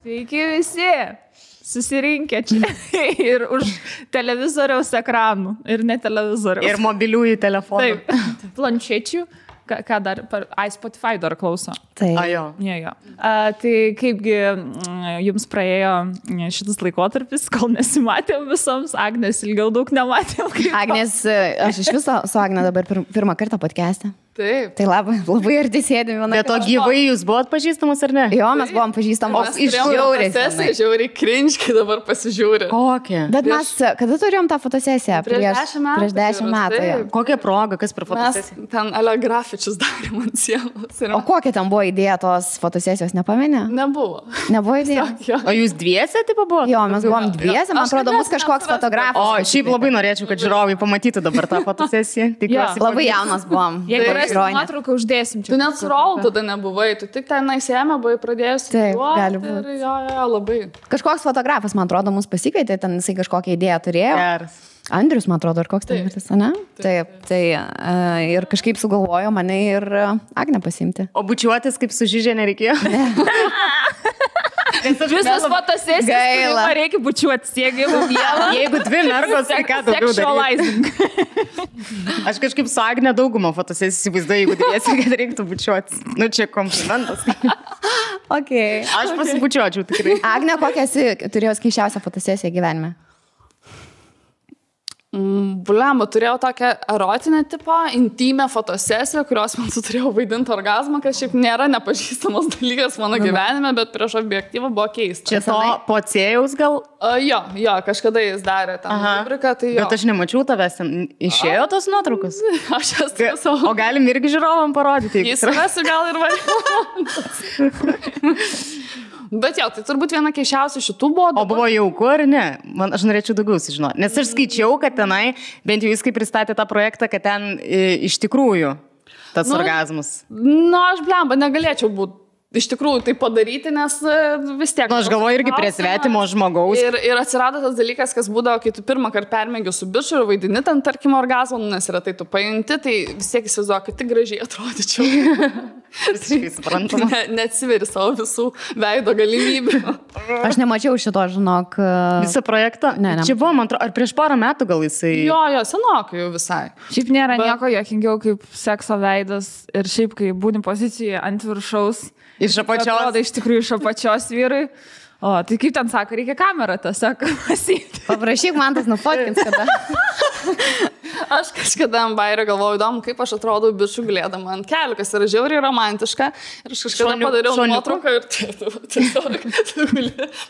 Sveiki visi, susirinkę čia ir už televizoriaus ekranų, ir ne televizoriaus. Ir mobiliųjų telefonų. Taip, planšečių. Ką dar, Spotify dar klauso. Taip. Jo. Jo. Tai kaipgi jums praėjo šitas laikotarpis, kol nesimatėm visoms, Agnės ilgiau daug nematėm. Agnės, aš iš viso su Agne dabar pirmą kartą podcast'e. Taip. Tai labai arti sėdėm vieną. Bet to gyvai jūs buvot pažįstamas ar ne? Jo, mes buvom pažįstamos iš žiauriai. Žiauriai cringe, kai dabar pasižiūri. Kokia? Bet mes, kada turėjom tą fotosesiją? Prieš 10 metų. Prieš 10 metų. Jo. Kokia proga, kas per Mes fotosesiją? ten ale grafičius darėm ant sienos. O kokia ten buvo idėja tos fotosesijos, nepamenė? Nebuvo. Nebuvo idėja? Jo. O jūs dviese tipo buvo? Jo, mes buvom dviese, man Aš atrodo, kad mus kažkoks fotografas. O, šiaip labai norėčiau, kad žiūrovai pamatytų dabar tą fotosesiją. Tikiuosi, Labai jaunas buvom. Jeigu Labai rasim ironija. nuotrauką, uždėsim čia. Tu net su Raul tada nebuvai, tu tik ten įsėmė, buvai pradėjęs. Taip, studijuoti gali būt. ir Jo, labai. Kažkoks fotografas, man atrodo, mus pasikvietė, ten jisai kažkokią idėją turėjo. Geras. Andrius, man atrodo, ar koks ten vardas, ne? Taip, tai ir kažkaip sugalvojo mane ir Agnę pasimti. O bučiuotis kaip su Žižė nereikėjo? Visas fotosesijas, Gaila. man reikia bučiuotis, Jeigu dvi mergos, tai ką daugiau daryti? sexualizing. Aš kažkaip su Agne daugumą fotosesijų įsivaizduoju, jeigu dviesi, kad reiktų bučiuotis. Nu, čia komplimentas. Okay. Aš pasibučiuočiau tikrai. Agne, kokią esi turėjęs keisčiausią fotosesiją gyvenime? Bulemba, turėjau tokią erotinę tipo, intimę fotosesiją, kurios man turėjau vaidinti orgazmą, kas šiaip nėra nepažįstamas dalykas mano gyvenime, bet prieš objektyvą buvo keista. Čia to pocėjaus gal? Jo, kažkada jis darė tą rubriką, tai jo. Bet aš nemačiau tavęs, ten išėjo tos nuotraukos. Aš esu savo. O galim irgi žiūrovam parodyti. Jis rasi gal ir važiuoja. Bet jau, tai turbūt viena keišiausių šitų buvo. O buvo jauku ar ne? Aš norėčiau daugiau sužinoti. Nes aš skaičiau, kad tenai, bent jau jūs kaip pristatė tą projektą, kad ten iš tikrųjų tas orgazmas. Aš blemba, negalėčiau būti. Iš tikrųjų tai padaryti, nes vis tiek... Aš galvoju irgi prie svetimo žmogaus. Ir atsirado tas dalykas, kas būdavo, kai tu pirmą kartą permėgiu su biču ir vaidini ten, tarkim, orgazmą, nes yra tai tu paimti, tai vis tiek įsivaizduoju, kad tik gražiai atrodyčiau. Visiškai suprantama. Neatsiveri savo visų veido galimybių. Aš nemačiau šito, žinok. Visą projektą? Ne. Čia buvo, man atrodo, ar prieš porą metų gal jisai... Jo, senokai jau visai. Šiaip nėra nieko juokingiau kaip sekso veidas ir šiaip, kai būni pozicijoje ant viršaus. Iš apačios. Atrodo iš tikrųjų iš apačios vyrai. O, tai kaip ten sako, reikia kamerą tiesiog pasėti. Paprašyk man tas nufotkins kada. Aš kažkada ant bairio galvoju, įdomu, kaip aš atrodau bičių gulėdama ant kelių, kas yra žiauriai romantiška. Ir aš kažkada padariau nuotrauką ir tiesiog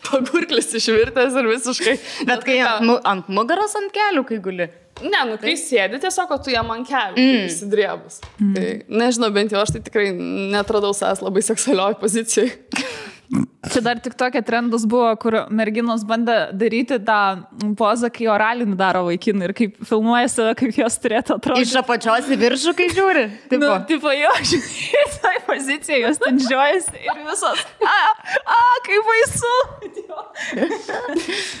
pagurklis išvirtęs ir visiškai... Bet kai ant nugaros ant kelių, kai guli. Ne, kai sėdi tiesiog, o tu jam ant kelių įsidrėbus. Tai, nežinau, bent jau aš tai tikrai netradau savęs labai seksualioj pozicijai. Čia dar tik tokia trendas buvo, kur merginos bandė daryti tą pozą, kai oralinį daro vaikinai ir kaip filmuoja save, kaip jos turėtų atrodyti. Iš apačios į viršų, kai žiūri. Tipo, jo, tai pozicija, jos ten žiojasi ir visos. Kaip baisu.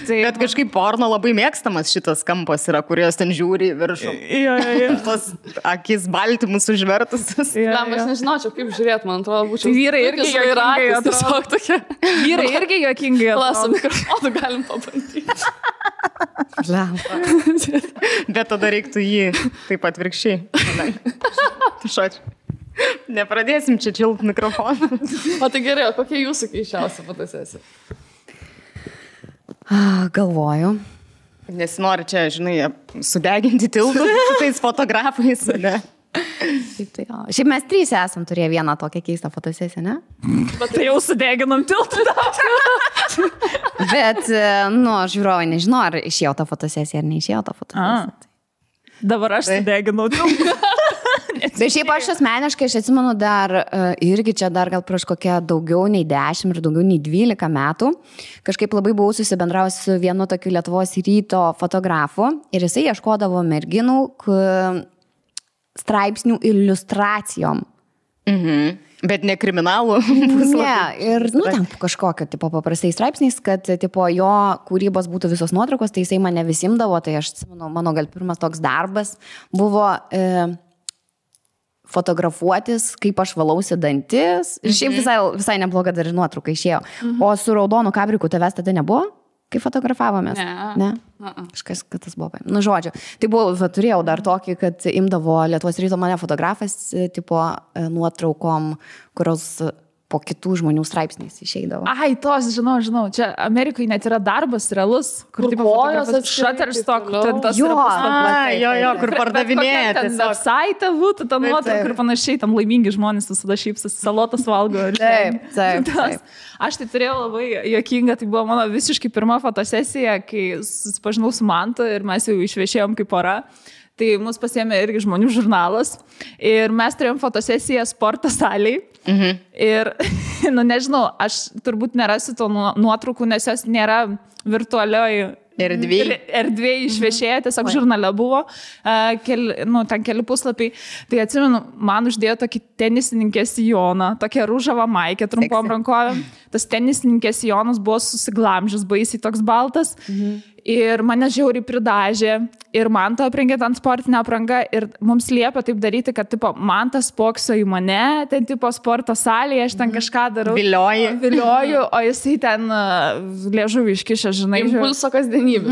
Bet kažkaip porno labai mėgstamas šitas kampas yra, kur jos ten žiūri į viršų. Jo. Tos akis baltymus užvertusius. Aš nežinočiau, kaip žiūrėt, man atrodo, būčiau... Vyrai irgi juokingai atrodo. Tiesiog tokia... Vyrai irgi juokingai atrodo. Lasą mikrofonų galim pabandyti. Bet tada reiktų jį taip atvirkščiai. Šačiu. Nepradėsim čia čilt mikrofoną. O tai gerai, kokia jūsų keišiausia fotosesija? Galvoju. Nesinori čia, žinai, sudeginti tiltų su tais fotografais, ne? Šiaip mes trys esam turėję vieną tokią keistą fotosesiją, ne? Bet tai jau sudeginom tiltą. Bet, žiūrovai nežinau, ar išėjo ta fotosesija, ar neišėjo ta fotosesija. Dabar aš sudeginau tiltą. Bet šiaip aš asmeniškai, aš atsimenu dar, irgi čia dar gal prieš kokią daugiau nei 10 ir daugiau nei 12 metų, kažkaip labai buvau susibendrausi su vienu tokiu Lietuvos ryto fotografu ir jisai ieškodavo merginų straipsnių iliustracijom. Bet ne kriminalų. Ne, ir ten kažkokio tipo paprastai straipsniais, kad tipo jo kūrybos būtų visos nuotraukos, tai jisai mane visimdavo, tai aš atsimenu, mano gal pirmas toks darbas buvo fotografuotis, kaip aš valausi dantis. Ir šiaip visai nebloga dar nuotrauka išėjo. O su raudonu kabriku tavęs tada nebuvo? Kai fotografavomės? Ne. Kažkas, kad tas buvo. Nu, žodžiu. Tai buvo, turėjau dar tokį, kad imdavo Lietuvos ryto mane fotografas, tipo nuotraukom, kurios po kitų žmonių straipsniais išeidavo. Ai, tos, žinau. Čia Amerikoje net yra darbas realus, kur tipo fotografas Shutterstock, ten tas Jo, kur pardavinėja. Ten website būtų, ta nuotrauka, kur panašiai, tam laimingi žmonės visada šypsas, salotas valgo. Taip. Aš tai turėjau labai juokingą, tai buvo mano visiškai pirma fotosesija, kai susipažinau su Mantu ir mes jau išviešėjom kaip pora. Tai mus pasiėmė irgi žmonių žurnalas ir mes turėjom fotosesiją sporto salėj. Ir, nežinau, aš turbūt nerasiu to nuotraukų, nes jos nėra virtualioji erdvėje išviešėję, tiesiog žurnale buvo, ten keli puslapiai. Tai atsimenu, man uždėjo tokį tenisininkės sijoną, tokią rūžavą maikę trumpom rankovėm. Tas tenisininkės sijonas buvo susiglamžęs, baisiai toks baltas. Ir mane žiauriai pridažė ir man to aprengė ten sportinę aprangą ir mums liepia taip daryti, kad tipo, man tas spokso į mane, ten tipo sporto salėje, aš ten kažką darau. Vilioju, o jisai ten liežuvį iškišę, žinai. Impulso kasdienybė.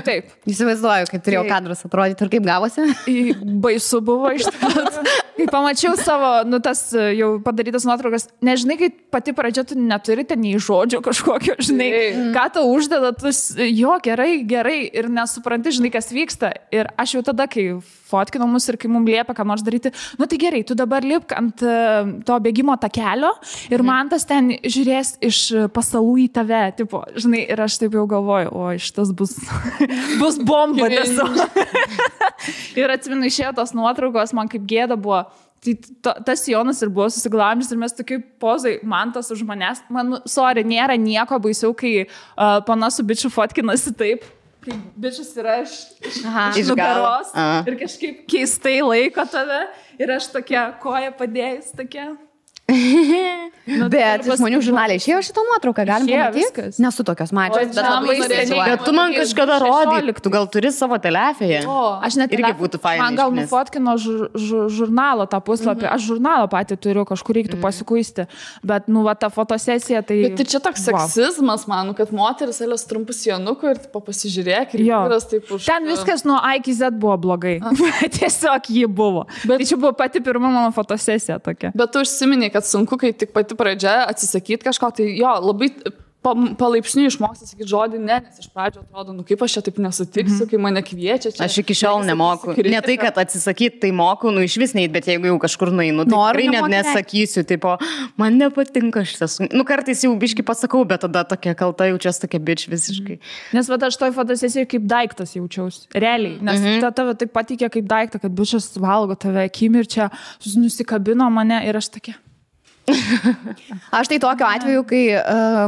Taip. Įsivaizduoju, kaip turėjau kadras atrodyti ir kaip gavosi. Baisu buvo iš tikrųjų. Kai pamačiau savo, tas jau padarytas nuotraukas, nežinai, kai pati pradžia tu neturite nei žodžio kažkokio, žinai, ką tau uždeda, tu jo, gerai ir nesupranti, žinai, kas vyksta. Ir aš jau tada, kai fotkinau mus ir kai mums liepia ką nors daryti, tai gerai, tu dabar lipk ant to bėgimo takelio ir man tas ten žiūrės iš pasalų į tave, tipo, žinai, ir aš taip jau galvoju, o šitas bus bomba tiesiog. Ir atsimenu, išėjo tos nuotraukos, man kaip gėda buvo. Tai tas sijonas ir buvo susiglamžęs ir mes tokiai pozai, man tas už manęs, nėra nieko baisiau, kai pana su bičiu fotkinasi taip, kai bičius yra iš nugaros ir kažkaip keistai laiko tave ir aš tokia koja padėjus tokia. Bet žmonių žurnalė išėjo šitą nuotrauką, galim pamatyti? Nesu tokios mačios, bet labai norėčiau. Bet tu man kažkada rodyk, tu gal turi savo telefėje. Aš net irgi būtų fainai. Man gal nufotkino žurnalo tą puslapį, aš žurnalą patį turiu, kažkur reiktų pasikuisti, bet ta fotosesija tai... Bet tai čia toks seksizmas, manu, kad moteris elės trumpus jonukų ir pasižiūrėk ir vyras taip už... Ten viskas nuo A iki Z buvo blogai, tiesiog jį buvo. Tai čia buvo pati pirma mano fotosesija tokia. Bet tu užsiminė, kad sunku, kai tik pati pradžia atsisakyti kažko, tai jo, labai palaipsniui išmoksti sakyti žodį, nes iš pradžio atrodo, kaip aš čia taip nesutiksiu, kai mane kviečia čia. Aš iki šiol nemoku. Ne tai, kad atsisakyti, tai moku, iš vis neit, bet jeigu jau kažkur nueinu, tai tikrai net nesakysiu, tipo, man nepatinka šitas. Kartais jau biški pasakau, bet tada tokia kalta jaučiasi tokia bič visiškai. Nes aš toj fotosesijoje kaip daiktas jaučiausi. Realiai. Nes tave taip patikė kaip daiktą, kad bičias valgo tave akim ir čia nusikabino mane ir aš tokia. Aš tai tokiu atveju, kai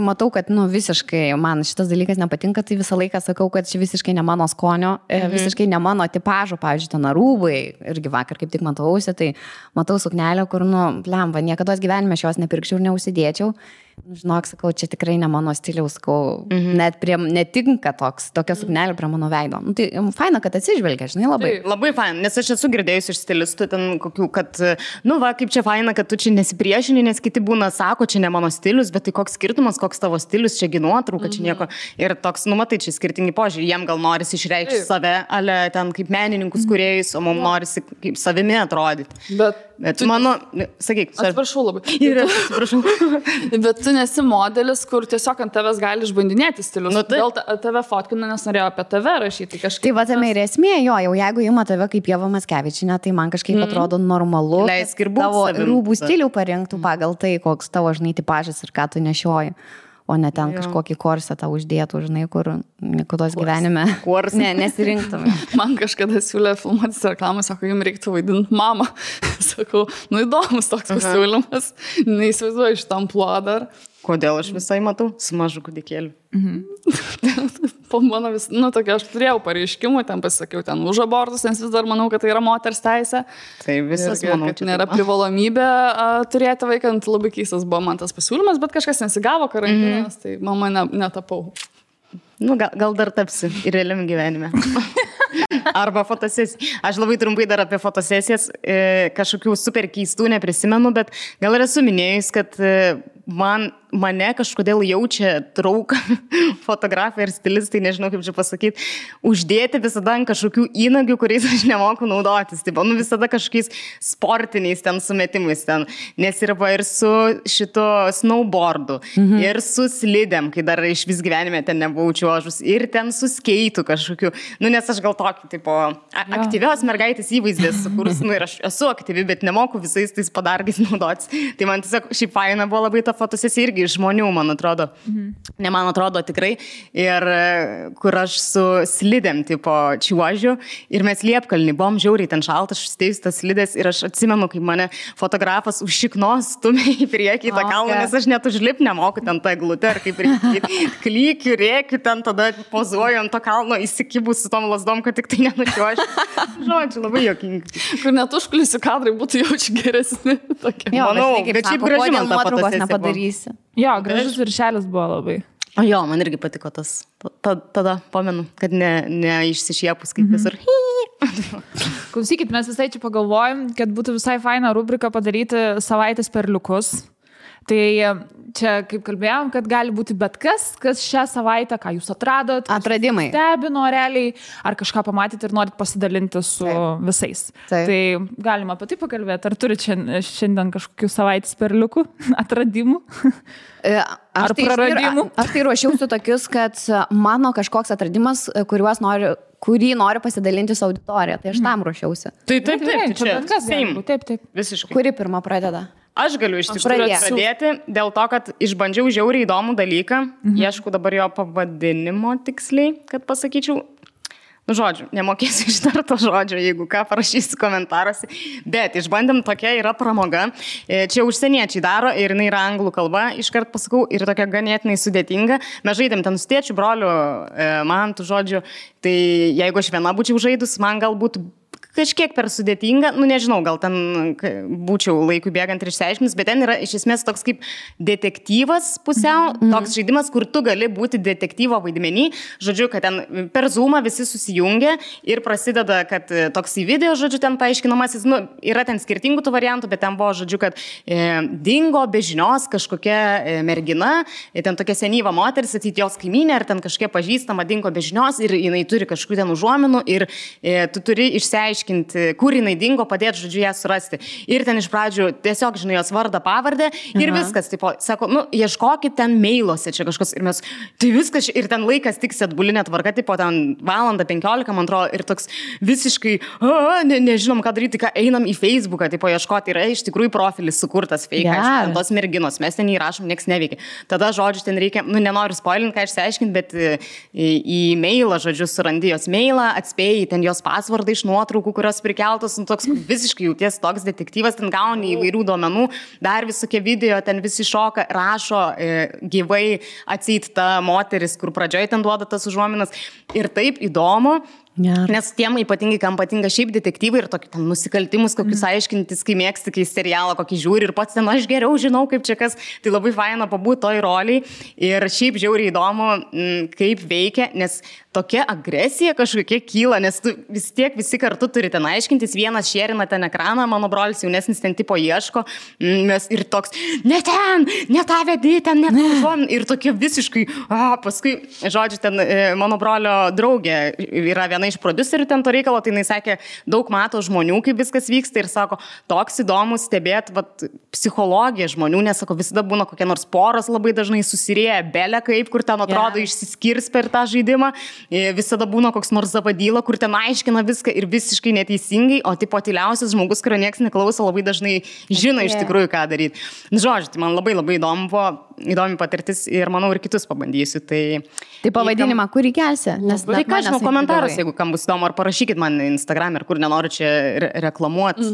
matau, kad visiškai man šitas dalykas nepatinka, tai visą laiką sakau, kad čia visiškai ne mano skonio, visiškai ne mano tipažo, pavyzdžiui, ten rūbai, irgi vakar kaip tik matausi, tai matau suknelę, kur, blemba, niekada gyvenime šios nepirkčiau ir neusidėčiau. Žinok, sakau, čia tikrai ne mano stiliaus, sakau, net netinka tokia suknelė prie mano veido. Tai faina, kad atsižvelgia, žinai, labai. Labai faina, nes aš esu girdėjus iš stilistų ten kokių, kad, kaip čia faina, kad tu čia nesipriešini, nes kiti būna, sako, čia ne mano stilius, bet tai koks skirtumas, koks tavo stilius, čia nuotrauka, čia nieko. Ir toks, matai, čia skirtingi požiūrį, jiem gal norisi išreikšti save, ale ten kaip menininkus kūrėjus, o mums norisi kaip savimi atrodyti. Bet mano, sakyk, atsiprašau labai. Ir aš atsiprašau. Bet tu nesi modelis, kur tiesiog ant tavęs gali išbandinėti stilius. Dėl tave fotkina, nes norėjau apie tave rašyti kažkaip. Tai va tame ir esmė, jau jeigu ima tave kaip Ieva Mackevičienė, tai man kažkaip atrodo normalu, kad tavo rūbų stilių parinktų pagal tai, koks tavo, žinai, tipažas ir ką tu nešioji. O ne ten kažkokį korsetą uždėtų, žinai, kur nikodos gyvenime nesirinktum. Man kažkada siūlė filmuotis reklamą, sako, jums reiktų vaidinti mamą. Sakau, įdomus toks pasiūlymas. Neįsivaizduoju iš tam plodar. Kodėl aš visai matau? Su mažu kūdikėliu. Po mano tokia, aš turėjau pareiškimų, ten pasakiau, ten už abortus, nes vis dar manau, kad tai yra moters teisė. Tai visas, manau, kad nėra privalomybė turėti vaiką, labai keistas buvo man tas pasiūlymas, bet kažkas nesigavo karantinas, tai mama netapau. Gal dar tapsi ir realiam gyvenime. Arba fotosesija. Aš labai trumpai dar apie fotosesijas kažkokių super keistų neprisimenu, bet gal ir esu minėjus, kad mane kažkodėl jaučia trauką fotografai ir stilistai, nežinau kaip čia pasakyti, uždėti visada ant kažkokių įnagių, kuriais aš nemoku naudotis. Taip, visada kažkokiais sportiniais ten sumetimais ten. Nes yra ir su šito snowboardu, ir su slidėm, kai dar iš vis gyvenime ten nebuvau čiuožus, ir ten su skeitu kažkokiu. Nes aš gal tokį, tipo, aktyvios mergaitės įvaizdės sukūrus, ir aš esu aktyvi, bet nemoku visais tais padargais naudotis. Tai man tiesiog šiaip faina buvo labai ta fotosesija irgi iš žmonių, man atrodo. Ne man atrodo tikrai. Ir kur aš su slidėm, tipo, čiuožiu. Ir mes Liepkalnį buvom žiauriai ten šaltas, aš stėjus tas slidės ir aš atsimenu, kaip mane fotografas už šiknos stumė į priekį tą kalną, nes aš net užlip nemoku ten tą glutę, ar kaip reikia. Klykiu, rėkiu, ten tada pozuoju ant to kalno įsikibus su tom lasdom, kad tik tai nenučiuošiu. Žodžiu, labai jokingi. Kur net užkulisių kadrai būtų jaučiu geresni. Manau, bet šiaip graži man ta fotosesija nepadarysi. Jo, gražus viršelis buvo labai. O jo, man irgi patiko tas. Tada pamenu, kad neišsišiepus kaip visur. Klausykit, mes visai čia pagalvojom, kad būtų visai faina rubrika padaryti savaitės perliukus. Tai čia, kaip kalbėjom, kad gali būti bet kas šią savaitę, ką jūs atradot. Atradimai. Stebino realiai, ar kažką pamatyti ir norit pasidalinti su visais. Taip. Tai galima apie tai pakalbėti. Ar turi šiandien kažkokių savaitės perliukų, atradimų? Ar praradimų? Aš tai ruošiausi tokius, kad mano kažkoks atradimas, kurį noriu pasidalinti su auditorija. Tai aš tam ruošiausi. Tai taip, čia taip. Visiškai. Kuri pirma pradeda? Aš galiu iš tikrųjų pradėti dėl to, kad išbandžiau žiauriai įdomų dalyką. Ieškau dabar jo pavadinimo tiksliai, kad pasakyčiau. Žodžiu, nemokėsiu ištarto žodžio, jeigu ką parašysiu komentaruose. Bet išbandėm, tokia yra pramoga. Čia užsieniečiai daro ir jinai yra anglų kalba, iškart pasakau, ir tokia ganėtinai sudėtinga. Mes žaidėm ten su tėčiu, broliu, man tų žodžių. Tai jeigu aš viena būčiau žaidus, man galbūt kažkiek per sudėtinga, nežinau, gal ten būčiau laikui bėgant ir išsiaiškinus, bet ten yra iš esmės toks kaip detektyvas pusiau, toks žaidimas, kur tu gali būti detektyvo vaidmenį, žodžiu, kad ten per Zoomą visi susijungia ir prasideda, kad toks į video, žodžiu, ten paaiškinamasis, yra ten skirtingų tų variantų, bet ten buvo, žodžiu, kad dingo be žinios kažkokia mergina, ten tokia senyva moteris, ateit jos kaimynė, ar ten kažkokia pažįstama dingo be žinios ir jinai turi kažkokių ten užuominų ir tu turi išsiaiškinti, kur jinai dingo, padėti, žodžiu, ją surasti. Ir ten iš pradžių tiesiog, žinai, jos vardą, pavardę ir viskas, tipo, sako, ieškokit ten mailuose čia kažkas ir mes, tai viskas, ir ten laikas tiksi atbulinė tvarka, tipo, ten 1:15, man atrodo, ir toks visiškai, nežinom, ką daryti, ką einam į Facebooką, tipo, ieškoti, yra iš tikrųjų profilis sukurtas fake, aišku, tos merginos, mes ten įrašom, nieks neveikia. Tada, žodžiu, ten reikia, nenoriu spoilinti, ką išsiaiškinti, bet į mailą, žodžiu, surandi jos mailą, atspėjai ten jos pasvardą iš nuotraukų, kurios prikeltos, toks visiškai jauties toks detektyvas, ten gauni įvairių duomenų, dar visokie video, ten visi šoka, rašo gyvai atseit ta moteris, kur pradžioje ten duoda tas užuominas. Ir taip įdomu. Nes tiem ypatingai, kam patinka šiaip detektyvai ir tokį ten nusikaltimus, kokius aiškintis, kai mėgsti, kai serialą kokį žiūri ir pats ten aš geriau žinau, kaip čia kas, tai labai faina pabūti toj roliai ir šiaip žiauriai įdomu, kaip veikia, nes tokia agresija kažkokia kyla, nes tu vis tiek visi kartu turi ten aiškintis, vienas šerina ten ekraną, mano brolis jaunesnis ten tipo ieško, mes ir toks, ne ten, ne tą vedį, ten ne tą, ir tokie visiškai, paskui, žodžiu, ten mano brolio draugė yra viena iš prodiuserių ten to reikalo, tai jis sakė, daug mato žmonių, kaip viskas vyksta ir sako, toks įdomus stebėti psichologiją žmonių, nes sako, visada būna kokie nors poros labai dažnai susirėję, belė kaip, kur ten atrodo išsiskirs per tą žaidimą, visada būna koks nors zavadyla, kur ten aiškina viską ir visiškai neteisingai, o tipo tyliausias žmogus, kurio nieks neklauso, labai dažnai žino iš tikrųjų, ką daryti. Žodžiu, tai man labai įdomu buvo, įdomi patirtis ir manau ir kitus pabandysiu. Tai pavadinimą, kur įkelsi? Tai ką žinau, komentarus, jeigu kam bus įdomu, ar parašykit man Instagram ir kur nenoriu čia reklamuoti,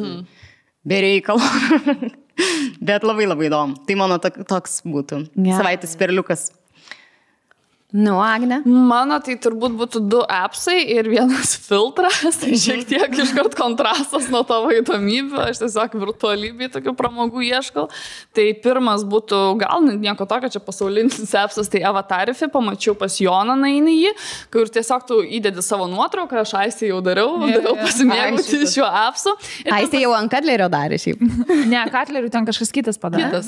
be reikalo. Bet labai įdomu. Tai mano toks būtų savaitės perliukas. Nu, Agne. Mano tai turbūt būtų 2 appsai ir 1 filtras, tai šiek tiek iškart kontrastas nuo tavo įdomybių, aš tiesiog virtualybėje tokių pramogų ieškau. Tai pirmas būtų, gal nieko tokio, čia pasaulinis appsas, tai Avatarifi, pamačiau pas Joną nainį jį, kur tiesiog tu įdedi savo nuotrauką, aš Aistė jau dariau pasimėgauti šiuo appsu. Aistė jau ant Katlerio darė šiaip. Ne, Katlerių ten kažkas kitas padarė.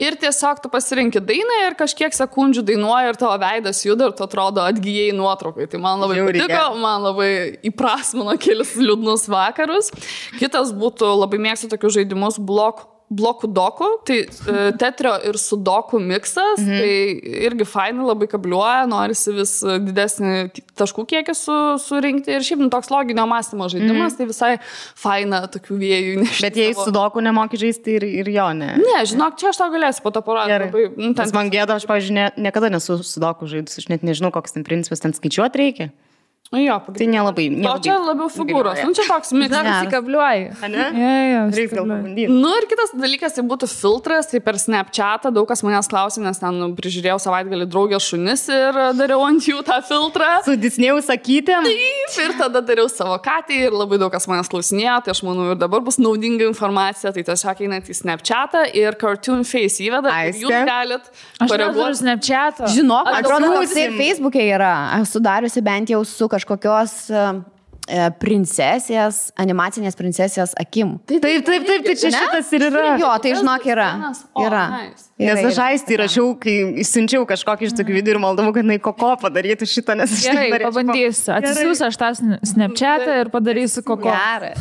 Ir tiesiog tu pasirinki dainą ir kažkiek sekundžių dainuoji ir tavo veidas juda ir tu atrodo atgyjai nuotraukai. Tai man labai patiko, man labai įprasmino kelis liūdnus vakarus. Kitas būtų, labai mėgstu tokius žaidimus blokų doku, tai tetrio ir sudoku miksas, tai irgi fainai labai kabliuoja, norisi vis didesnį taškų kiekį surinkti ir šiaip toks loginio mąstymo žaidimas, tai visai faina tokių vėjų nešti. Bet jei sudoku nemoki žaisti ir jo, ne? Ne, žinok, čia aš tau galėsiu po to parodyti. Tas man gėda, aš, pavyzdžiui, niekada nesu sudoku žaidus, aš net nežinau, koks ten principas, ten skaičiuoti reikia. Jo, tai nelabai. O čia labiau figūros. Nu, čia toks miksas. Įsikabliuoji. Reikia gal pabandyti. Nu ir kitas dalykas, tai būtų filtras, tai per Snapchatą daug kas manęs klausė, nes ten prižiūrėjau savaitgalį draugės šunis ir dariau ant jų tą filtrą. Su Disney'u sakytėm. Taip, ir tada dariau savo katį ir labai daug kas manęs klausinėjo, tai aš manau ir dabar bus naudinga informacija, tai tiesiog einat į Snapchatą ir Cartoon Face įveda, ir jūs galit pareaguoti Snapchatą. Žinok, atrodo, kad ir Facebook'e yra. Aš sudariusi bent jau su kažkokios princesės, animacinės princesės akim. Taip, tai čia šitas ir yra. Jo, tai žinok yra. Nes aš Aistį rašiau, kai įsiunčiau kažkokį iš tokių video ir maldavu, kad jinai koko padarytų šitą, nes aš gerai, pabandysiu. Atsisiųsiu aš tą Snapchatą ir padarysiu koko. Gerai.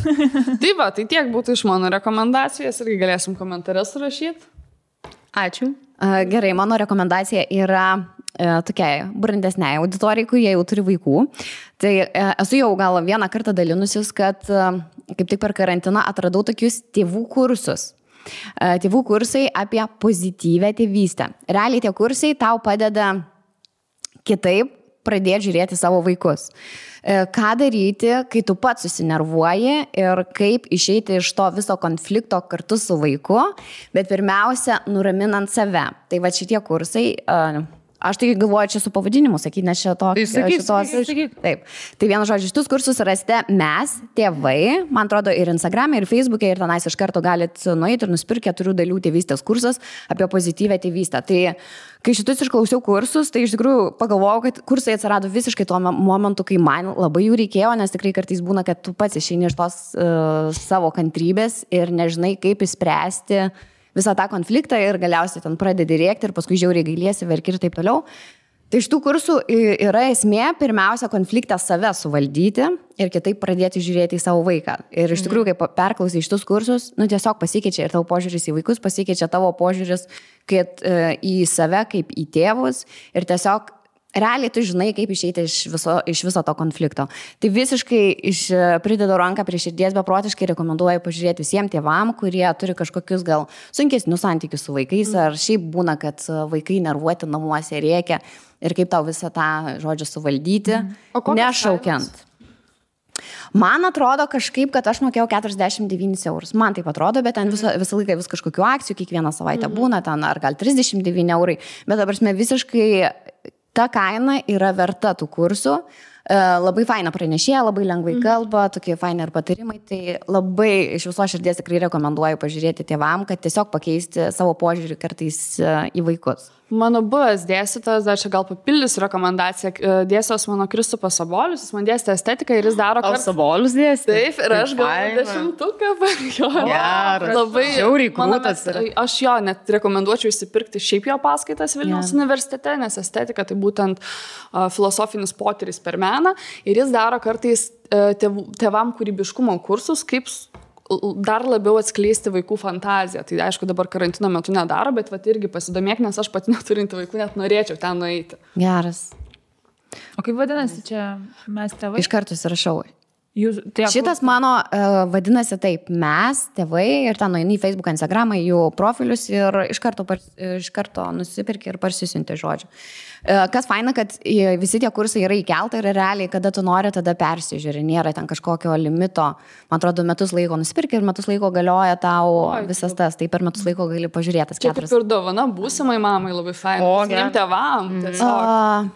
Tai va, tai tiek būtų iš mano rekomendacijos irgi galėsim komentarės surašyti. Ačiū. Gerai, mano rekomendacija yra tokiai brandesniai auditorijai, kurie jau turi vaikų. Tai esu jau gal vieną kartą dalinusis, kad kaip tik per karantiną atradau tokius tėvų kursus. Tėvų kursai apie pozityvę tėvystę. Realiai tie kursai tau padeda kitaip pradėti žiūrėti savo vaikus. Ką daryti, kai tu pats susinervuoji ir kaip išeiti iš to viso konflikto kartu su vaiku, bet pirmiausia, nuraminant save. Tai va šitie kursai, aš tai galvoju čia su pavadinimu sakyti, nes čia Sakyk. Taip. Tai vienu žodžiu, šitus kursus rasite mes, tėvai, man atrodo, ir Instagram'e, ir Facebook'e, ir tenais iš karto galit nueiti ir nusipirkti 4 dalių tėvystės kursas apie pozityvę tėvystę. Tai kai šitus išklausiau kursus, tai iš tikrųjų pagalvojau, kad kursai atsirado visiškai tuo momentu, kai man labai jų reikėjo, nes tikrai kartais būna, kad tu pats išeini iš tos savo kantrybės ir nežinai, kaip išspręsti visą tą konfliktą ir galiausiai ten pradedi rėkti ir paskui žiauriai gailiesi, verki ir taip toliau. Tai iš tų kursų yra esmė pirmiausia konfliktą save suvaldyti ir kitaip pradėti žiūrėti į savo vaiką. Ir iš tikrųjų, kai perklausai šitus kursus, tiesiog pasikeičia ir tavo požiūris į vaikus, pasikeičia tavo požiūris į save kaip į tėvus ir tiesiog realiai tu žinai, kaip išeiti iš viso to konflikto. Tai visiškai pridedu ranką prie širdies, beprotiškai rekomenduoju pažiūrėti visiems tėvam, kurie turi kažkokius gal sunkesnius santykius su vaikais, ar šiaip būna, kad vaikai nervuoti namuose rėkia ir kaip tau visą tą žodžią suvaldyti, nešaukiant. Man atrodo kažkaip, kad aš mokėjau 49 eurus. Man taip atrodo, bet ten visą laiką vis kažkokių akcijų, kiekvieną savaitę būna ten, ar gal 39 eurai, bet dabar mes visiškai ta kaina yra verta tų kursų. Labai faina pranešėja, labai lengvai kalba, tokie faini ir patarimai. Tai labai iš viso širdies tikrai rekomenduoju pažiūrėti tėvam, kad tiesiog pakeisti savo požiūrį kartais į vaikus. Mano buvęs dėstytojas, dar čia gal papildysiu rekomendaciją, dėstytojas mano Kristupas Sabolius, jis man dėstė estetiką ir jis daro Sabolius dėstė? Taip, ir aš gavau 10. Labai žiauriai krūtas. Aš jo net rekomenduočiau įsipirkti šiaip jo paskaitas Vilniaus universitete, nes estetika tai būtent filosofinis potyris per meną ir jis daro kartais tėvam kūrybiškumo kursus, kaip dar labiau atskleisti vaikų fantaziją. Tai aišku, dabar karantino metu nedaro, bet irgi pasidomėk, nes aš pati neturinti vaikų, net norėčiau ten nueiti. Geras. O kaip vadinasi čia mes tėvai? Iš karto įsirašau. Šitas mano vadinasi taip, mes, tėvai, ir ten nueini į Facebook, Instagramą, jų profilius ir iš karto nusipirki ir parsisiunti žodžiu. Kas faina, kad visi tie kursai yra įkelta ir realiai, kada tu nori, tada persižiūri, nėra ten kažkokio limito. Man atrodo, metus laiko nusipirki ir metus laiko galioja tau visas tas, tai per metus laiko gali pažiūrėti. Čia kaip ir dovana būsimai mamai labai faina. O, tėvam.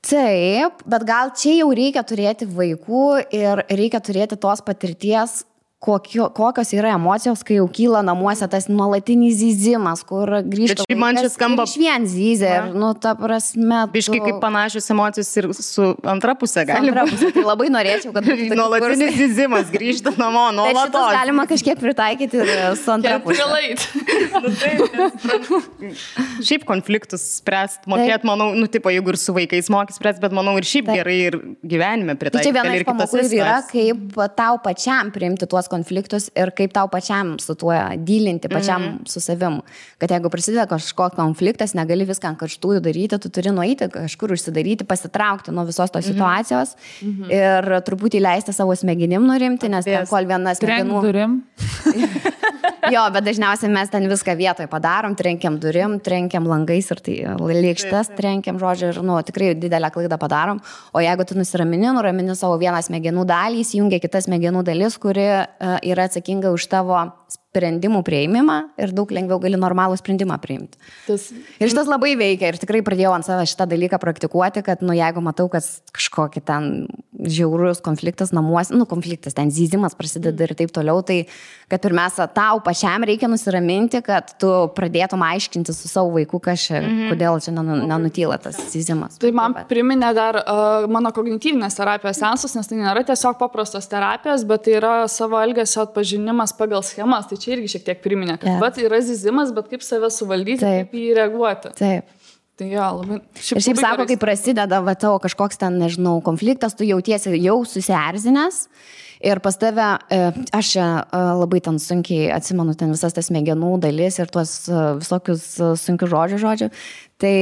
Taip, bet gal čia jau reikia turėti vaikų ir reikia turėti tos patirties, kokios yra emocijos, kai jau kyla namuose tas nuolatinis zyzimas, kur grįžta. Bet man čia skamba iš vien zyzė ir, ta prasme. Biškai kaip panašios emocijos ir su antra pusė gali būti. Tai labai norėčiau, kad nuolatinis zyzimas grįžta namo, nuolatos. Tai galima kažkiek pritaikyti ir su antra pusė. Šiaip konfliktus spręst, mokėt, manau, jeigu ir su vaikais mokys spręst, bet manau ir šiaip gerai ir gyvenime pritaikyti. Tai čia viena iš pamokų yra, kaip tau pačiam priimti tuos konfliktus ir kaip tau pačiam su tuo dylinti, pačiam su savim. Kad jeigu prasideda kažkoks konfliktas, negali viską ant karštųjų daryti, tu turi nueiti kažkur užsidaryti, pasitraukti nuo visos tos situacijos ir truputį leisti savo smegenim nurimti, nes ten kol viena smegenų... Jo, bet dažniausiai mes ten viską vietoje padarom, trenkiam durim, trenkiam langais ir tai lėkštas trenkiam, žodžiu, ir tikrai didelę klaidą padarom. O jeigu tu nuramini savo vieną smegenų dalį, įsijungia kita smegenų dalis, kuri yra atsakinga už tavo sprendimų prieimimą ir daug lengviau gali normalų sprendimą priimti. Ir šitas labai veikia ir tikrai pradėjau ant savęs šitą dalyką praktikuoti, kad jeigu matau, kad kažkokį ten žiaurus konfliktas namuose, konfliktas, ten zyzimas prasideda ir taip toliau, tai kad pirmiausia, tau pačiam reikia nusiraminti, kad tu pradėtum aiškinti su savo vaiku, kodėl čia nenutyla tas zyzimas. Tai man priminė dar mano kognityvinės terapijos seansus, nes tai nėra tiesiog paprastos terapijos, bet tai yra savo elgesio atpažinimas pagal schemas. Tai čia irgi šiek tiek priminė, kad yra zyzimas, bet kaip save suvaldyti, kaip jį reaguoti. Taip. Tai jo, labai... Ir šiaip sako, kai prasideda tavo kažkoks ten, nežinau, konfliktas, tu jautiesi jau susierzinęs ir pas tave, aš labai ten sunkiai atsimenu ten visas tas smegenų dalis ir tuos visokius sunkius žodžių. Tai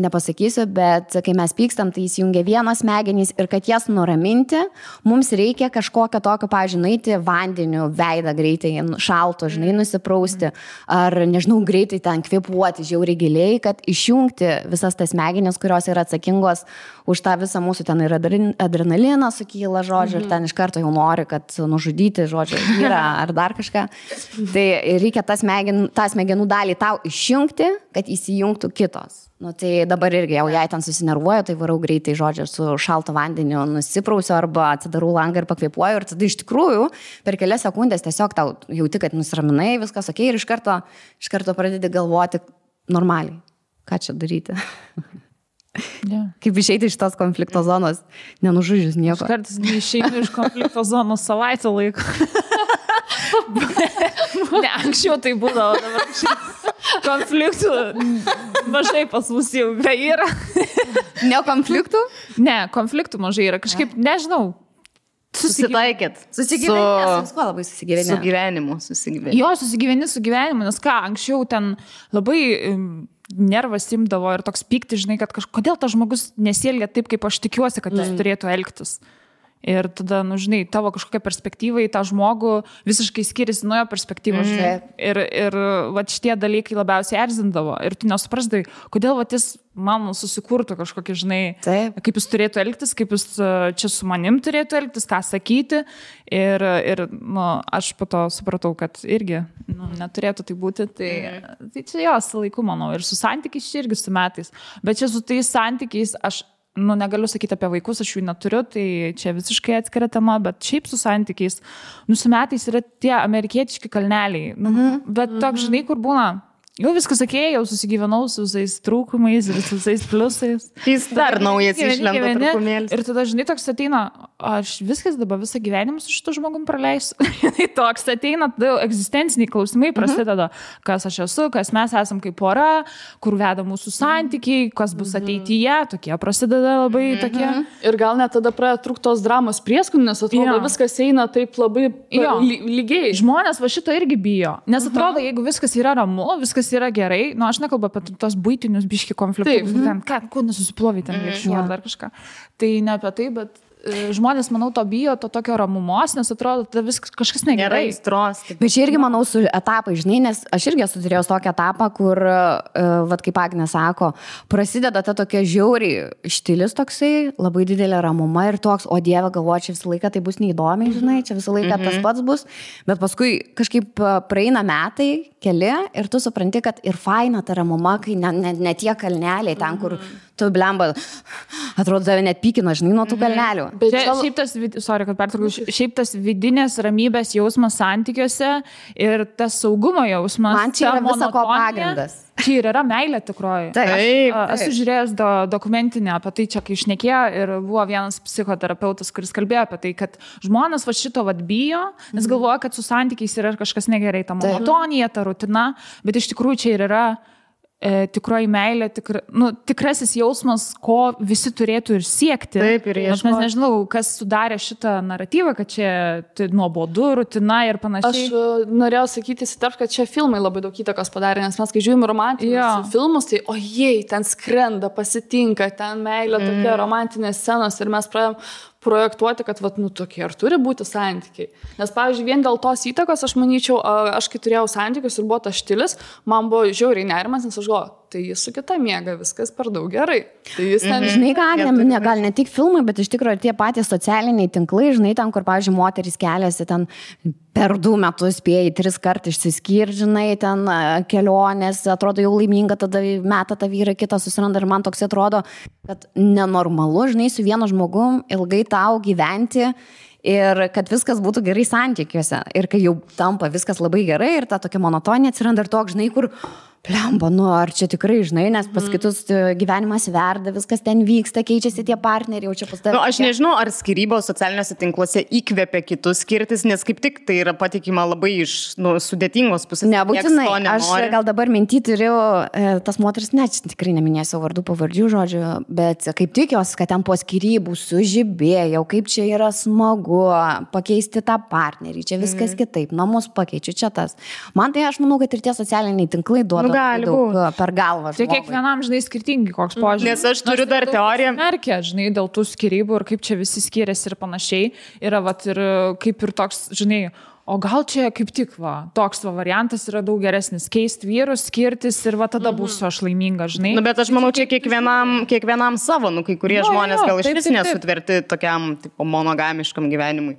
nepasakysiu, bet kai mes pykstam, tai įsijungia vienos smegenys ir kad jas nuraminti, mums reikia kažkokio tokio, pavyzdžiui, nueiti vandeniu, veidą greitai, šalto, nusiprausti, ar, nežinau, greitai ten kvėpuoti, žiauriai giliai, kad išjungti visas tas smegenys, kurios yra atsakingos už tą visą mūsų, ten yra adrenalinas sukyla, žodžiu, ir ten iš karto jau nori, kad nužudyti, žodžiu, vyrą ar dar kažką. Tai reikia tą smegenų dalį tau išjungti, kad įsijungtų kitos. Tai dabar irgi jau jei ten susinervuoju, tai varau greitai, žodžiu, su šalto vandeniu nusiprausiu arba atsidarau langą ir pakvėpuoju ir tada iš tikrųjų per kelias sekundės tiesiog tau jauti, kad nusiraminai, viskas ok ir iš karto pradedi galvoti normaliai, ką čia daryti. Kaip išeiti iš tos konflikto zonos, nenužudžius nieko. Kartais neišeinu iš konflikto zonos savaitę laiko. Ne, anksčiau tai būdavo, dabar konfliktų mažai pas mus jau yra. Ne konfliktų? Ne, konfliktų mažai yra. Kažkaip, nežinau. Susitaikėt. Susigyvenęs, kuo labai susigyvenęs? Su gyvenimu susigyvenęs. Jo, susigyveni su gyvenimu, nes ką, anksčiau ten labai nervas imdavo ir toks pykti, žinai, kad kodėl tas žmogus nesielgia taip, kaip aš tikiuosi, kad jis turėtų elgtis. Ir tada, žinai, tavo kažkokia perspektyva į tą žmogų visiškai skiriasi nuo jo perspektyvos. Ir va šitie dalykai labiausiai erzindavo. Ir tu nesuprasdavai, kodėl va jis man susikurtų kažkokį, žinai, kaip jis turėtų elgtis, kaip jis čia su manim turėtų elgtis, ką sakyti. Ir aš po to supratau, kad irgi neturėtų tai būti. Tai čia jo, su laiku, manau. Ir su santykiais čia irgi su metais. Bet čia su tais santykiais aš negaliu sakyti apie vaikus, aš jų neturiu, tai čia visiškai atskira tema, bet šiaip su santykiais, su metais yra tie amerikietiški kalneliai, bet toks, žinai, kur būna, jau viskas sakėjai, jau susigyvenau su visais trūkumais ir su visais pliusais. Jis dar naujas išlenda trūkumėlis. Ir tada, žinai, toks ateina, aš viskas dabar visą gyvenimą su šitu žmogum praleisiu. Toks ateina, tada egzistenciniai klausimai prasideda, kas aš esu, kas mes esam kaip pora, kur veda mūsų santykiai, kas bus ateityje, tokie prasideda labai tokie. Ir gal net tada pradeda trūktos dramos prieskonių, nes atrodo viskas eina taip labai lygiai. Žmonės va šito irgi bijo, nes atrodo, jeigu viskas yra ramu, viskas yra gerai, aš nekalbu apie tos buitinius biški konfliktus, kur nesusiplovai ten lėkščių ar dar kažką. Tai ne apie tai, bet žmonės, manau, to bijo, to tokio ramumos, nes atrodo, kažkas negerai. Bet čia irgi, manau, su etapai, žinai, nes aš irgi esu turėjęs tokį etapą, kur, kaip Agnė sako, prasideda ta tokia žiauriai štilis toksai, labai didelė ramuma ir toks, o Dieve, galvoju, čia visą laiką tai bus neįdomiai, žinai, čia visą laiką tas pats bus, bet paskui kažkaip praeina metai, keli ir tu supranti, kad ir faina ta ramuma, kai ne tie kalneliai ten, kur tu blemba, atrodo, tave net pykina, žinai, nuo tų kalnelių. Bet šiaip tas, sorry, kad pertraukiu, šiaip tas vidinės ramybės jausmas santykiuose ir tas saugumo jausmas. Man čia yra viso ko pagrindas. Čia ir yra meilė tikroji. Taip. Aš esu žiūrėjęs dokumentinę apie tai, čia kai šnekėjo ir buvo vienas psichoterapeutas, kuris kalbėjo apie tai, kad žmonės va šito vat bijo, nes galvoja, kad su santykiais yra kažkas negerai, ta monotonija, ta rutina, bet iš tikrųjų čia ir yra tikroji meilė, tikrasis jausmas, ko visi turėtų ir siekti. Taip, ir aš nežinau, kas sudarė šitą naratyvą, kad čia nuobodu, rutina ir panašiai. Aš norėjau sakyti, kad čia filmai labai daug įtakos padarė, nes mes, kai žiūrime romantinius filmus, tai ojei, ten skrenda, pasitinka, ten meilė, tokia romantinės scenos ir mes pradėjom projektuoti, kad tokie ir turi būti santykiai. Nes, pavyzdžiui, vien dėl tos įtakos, aš manyčiau, aš kai turėjau santykius ir buvo tas štilis, man buvo žiauriai nerimas, nes aš galvoju, tai jis su kita miega, viskas per daug gerai. Tai jis ten... Žinai, gal ne tik filmai, bet iš tikrųjų tie patys socialiniai tinklai, žinai, ten, kur, pavyzdžiui, moteris keliasi, ten per 2 metus spėjai 3 kartus išsiskirti, žinai, ten kelionės, atrodo jau laiminga, tada meta tą vyrą, kitą susiranda ir man toks atrodo, kad nenormalu, žinai, su vienu žmogum ilgai tau gyventi ir kad viskas būtų gerai santykiuose. Ir kai jau tampa viskas labai gerai ir ta tokia monotonija atsiranda ir toks, žinai, kur plemba, ar čia tikrai, žinai, nes pas kitus gyvenimas verda, viskas ten vyksta, keičiasi tie partneriai, jau čia pas tave. Aš nežinau, ar skyrybos socialiniuose tinkluose įkvėpia kitus skirtis, nes kaip tik tai yra patikima labai iš sudėtingos pusės. Nebūtinai, aš gal dabar mintį turiu, tas moteris, tikrai neminėsiu vardų pavardžių žodžių, bet kaip tik jos, kad ten po skyrybų sužibėjau, kaip čia yra smagu pakeisti tą partnerį, čia viskas kitaip, namus pakeičiu, čia tas. Man tai aš manau, kad ir tie socialiniai tinklai duoda daug per galvą. Tai kiekvienam, žinai, skirtingi koks požiūris. Nes aš turiu dar teoriją. Merkia, žinai, dėl tų skyrybų ir kaip čia visi skiriasi ir panašiai. Yra vat ir kaip ir toks, žinai, o gal čia kaip tik toks variantas yra daug geresnis. Keisti vyrus, skirtis ir tada būsiu aš laiminga, žinai. Bet aš manau, čia kiekvienam savo, kai kurie žmonės gal iš vis nesutverti tokiam monogamiškam gyvenimui.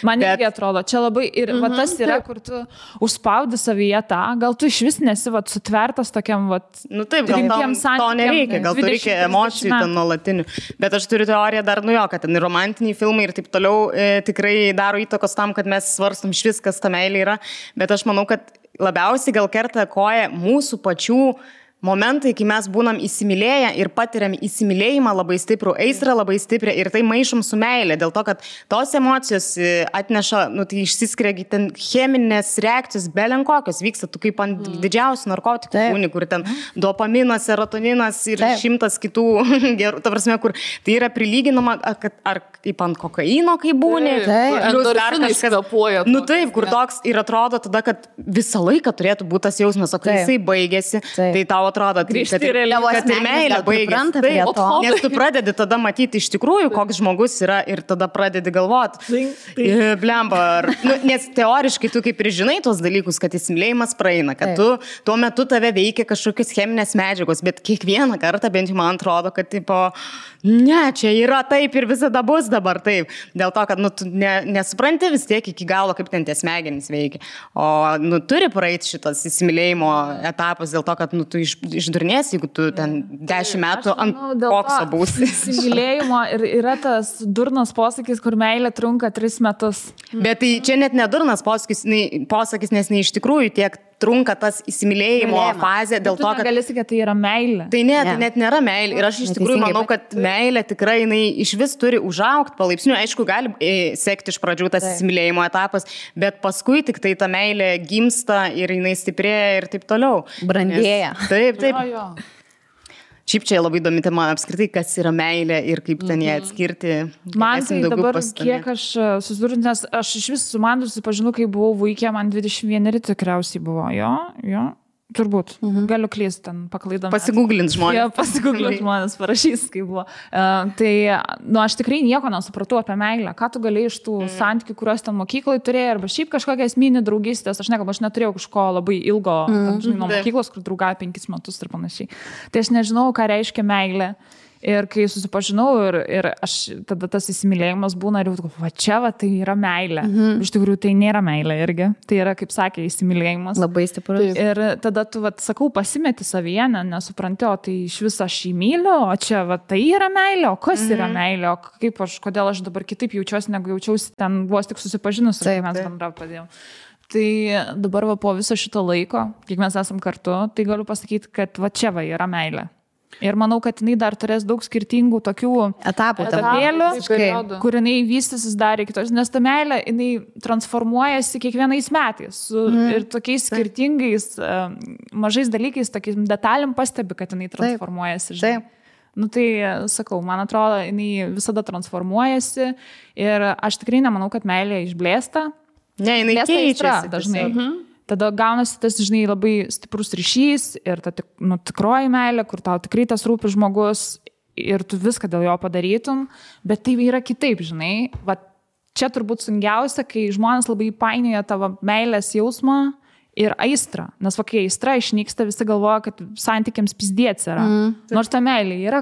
Man irgi atrodo, čia labai ir tas yra, kur tu užspaudi savyje tą, gal tu iš vis nesi sutvertas tokiam taip, gal to nereikia, gal tu reikia emocijų ten nuolatinių. Bet aš turiu teoriją dar kad ten romantiniai filmai ir taip toliau tikrai daro įtakos tam, kad mes svarstom kas ta meilė yra, bet aš manau, kad labiausiai gal kerta koja mūsų pačių momentai, kai mes būnam įsimylėję ir patiriam įsimylėjimą labai stiprų, aistrą labai stiprią ir tai maišom su meilė, dėl to, kad tos emocijos atneša, tai išsiskiria ten cheminės reakcijos, belenkokios vyksta, tu kaip ant didžiausių narkotikų kūnį, kur ten dopaminas, serotoninas ir 100 kitų gerų, ta prasme, kur tai yra prilyginama, ar kaip ant kokaino, kai būni. Endorfinai skvepuoja. Taip, kur toks ir atrodo tada, kad visą laiką turėtų būti tas jausmas, o kai jisai baigėsi, tai tau atrodo, kad ir meilė baigėsi. Nes tu pradedi tada matyti iš tikrųjų, koks žmogus yra ir tada pradedi galvoti. Blemba. Nes teoriškai tu kaip ir žinai tos dalykus, kad įsimylėjimas praeina, kad tu tuo metu tave veikia kažkokios cheminės medžiagos, bet kiekvieną kartą bent jau man atrodo, kad čia yra taip ir visada bus dabar taip. Dėl to, kad tu nesupranti vis tiek iki galo, kaip ten tie smegenys veikia. O turi praeiti šitas įsimylėjimo etapas dėl to, kad tu išdurnėsi, jeigu tu ten 10 metų ant kokso būsi. Įsimylėjimo ir yra tas durnas posakis, kur meilė trunka 3 metus. Bet tai čia net nedurnas posakis, nes ne iš tikrųjų tiek trunka tas įsimylėjimo fazė dėl to, kad... Gali sakyti, kad tai yra meilė. Tai net nėra meilė. Ir aš iš tikrųjų manau, kad meilė tikrai iš vis turi užaugti palaipsniui. Aišku, gali sekti iš pradžių tas įsimylėjimo etapas, bet paskui tik tai ta meilė gimsta ir jinai stiprėja ir taip toliau. Brandėja. Taip. Šiaip čia labai įdomi tema apskritai, kas yra meilė ir kaip ten ją atskirti. Man tai dabar, kiek aš susiduriu, nes aš iš vis su Mandu susipažinau, kai buvau vaikė, man 21 tikriausiai buvo, jo. Turbūt. Galiu klysti ten paklaidom. Pasigūglins žmonės. Jo, pasigūglins žmonės, parašys, kaip buvo. Tai, aš tikrai nieko nesupratau apie meilę. Ką tu galėjai iš tų santykių, kuriuos ten mokyklai turėjai, arba šiaip kažkokią esminį draugystės. Aš neturėjau kažko labai ilgo, nuo mokyklos, kur draugavo 5 metus ir panašiai. Tai aš nežinau, ką reiškia meilė. Ir kai susipažinau ir aš tada tas įsimylėjimas būna ir jau, va čia, va, tai yra meilė. Iš tikrųjų, tai nėra meilė irgi. Tai yra, kaip sakė, įsimylėjimas. Labai stiprus. Ir tada tu, va, sakau, pasimeti savyje, nesupranti, o tai iš viso aš jį myliu, o čia, va, tai yra meilė, o kas yra meilė, o kaip kodėl aš dabar kitaip jaučiuosi, negu jaučiausi ten vos tik susipažinus, kai mes bendrauti padėjom. Tai dabar va, po viso šito laiko, kiek mes esam kartu, tai galiu pasakyti, kad va čia va yra meilė. Ir manau, kad jinai dar turės daug skirtingų tokių etapėlių, kur jinai vystysis dar iki tos, nes ta meilė, jinai transformuojasi kiekvienais metais ir tokiais skirtingais mažais dalykais, tokiais detalėm pastebi, kad jinai transformuojasi. Nu tai, sakau, man atrodo, jinai visada transformuojasi ir aš tikrai nemanau, kad meilė išblėsta. Ne, jinai keičiasi dažnai. Tada gaunasi tas, žinai, labai stiprus ryšys ir ta tikroji meilė, kur tau tikrai tas rūpi žmogus ir tu viską dėl jo padarytum, bet tai yra kitaip, žinai. Va, čia turbūt sunkiausia, kai žmonės labai painioja tavo meilės jausmą ir aistrą. Nes va, kai aistra išnyksta, visi galvoja, kad santykiams pizdėts yra. Nors ta meilė yra,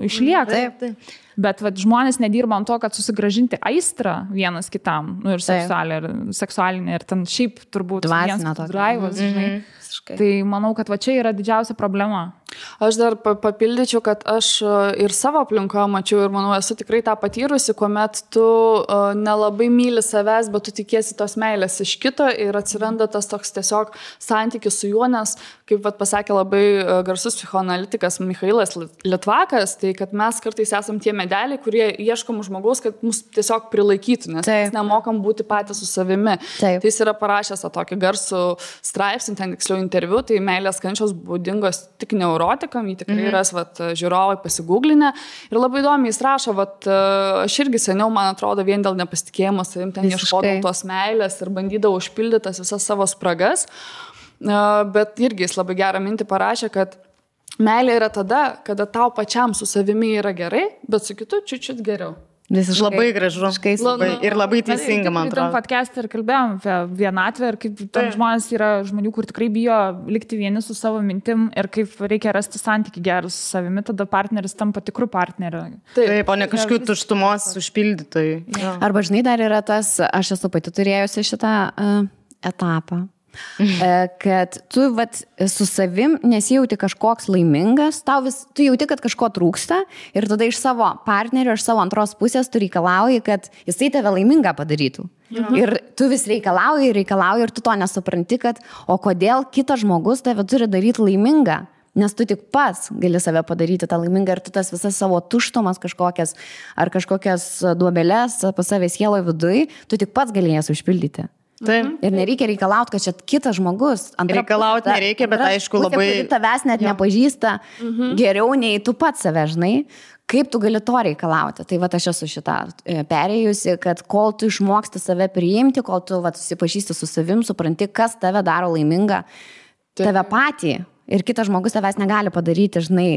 išlieka. Taip. Bet va, žmonės nedirba ant to, kad susigražinti aistrą vienas kitam. Ir seksualinė, ir ten šiaip turbūt dvasinė draivas, žinai. Tai manau, kad va čia yra didžiausia problema. Aš dar papildyčiau, kad aš ir savo aplinkoje mačiau ir manau, esu tikrai tą patyrusi, kuomet tu nelabai myli savęs, bet tu tikiesi tos meilės iš kito ir atsiranda tas toks tiesiog santykis su juo, nes, kaip pasakė labai garsus psichoanalitikas Michailas Litvakas, tai kad mes kartais esam tie medeliai, kurie ieškom žmogaus, kad mus tiesiog prilaikytų, nes mes nemokam būti patys su savimi. Tai jis yra parašęs tokį garsų straipsnį, ten tiksliau interviu, tai meilės kančios būdingos tik neurotikam, jį tikrai ras, žiūrovai pasigūglinę. Ir labai įdomiai jis rašo, aš irgi seniau, man atrodo, vien dėl nepasitikėjimo savim ten ieškodavau tos meilės ir bandydavau užpildyti tas visas savo spragas. Bet irgi jis labai gerą mintį parašė, kad meilė yra tada, kada tau pačiam su savimi yra gerai, bet su kitu čiut geriau. Visiškai. Labai gražu. Ir labai teisinga, man atrodo. Podcast'e ir kalbėjom apie vienatvę ir kaip tam žmonės yra žmonių, kur tikrai bijo likti vieni su savo mintim ir kaip reikia rasti santykį gerą su savimi, tada partneris tampa tikru partneriu. Taip, o ne kažkokių tuštumos užpildytojų. Arba žinai, dar yra tas, aš esu pati turėjusi šitą etapą. Kad tu su savim nesijauti kažkoks laimingas, tu jauti, kad kažko trūksta ir tada iš savo partnerio, iš savo antros pusės tu reikalauji, kad jisai tave laimingą padarytų. Ir tu vis reikalauji ir tu to nesupranti, kad o kodėl kitas žmogus tave turi daryti laimingą. Nes tu tik pats gali save padaryti tą laimingą ir tu tas visas savo tuštumas kažkokias ar kažkokias duobeles pas save sieloj viduj, tu tik pats gali jas užpildyti. Taip. Ir nereikia reikalauti, kad čia kitas žmogus. Reikalauti nereikia, bet aišku labai... Kuri tavęs net nepažįsta geriau nei tu pats save, žinai, kaip tu gali to reikalauti. Tai aš esu šitą perėjusi, kad kol tu išmoksti save priimti, kol tu susipažįsti su savim, supranti, kas tave daro laimingą, tave patį ir kitas žmogus tavęs negali padaryti, žinai,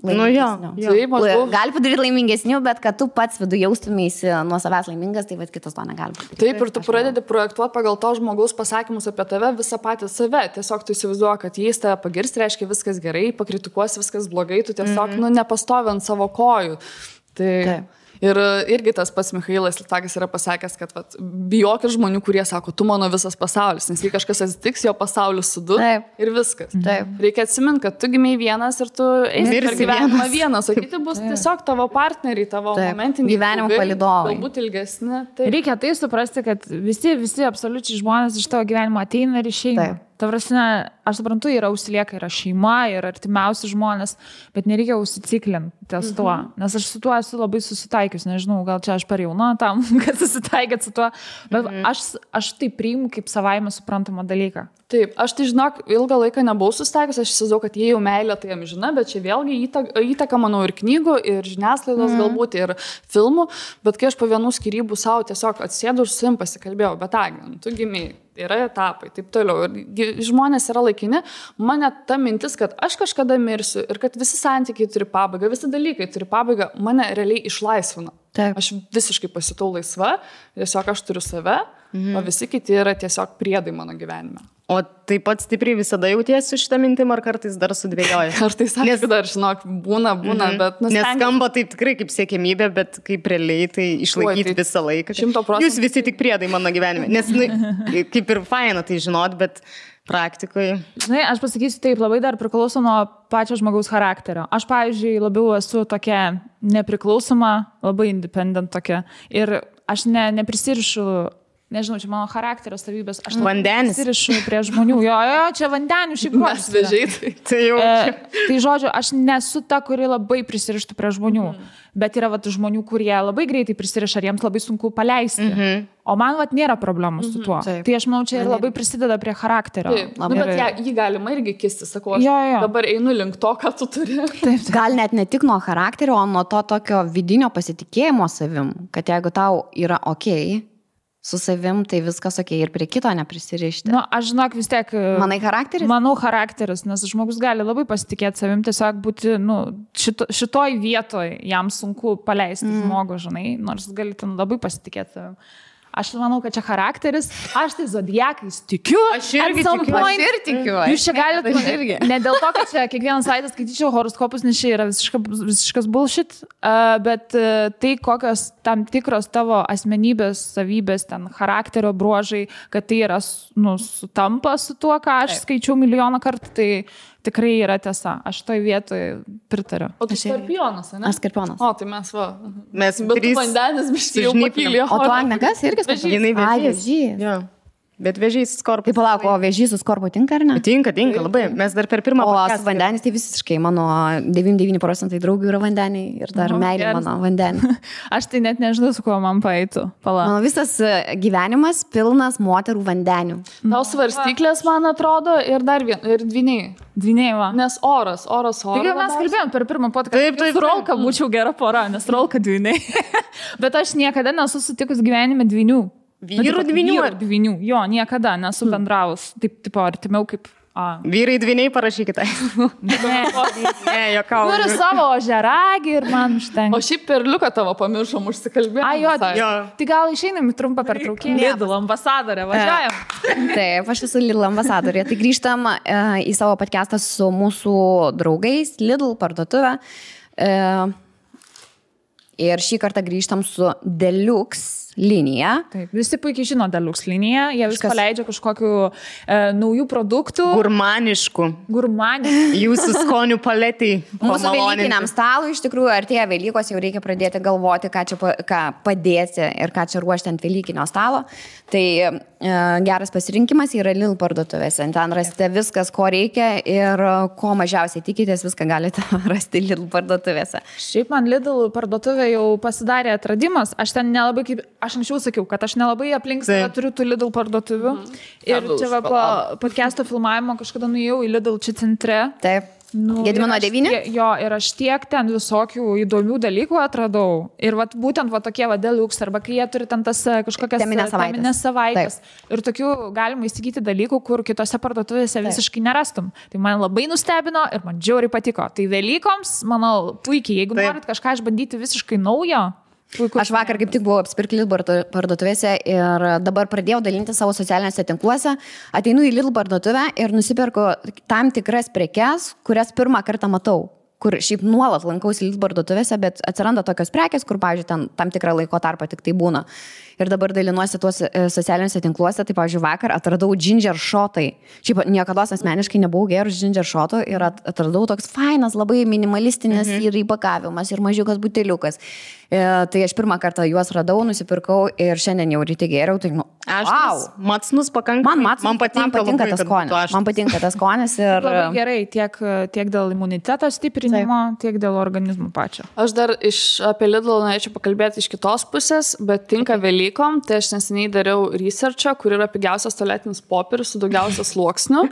gali padaryti laimingesnių, bet kad tu pats viduje jaustumėsi nuo savęs laimingas, tai kitas to negali padaryti. Taip, ir tu pradedi projektuoti pagal to žmogaus pasakymus apie tave visą patį save. Tiesiog tu įsivaizduoji, kad jis tave pagirs, reiškia viskas gerai, pakritikuos viskas blogai, tu tiesiog nepastovi ant savo kojų. Taip. Ir irgi tas pats Michailas Litvakas yra pasakęs, kad bijokit žmonių, kurie sako, tu mano visas pasaulis, nes jei kažkas atsitiks, jo pasaulis sudu ir viskas. Reikia atsiminti, kad tu gimei vienas ir tu eisi per gyvenimą vienas, o kiti bus tiesiog tavo partneriai, tavo momentiniai gyvenimo palydovai. Galbūt ilgesni. Reikia tai suprasti, kad visi absoliučiai žmonės iš tavo gyvenimo ateina ir išeina. Ta prasme, aš suprantu, užsilieka, yra šeima, yra artimiausi žmonės, bet nereikia užsiciklinti ties tuo, nes aš su tuo esu labai susitaikius, nežinau, gal čia aš per jauna tam, kad susitaikėt su tuo, bet aš tai priimu kaip savaime suprantamą dalyką. Taip, aš tai žinok, ilgą laiką nebuvau susitaikius, aš įsivaizduoju, kad jie jau meilė tai amžina, bet čia vėlgi įtaka, manau, ir knygų, ir žiniasklaidos galbūt, ir filmų, bet kai aš po vienų skyrybų savo tiesiog atsėdau ir su savim pasikalbėjau, bet Agne, tu gimei, yra etapai, taip toliau, ir žmonės yra laikini, mane ta mintis, kad aš kažkada mirsiu ir kad visi santykiai turi pabaigą, visi dalykai turi pabaigą, mane realiai išlaisvina. Taip. Aš visiškai pasitau laisva, tiesiog aš turiu save, o visi kiti yra tiesiog priedai mano gyvenime. O taip pat stipriai visada jautiesi šitą mintim, ar kartais dar sudvėjoji? Kartais, aišku, dar, žinok, būna, bet... Nes skamba taip tikrai kaip siekėmybė, bet kaip realiai tai išlaikyti visą laiką. 100%. Jūs visi tik priedai mano gyvenime. Nes kaip ir faina tai žinot, bet praktikoje... Žinai, aš pasakysiu taip, labai dar priklauso nuo pačio žmogaus charakterio. Aš, pavyzdžiui, labiau esu tokia nepriklausoma, labai independent tokia. Ir aš neprisirišu... Nežinau, čia mano charakterio savybės. Aš prisirišu prie žmonių. Jo, čia vandenių šiaip mes vežiai. Tai žodžiu, aš nesu ta, kuri labai prisirištų prie žmonių. Bet yra žmonių, kurie labai greitai prisiriša, ir jiems labai sunku paleisti. O man nėra problemų su tuo. Tai aš manau, čia ir labai prisideda prie charakterio. Bet jį galima irgi kisti, sakau, aš dabar einu link to, ką tu turi. Gal net ne tik nuo charakterio, o nuo to tokio vidinio pasitikėjimo savim, kad jeigu tau yra okei, su savim, tai viskas okei ir prie kito neprisirišti. Aš žinok vis tiek... Manai charakteris? Manau charakteris, nes žmogus gali labai pasitikėti savim, tiesiog būti, šitoj vietoj jam sunku paleisti žmogų, žinai, nors gali ten labai pasitikėti savim. Aš manau, kad čia charakteris, aš tai zodiakais tikiu. Aš irgi tikiu. Jūs čia galite, ne dėl to, kad čia kiekvieną savaitę skaityčiau horoskopus, nes čia yra visiškas bullshit, bet tai kokios tam tikros tavo asmenybės, savybės, ten charakterio bruožai, kad tai yra, sutampa su tuo, ką aš skaičiau milijoną kartų, tai tikrai yra tiesa. Aš toj vietoj pritariu. O tu skorpionas, ne? Aš skorpionas. O, tai mes Mes bet vandenis biškai jau pakilė. O tu Agnekas irgi skorpionas? Jinai vėžys. Bet vėžys su skorpu. Tai palauk, o vėžys su skorpu tinka ar ne? Tinka, labai. Mes dar per pirmą podcastą. O su vandenis tai visiškai, mano 99% draugių yra vandeniai ir dar meilė mano vandenį. Aš tai net nežinau, su kuo man paeitų. Mano visas gyvenimas pilnas moterų vandenių. Tau svarstyklės, man atrodo, ir dar ir dvyniai. Dvyniai, va. Nes oras. Taigi mes kalbėjom per pirmą podcastą. Taip, su Rolka būčiau gera pora, nes Rolka dvyniai. Bet aš niekada nesu sutikus gyvenime dvynių. Vyrų dvynių? Dvynių, jo, niekada nesu bendravus. Taip, tipo, artimiau kaip... Vyrai dvyniai parašykite. Ne, jokau. Turiu savo ožeragį ir man užtenka. O šiaip perliuką tavo pamiršom užsikalbėti. Tai gal išeinam į trumpą pertraukėlę. Lidl ambasadorė, važiuojam. Taip, aš esu Lidl ambasadorė. Tai grįžtam į savo podcastą su mūsų draugais, Lidl parduotuvę. Ir šį kartą grįžtam su Deluxe linija. Taip, visi puikiai žino Deluxe liniją, jie vis paleidžia kažkokių naujų produktų. Gurmaniškų. Jūsų skonių paletiai. Mūsų velykiniam stalui iš tikrųjų artėja Velykos, jau reikia pradėti galvoti, ką padėti ir ką čia ruošti ant velykinio stalo. Tai geras pasirinkimas yra Lidl parduotuvėse. Ten rasite viskas, ko reikia ir ko mažiausiai tikitės, viską galite rasti Lidl parduotuvėse. Šiaip man Lidl parduotuvė jau pasidarė atradimas. Aš ten nelabai kaip... Aš anksčiau sakiau, kad aš nelabai aplink save turiu tų Lidl parduotuvių. Ir čia po podcast'o filmavimo kažkada nuėjau į Lidl čia centre. Taip. Gedimino 9? Jo, ir aš tiek ten visokių įdomių dalykų atradau. Ir būtent tokie Deluxe, arba kai jie turi ten tas kažkokias teminės savaitės. Ir tokių galima įsigyti dalykų, kur kitose parduotuvėse visiškai nerastum. Tai man labai nustebino ir man džiauriai patiko. Tai Velykoms, manau, puikiai. Jeigu norit kažką išbandyti visiškai naujo, aš vakar kaip tik buvau apsipirkti Lidl parduotuvėse ir dabar pradėjau dalinti savo socialiniuose tinkluose. Ateinu į Lidl parduotuvę ir nusipirku tam tikras prekes, kurias pirmą kartą matau. Kur šiaip nuolat lankausi Lidl parduotuvėse, bet atsiranda tokios prekės, kur, pavyzdžiui, tam tikrą laiko tarpą tik tai būna. Ir dabar dalinuosi tuos socialiniuose tinkluose, tai, pavyzdžiui, vakar atradau ginger shotai. Šiaip niekada asmeniškai nebuvau gerus ginger shotų ir atradau toks fainas, labai minimalistinis ir įpakavimas ir mažiukas buteliukas. Tai aš pirmą kartą juos radau, nusipirkau ir šiandien jau ryte geriau. Tai, Matsnus pakankamai. Man patinka tas skonis. Man patinka tas skonis ir... Labai gerai, tiek dėl imuniteto stiprinimo, tiek dėl organizmo pačio. Aš dar apie Lidl norėčiau pakalbėti iš kitos pusės, bet tinka Velykom, tai aš neseniai dariau researchą, kur yra pigiausias tualetinis popierius su daugiausia sluoksnių.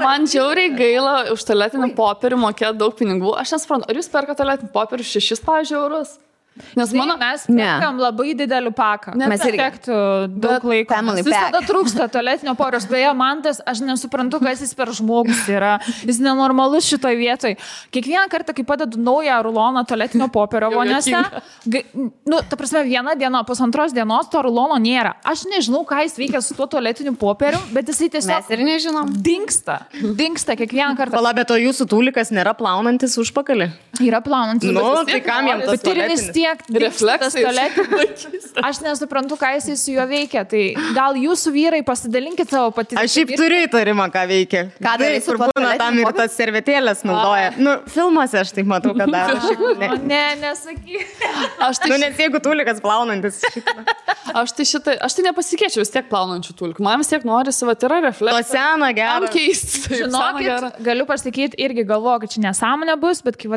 Man žiauriai gaila už tualetinį popierių mokėti daug pinigų. Aš nesuprantu, ar jūs perka tualetinį popierių 6, pavyzdžiui, eurus? Nes mes perkam labai didelį paką. Mes irgi. Tektų daug laiko. Family Vis tada pack. trūksta tualetinio popieriaus. Beje, man tas, aš nesuprantu, kas jis per žmogus yra. Jis nenormalus šitoje vietoje. Kiekvieną kartą, kai padedu naują ruloną tualetinio popierio voniose, ta prasme, vieną dieną, pusantros dienos to rulono nėra. Aš nežinau, ką jis veikia su tuo tualetiniu popieriu, bet jisai tiesiog Mes ir nežinom. Dingsta kiekvieną kartą. Pala, bet to jūsų tūlikas nėra plaunantis užpakalį. Yra plaunantis. Nu, tai kam jam tas Bet ir vis tiek refleksas. Aš nesuprantu, ką jis su juo veikia. Tai gal jūsų vyrai pasidalinkit savo patirtimi. Aš šiaip turiu įtarimą, ką veikia. Ką darai su kur tuo būna tam ir tas servetėlės naudoja. Nu, filmuose aš taip matau, kad daro. Nesakyk. Nes jeigu tūlikas plaunantis. Aš tai nepasikeičiau vis tiek plaunančių tūlikų. Man vis tiek norisi, yra refleksas. To seno gero. Keisti. Žinokit, galiu pasakyti, irgi galvoju, kad čia nesąmonė bus, bet kai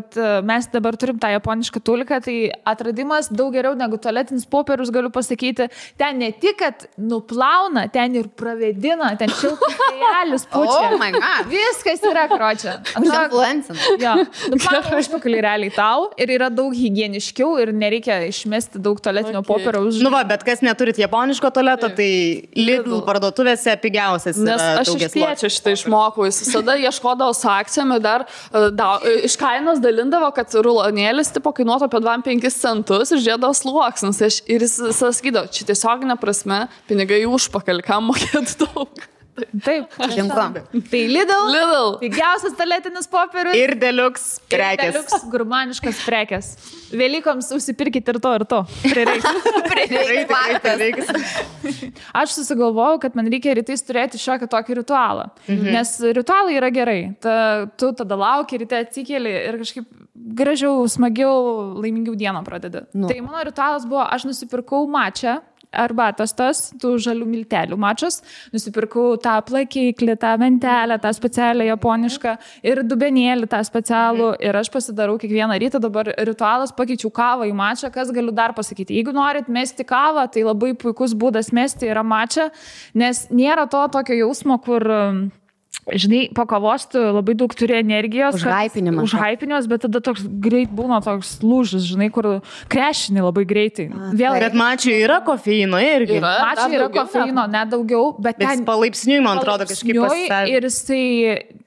mes dabar turim tą japonišką tūliką, tai atradimas daug geriau negu tualetinis popierius, galiu pasakyti. Ten ne tik, kad nuplauna, ten ir pravedina, ten šiltas vėjelis pučia. Oh my God. Viskas yra, kročia. Influencina. Jo, nuplauna užpakalį realiai tau ir yra daug higieniškiau ir nereikia išmesti daug tualetinio popieriaus. Nu va, bet kas neturit japoniško tualeto, tai Lidl parduotuvėse pigiausias. Nes aš iš tėčio šitą išmokau, jis visada ieškodavo su akcijom ir dar iš kainos dalindavo, kad rulonėlis tipo kainuotų apie 2-5 centus ir žiedavo sluoksnis. Ir jis sakydavo, čia tiesioginė prasme, pinigai užpakalį, kam mokėtų daug. Taip, Žinko. Tai Lidl. Pigiausias tualetinis popierius. Ir deluxe prekės. Deluxe gurmaniškas prekės. Velykoms užsipirkit ir to. Prireiks. Aš susigalvojau, kad man reikia rytais turėti šiokį tokį ritualą. Nes ritualai yra gerai. Tu tada lauki, ryte atsikeli ir kažkaip gražiau, smagiau, laimingiau dieną pradedi. Tai mano ritualas buvo, aš nusipirkau mačą. Arbatos tų žalių miltelių mačas, nusipirkau tą plakeiklį, tą mentelę, tą specialią japonišką ir dubenėlį tą specialų ir aš pasidarau kiekvieną rytą, dabar ritualas pakeičiau kavą į mačą, kas galiu dar pasakyti. Jeigu norit mesti kavą, tai labai puikus būdas mesti yra mača, nes nėra to tokio jausmo, kur... Žinai, po kavos tu labai daug turi energijos. Užhaipinimas, bet tada toks greit būna toks lūžis, žinai, kur krešini labai greitai. Bet mačiui yra kofeino irgi. Mačiui yra kofeino, nedaugiau, bet ten palaipsniui, man atrodo, kažkaip pasisavi. Ir jisai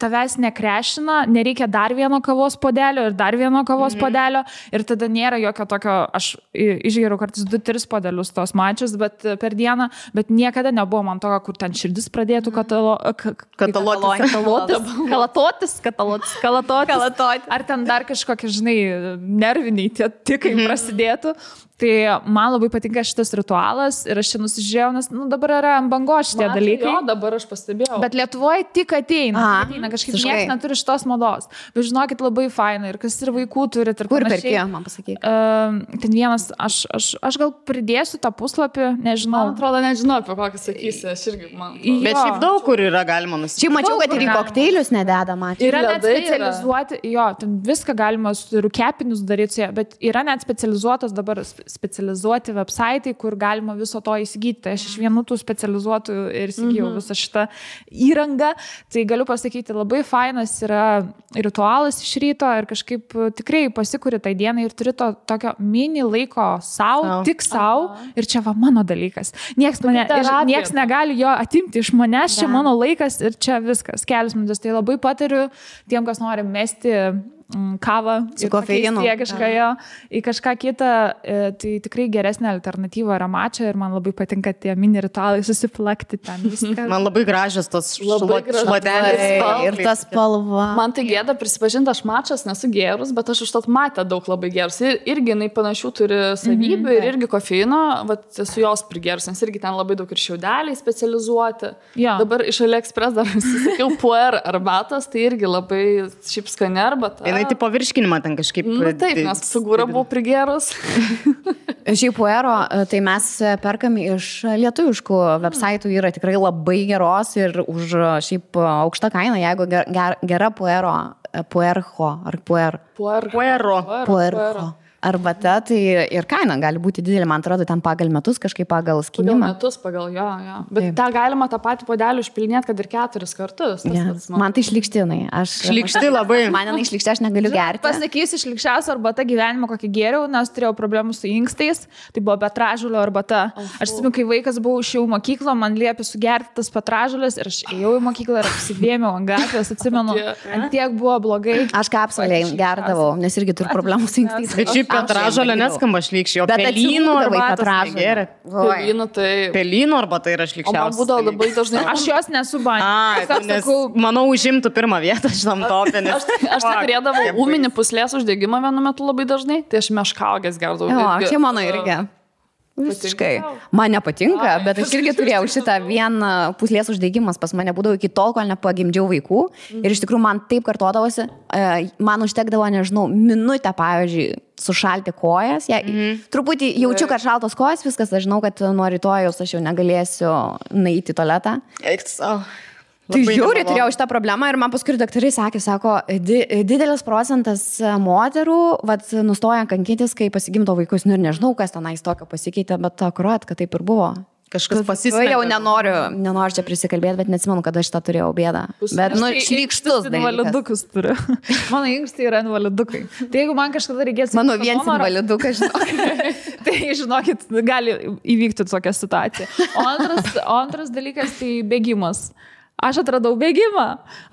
tavęs nekrešina, nereikia dar vieno kavos puodelio ir dar vieno kavos puodelio ir tada nėra jokio tokio, aš išgeriu kartais 2-3 puodelius tos mačius per dieną, bet niekada nebuvo man tokio, kur ten širdis pradėtų kalatotis. Ar ten dar kažkokie, žinai, nerviniai tie tikai prasidėtų. Tai man labai patinka šitas ritualas ir aš čia nusižiūrėjau, nes dabar yra ant bangos šitie dalykai. Jo, dabar aš pastebėjau. Bet Lietuvoje tik ateina kažkaip niekas neturi šitos mados. Bet žinokit, labai faina ir kas ir vaikų turit. Kur perkėjo, man pasakyk. Ten vienas, aš gal pridėsiu tą puslapį, nežinau. Man atrodo, nežinau, apie kokį sakysi, aš irgi man. Bet šiaip daug kur yra galima nusipirkti. Šiaip mačiau, kad ir į kokteilius nededa, mačiau. Yra net specializuoti, ten viską galima su kepinius daryti, bet yra net specializuotos dabar specializuoti websaitai, kur galima viso to įsigyti. Tai aš iš vienų tų specializuotų ir įsigijau visą šitą įrangą. Tai galiu pasakyti, labai fainas yra ritualas iš ryto ir kažkaip tikrai pasikuri tai dienai ir turi tokio mini laiko tik savo. Ir čia va mano dalykas. Nieks negali jo atimti iš manęs, čia mano laikas ir čia viskas. Kelias minutės. Tai labai patariu tiem, kas nori mesti kavą su kofeinu į kažką kitą, tai tikrai geresnė alternatyva yra mača ir man labai patinka tie mini ritualai susiplakti ten viską. Man labai gražios tos šluotelės ir tas spalva. Man tai gėda prisipažinti, aš mačas nesu gerus, bet aš užtat matę daug labai gerus. Irgi jinai panašių turi savybių ir irgi kofeino, su jos prigerus, nes irgi ten labai daug ir šiaudeliai specializuoti. Dabar iš AliExpress dar sakiau puer arbatas, tai irgi labai šiaip skani arbata. Jinai tipo virškinimą ten kažkaip. Taip, nes figūra buvo prigerus. Šiaip puero, tai mes perkam iš lietuviškų websaitų, yra tikrai labai geros ir už šiaip aukštą kainą, jeigu gera puero, puerho ar puer. Puero. arbata, tai ir kaina gali būti didelė, man atrodo, ten pagal metus, kažkaip pagal skynimą. Metus pagal, jo. Bet tą galima tą patį puodelį užpilnėti, kad ir 4 kartus. Man tai šlikštinai. Šlikšti labai. Man jinai šlikšti, aš negaliu gerti. Pasakysiu, šlikščiausia arbata gyvenimo, kokį geriau, nes turėjau problemų su inkstais. Tai buvo petražulio arbata. Aš atsimenu, kai vaikas buvau išėjau mokyklą, man liepė sugerti tas petražulis ir aš ėjau į mokyklą ir apsivėmiau ant gatvės, atsimenu, ant tiek buvo blogai. Aš kapsuliai gerdavau, nes irgi turiu problemų su inkstais. Bet šiaip petražolė neskamba šlikščiai, o pelynų arbata yra šlikščiausia. Man būdavo labai dažnai. Aš jos nesu bandžiusi. Manau, užimtų pirmą vietą šitam topė. Aš turėdavau ūminį puslės uždegimą vienu metu labai dažnai, tai aš meškaugės gerdavau. O, čia mano irgi. Visiškai. Man nepatinka, bet aš irgi turėjau šitą vieną puslės uždegimas pas mane būdavo iki tol, kol nepagimdžiau vaikų. Ir iš tikrųjų man taip kartodavosi, man užtekdavo, nežinau, minutę, pavyzdžiui, sušalti kojas. Truputį jaučiu, kad šaltos kojas, viskas, aš žinau, kad nuo rytojaus aš jau negalėsiu nueiti į tualetą. Tai žiūri, turėjau šitą problemą ir man paskui daktarai sakė, didelis procentas moterų nustoja kankintis, kai pasigimdo vaikus. Nu ir nežinau, kas tenais tokio pasikeitė, bet akurat, kad taip ir buvo. Kažkas pasisakė. Jau nenoriu čia prisikalbėti, bet neatsimenu, kad aš tą turėjau bėdą. Bet, šlykštus dalykas. Invalidukus turiu. Mano inkstai yra invalidukai. Tai jeigu man kažkada reikės... Mano vienas invalidukas, žinokit. Tai žinokit, gali įvykti tokia situacija. O antras dalykas tai bėgimas. Aš atradau bėgimą.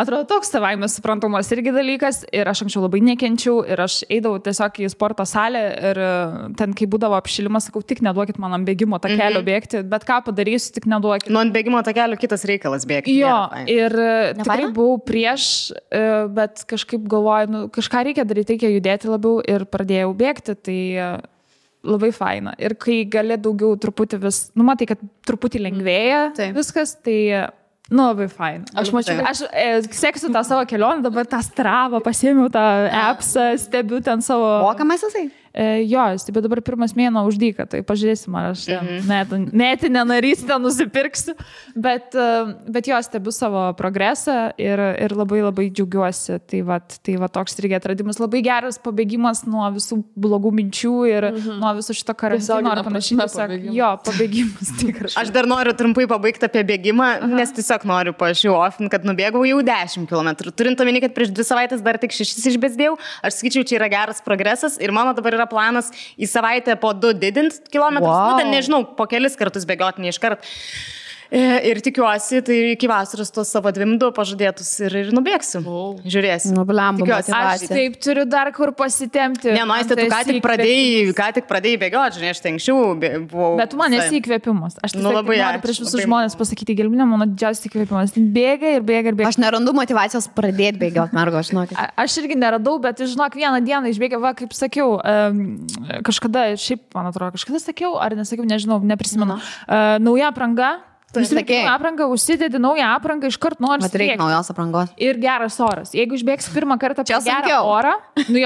Atrodo toks savaime suprantamas irgi dalykas ir aš anksčiau labai nekenčiau ir aš eidavau tiesiog į sporto salę ir ten, kai būdavo apšilimas, sakau, tik neduokit man ant bėgimo takelio bėgti, bet ką padarysiu, tik neduokit. Nu, ant bėgimo takelio kitas reikalas bėgti. Jo, ir tikrai buvau prieš, bet kažkaip galvoju, kažką reikia daryti, reikia judėti labiau ir pradėjau bėgti, tai labai faina. Ir kai gali daugiau truputį matai, kad truputį lengvėja viskas, tai... labai fain. Aš seksiu tą savo kelionę, dabar tą Stravą, pasiėmiau tą appsą, stebiu ten savo... Mokamas jisai? Jo, bet dabar pirmas mėnuo uždyka, tai pažiūrėsim, ar aš metinę narystę nusipirksiu, bet jo, stebiu savo progresą ir labai labai džiaugiuosi. Tai va toks irgi atradimas, labai geras pabėgimas nuo visų blogų minčių ir nuo viso šito karantino ar panašiai. Jo, pabėgimas tikrai. Aš dar noriu trumpai pabaigti apie bėgimą, nes tiesiog noriu pašiuofint, kad nubėgau jau 10 km. Turint omeny, kad prieš 2 savaitės dar tik 6 išbėsdėjau, aš sakyčiau, čia yra geras progresas ir mano dabar yra planas į savaitę po 2 didinti kilometrus. Wow. Nu, ten nežinau, po kelis kartus bėgioti, ne iš kart. Ir tikiuosi, tai iki vasaros tos savo 2 pažadėtus ir nubėgsiu. Žiūrėsiu. Aš taip turiu dar kur pasitempti. Ne, Aiste, tu ką tik pradėjai bėgioti, žinai, aš ten anksčiau buvau. Bet tu man esi įkvėpimas. Aš noriu prieš visus žmonės pasakyti, gelminė, mano didžiausias įkvėpimas. Bėga. Aš nerandu motivacijos pradėti bėgioti, mergo, žinokit. Aš irgi neradau, bet žinok, vieną dieną išbėgiau, kaip sakiau, kažkada, šiaip, man atrodo, kažkada sakiau, ar nesakiau, nežinau, neprisimenu. Nauja apranga. Aprangą, užsidedi naują aprangą, iškart nori reikia naujos aprangos. Ir geras oras. Jeigu išbėgsi pirmą kartą apie gerą orą,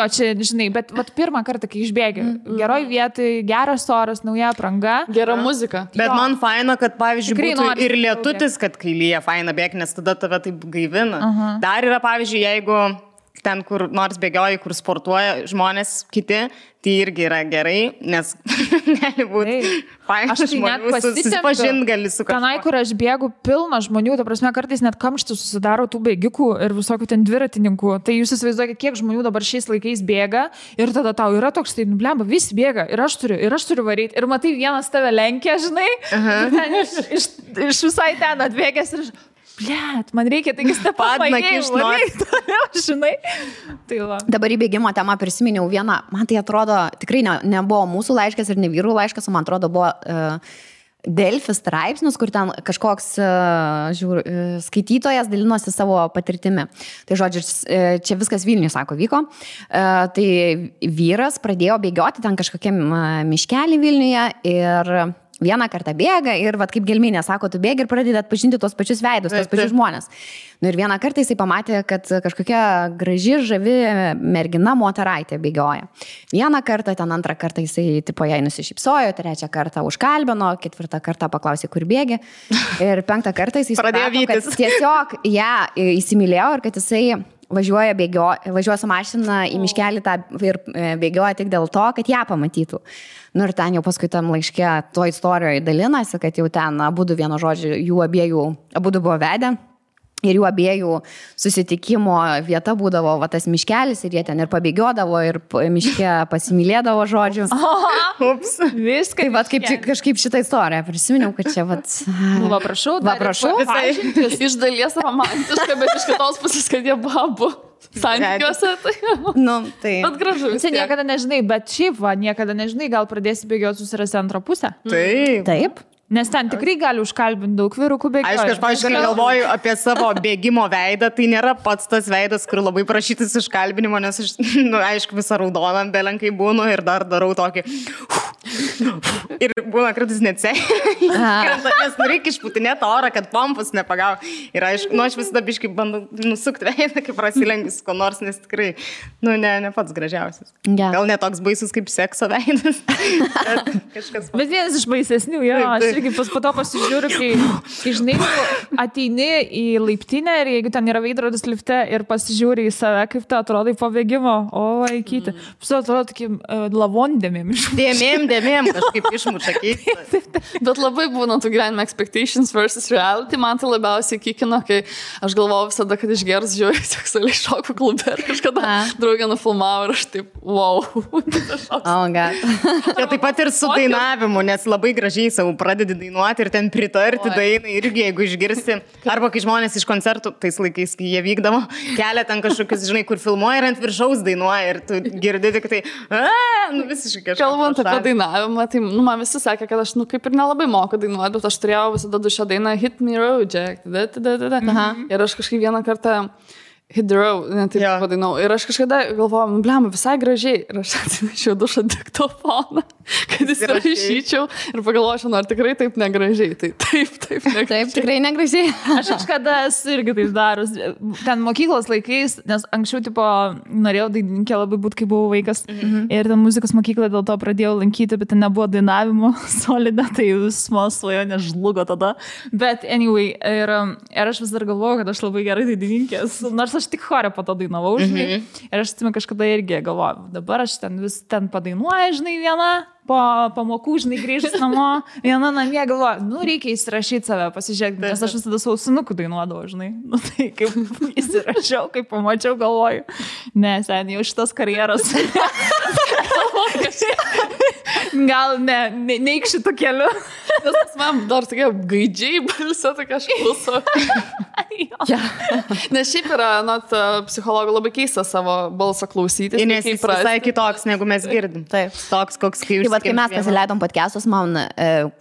čia, žinai, bet pirmą kartą, kai išbėgi, geroj vietoj, geras oras, nauja apranga. Gera muzika. Bet man faina, kad, pavyzdžiui, būtų ir lietutis, kad kai lyja faina bėgti, nes tada tave taip gaivina. Dar yra, pavyzdžiui, jeigu ten, kur nors bėgioji, kur sportuoja žmonės kiti, tai irgi yra gerai, nes gali būti faina žmonių, susipažinti gali su kažkuo. Tenai, kur aš bėgu, pilna žmonių, ta prasme, kartais net kamštis susidaro tų bėgikų ir visokių ten dviratininkų. Tai jūs įsivaizduokite, kiek žmonių dabar šiais laikais bėga ir tada tau yra toks, tai nublemba, visi bėga ir aš turiu varyti. Ir matai, vienas tave lenkia, žinai, iš visai ten atbėgęs ir Blet, man reikia, taigi žinai. Tai va. Dabar į bėgimo temą prisiminiau vieną, man tai atrodo, tikrai nebuvo mūsų laiškas ir ne vyrų laiškas, o man atrodo buvo Delfi straipsnis, kur ten kažkoks skaitytojas dalinosi savo patirtimi. Tai žodžiu, čia viskas Vilniuje, sako, vyko. Tai vyras pradėjo bėgioti ten kažkokiam miškelį Vilniuje ir vieną kartą bėga ir, kaip Gelminė sako, tu bėgi ir pradedi atpažinti tos pačius veidus, tos pačius žmonės. Nu ir vieną kartą jisai pamatė, kad kažkokia graži, žavi mergina moteraitė bėgioja. Vieną kartą, ten antrą kartą jisai tipo jai nusišypsojo, 3 kartą užkalbino, 4 kartą paklausė, kur bėgi. Ir 5 kartą jisai suprato, kad tiesiog ją įsimylėjo ir kad jisai važiuoja su mašina į miškelį tą ir bėgioja tik dėl to, kad ją pamatytų. Nu ir ten jau paskui tam laiške to istorijoje dalinasi, kad jau ten abudu vieno žodžio, abudu buvo vedę. Ir jų abiejų susitikimo vieta būdavo va, tas miškelis ir jie ten ir pabėgiodavo ir miške pasimylėdavo žodžiu. Ups, viskas. Tai va, kažkaip šitą istoriją prisiminiau, kad čia va... Va, prašau. Iš dalies romantiška, bet iš kitos pusės, kad jie abu santykiuose. Tai... Bet gražu. Čia niekada nežinai, bet šiaip va, niekada nežinai, gal pradėsi bėgioti susirasti antrą pusę. Taip. Nes ten tikrai gali užkalbinti daug vyrukų bėgioja. Aišku, aš paaiškiai galvoju apie savo bėgimo veidą, tai nėra pats tas veidas, kur labai prašytis užkalbinimo, nes aš, aišku, visą raudoną belenkai būnu ir dar darau tokį... Ir būna kartais neatsei. Nes reikia išputinėti orą, kad pompas nepagau. Ir aišku, aš visada biškai bandau nusukti veidą, kaip prasilengius ko nors, nes tikrai, ne pats gražiausias. Gal ne toks baisus kaip sekso veidas. Bet vienas iš baisesnių, jo, aš irgi po to pasižiūriu, kai žinai, ateini į laiptinę ir jeigu ten yra veidrodis lifte ir pasižiūri į save, kaip tu atrodai po bėgimo, vaikyti. Pasu atrodo tokiem lavondėmėm. Dėmėm kažkaip išmuša keista. Bet labai būna tų gyvenime expectations versus reality. Man tai labiausiai kikino, kai aš galvojau visada, kad išgers žiūri seksualiai šokų klube ir kažkada draugę nufilmavo ir aš taip, wow. Čia taip pat ir su dainavimu, nes labai gražiai savo pradedi dainuoti ir ten pritarti dainai irgi, jeigu išgirsti. Arba kai žmonės iš koncertų, tais laikais, kai jie vykdavo, kelia ten kažkokius, žinai, kur filmuoja ir ant viršaus dainuoja ir tu girdi tik tai, visiškai kažką. Kalbant apie dainavimą, tai man visi sakė, kad aš kaip ir nelabai moku dainuoti, bet aš turėjau visada dušę dainą Hit Me Road Jack. Ir aš kažkaip vieną kartą Hit the Road, taip padainau. Ir aš kažkada galvojau, blema, visai gražiai. Ir aš atsinešiau dušą diktofoną, kad įsirašyčiau ir pagalvočiau, ar tikrai taip negražiai. Tai taip negražiai. Taip, tikrai negražiai. Aš kažkada esu irgi taip darus. Ten mokyklos laikais, nes anksčiau norėjau dainininkė labai būti, kai buvau vaikas. Ir ten muzikos mokyklą dėl to pradėjau lankyti, bet ten nebuvo dainavimo solida, tai vis mano svajonė žlugo tada. Bet anyway, ir aš vis dar galvojau, kad aš labai gerai dainininkės. Nors aš tik chore po to dainavau, žinai. Ir aš atsimenu kažkada irgi galvojau, dabar aš ten padainuoju, žinai, vieną, po pamokų, žinai, grįžus namo, viena namie galvoju, reikia įsirašyti save, pasižiūrėti, nes aš visada savo sūnukų dainuodavau, žinai. Tai kaip įsirašiau, kaip pamačiau, galvoju, sen jau šitos karjeros. Gal neik šitą keliu. Nes man dar tokie gaidžiai balsė, tokia aš klausau. Nes šiaip yra, psichologų labai keista savo balsą klausytis. Nes jis visai kitoks, negu mes girdim. Taip. Toks, koks kai Bet kai mes pasileidom podcastus, man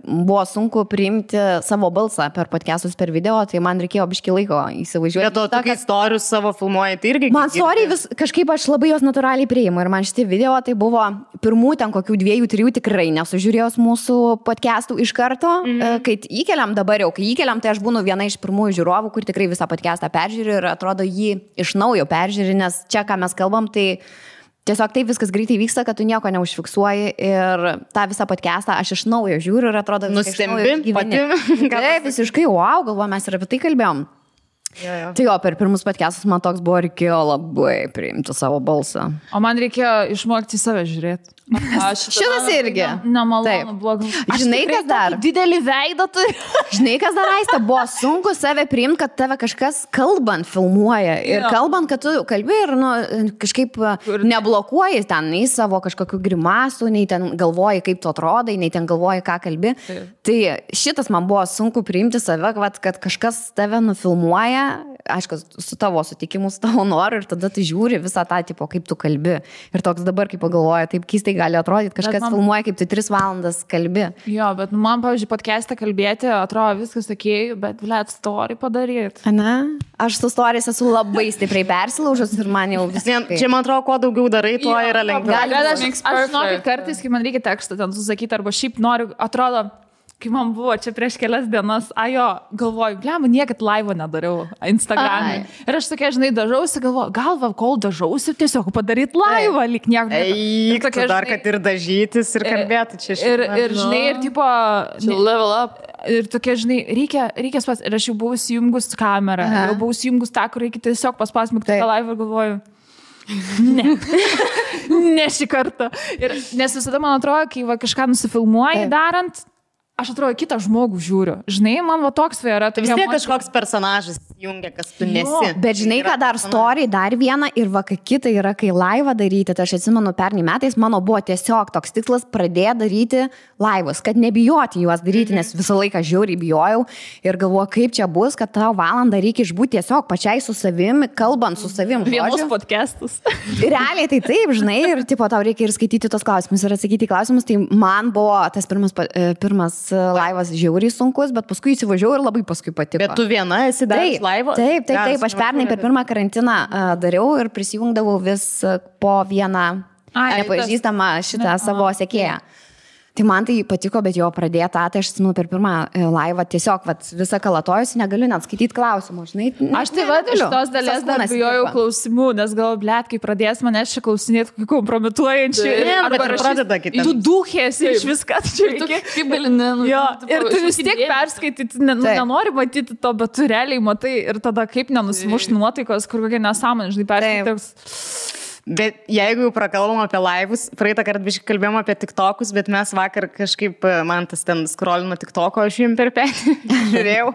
buvo sunku priimti savo balsą per podcastus, per video, tai man reikėjo biškį laiko įsivažiuoti. Bet to tokiai istorius savo filmuoji, tai irgi... Man istorija kažkaip aš labai jos natūraliai priimu ir man šitie video tai buvo pirmų ten kokių 2-3 tikrai nesužiūrėjus mūsų podcastų iš karto. Kai įkeliam dabar jau, kai įkeliam, tai aš būnu viena iš pirmųjų žiūrovų, kur tikrai visą podcastą peržiūriu ir atrodo jį iš naujo peržiūri, nes čia, ką mes kalbam, tai tiesiog taip viskas greitai vyksta, kad tu nieko neužfiksuoji ir tą visą podcastą aš iš naujo žiūriu ir atrodo... Nustembi pati. Taip, visiškai, wow, galvoju, mes ir apie tai kalbėjom. Tai per pirmus podcastus man toks buvo, reikėjo labai priimti savo balsą. O man reikėjo išmokti save žiūrėti. Šitas irgi. Nemalonu, blogai. Žinai, kas dar? Didelį veidą turi. Žinai, kas dar, Aiste, buvo sunku save priimti, kad tave kažkas kalbant filmuoja. Ir kalbant, kad tu kalbi ir kažkaip neblokuoji ten nei savo kažkokių grimasų, nei ten galvoji, kaip tu atrodai, nei ten galvoji, ką kalbi. Tai šitas man buvo sunku priimti save, kad kažkas tave nufilmuoja, aišku, su tavo sutikimu, su tavo noru ir tada tu žiūri visą tą tipo, kaip tu kalbi. Ir toks dabar, kaip pagalvoja, taip keistai gali atrodyti, kažkas filmuoja, kaip tu 3 valandas kalbi. Jo, bet man, pavyzdžiui, podcast'ą kalbėti, atrodo viskas sakėjai, bet, story padaryti. Ne? Aš su stories esu labai stipriai persilaužus ir man jau viskai. Čia, man atrodo, kuo daugiau darai, tuo yra lengviau. Aš noriu kartais, kai man reikia tekstą ten susakyti, arba šiaip noriu, atrodo, kai man buvo čia prieš kelias dienas, galvoju, blem, niekad laivo nedariau Instagram'e. Ir aš tokia, žinai, dažausi, galvoju, gal kol dažausi, tiesiog padaryti laivą, lyg nieko. Eik, tu dar, kad ir dažytis, ir kalbėti čia šiandien. Ir žinai, ir tipo... Level up. Ir tokia, žinai, reikia spats. Ir aš jau buvau įjungus kamerą, jau buvau įjungus tą, kur reikia tiesiog paspasmikti tą laivą ir galvoju... Ne šį kartą. Nes visada man atrodo, kai kažką nusifilmuoji darant, aš atrodo, kitą žmogų žiūriu. Žinai, man va toks yra. Tai vis tiek kažkoks personažas jungia, kas tu nesi. Bet žinai, ką dar story, dar vieną ir kita yra, kai laivą daryti. Tai aš atsimenu, pernai metais mano buvo tiesiog toks tikslas pradėti daryti laivus, kad nebijoti juos daryti, nes visą laiką žiauriai bijojau ir galvoju, kaip čia bus, kad tau valandą reikia išbūti tiesiog pačiai su savimi, kalbant su savimi. Vienus podcastus. Realiai tai taip, žinai, ir tipo tau reikia ir skaityti tos klausimus ir atsakyti klausimus. Tai man buvo tas pirmas laivas žiauriai sunkus, bet paskui įsivažiavau ir labai paskui patiko. Bet tu viena esi darius laivą? Taip. Aš pernai per pirmą karantiną dariau ir prisijungdavau vis po vieną nepažįstamą šitą savo sekėją. Tai man tai patiko, bet jo pradėta, tai aš atsimenu per pirmą laivą tiesiog visą kalatojus, negaliu net skaityti klausimų, žinai. Aš tai iš tos dalies dar bijojau klausimų, nes galvoju, blet, kai pradės manęs čia klausinėti kokių kompromituojančių. Arba pradeda kitą. Tu duhėsi iš viską, čia reikia. Kaip gali ir tu vis tiek perskaityti, nenori matyti to, bet tu realiai matai ir tada kaip nenusimušti nuotaikos, kur kokia nesąmonė, žinai, perskaityti. Bet jeigu jau prakalbam apie laivus, praeitą kartą biškai kalbėjom apie TikTokus, bet mes vakar kažkaip, man tas ten scrollino TikToko, aš jums per petį žiūrėjau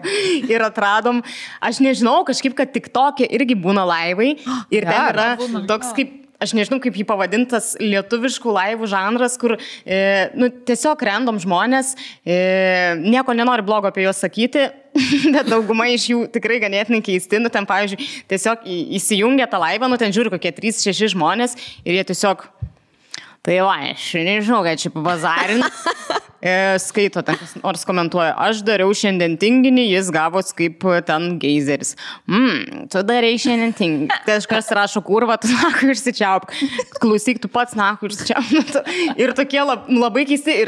ir atradom, aš nežinau, kažkaip, kad TikTok'e irgi būna laivai ir ten yra toks kaip, aš nežinau, kaip jį pavadintas lietuviškų laivų žanras, kur tiesiog random žmonės, nieko nenori blogo apie juos sakyti, bet dauguma iš jų tikrai ganėtinai keisti. Ten, pavyzdžiui, tiesiog įsijungia tą laivą, ten žiūri kokie 3-6 žmonės ir jie tiesiog, tai va, aš nežinau, kad čia pabazarint. Skaito ten, kas nors komentuoja, aš dariau šiandien tinginį, jis gavos kaip ten geizeris. Tu darai šiandien tinginį. Kažkas rašo kurva, tu naku išsičiaupk. Klausyk, tu pats naku išsičiaupk. Ir tokie labai keisti.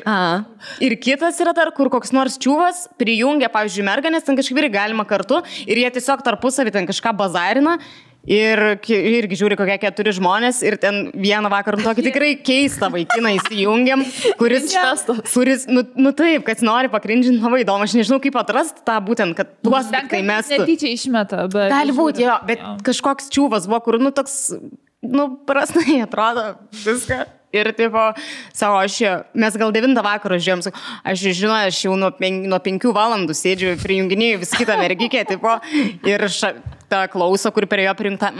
Ir kitas yra dar, kur koks nors čiūvas prijungia, pavyzdžiui, mergą, nes ten kažkaip ir galima kartu. Ir jie tiesiog tarpusavį ten kažką bazarina. Ir irgi žiūri kokie 4 žmonės ir ten vieną vakarą tokį tikrai keistą vaikiną įsijungiam, kuris taip, kad nori pakrindžinti, labai įdomu. Aš nežinau, kaip atrasti tą būtent, kad tuos tik tai mestų. Netyčia išmeta, bet... Gali būti, jo, bet kažkoks čiūvas buvo, kur, toks, prastai atrodo viską. Ir, tipo, savo, mes gal 9 vakaro žiūrėjom, aš žinau, aš jau nuo 5 valandų sėdžiu, prijunginėjau vis kitą mergikę, tipo, ir tą klausą, kur prie jo prijungta,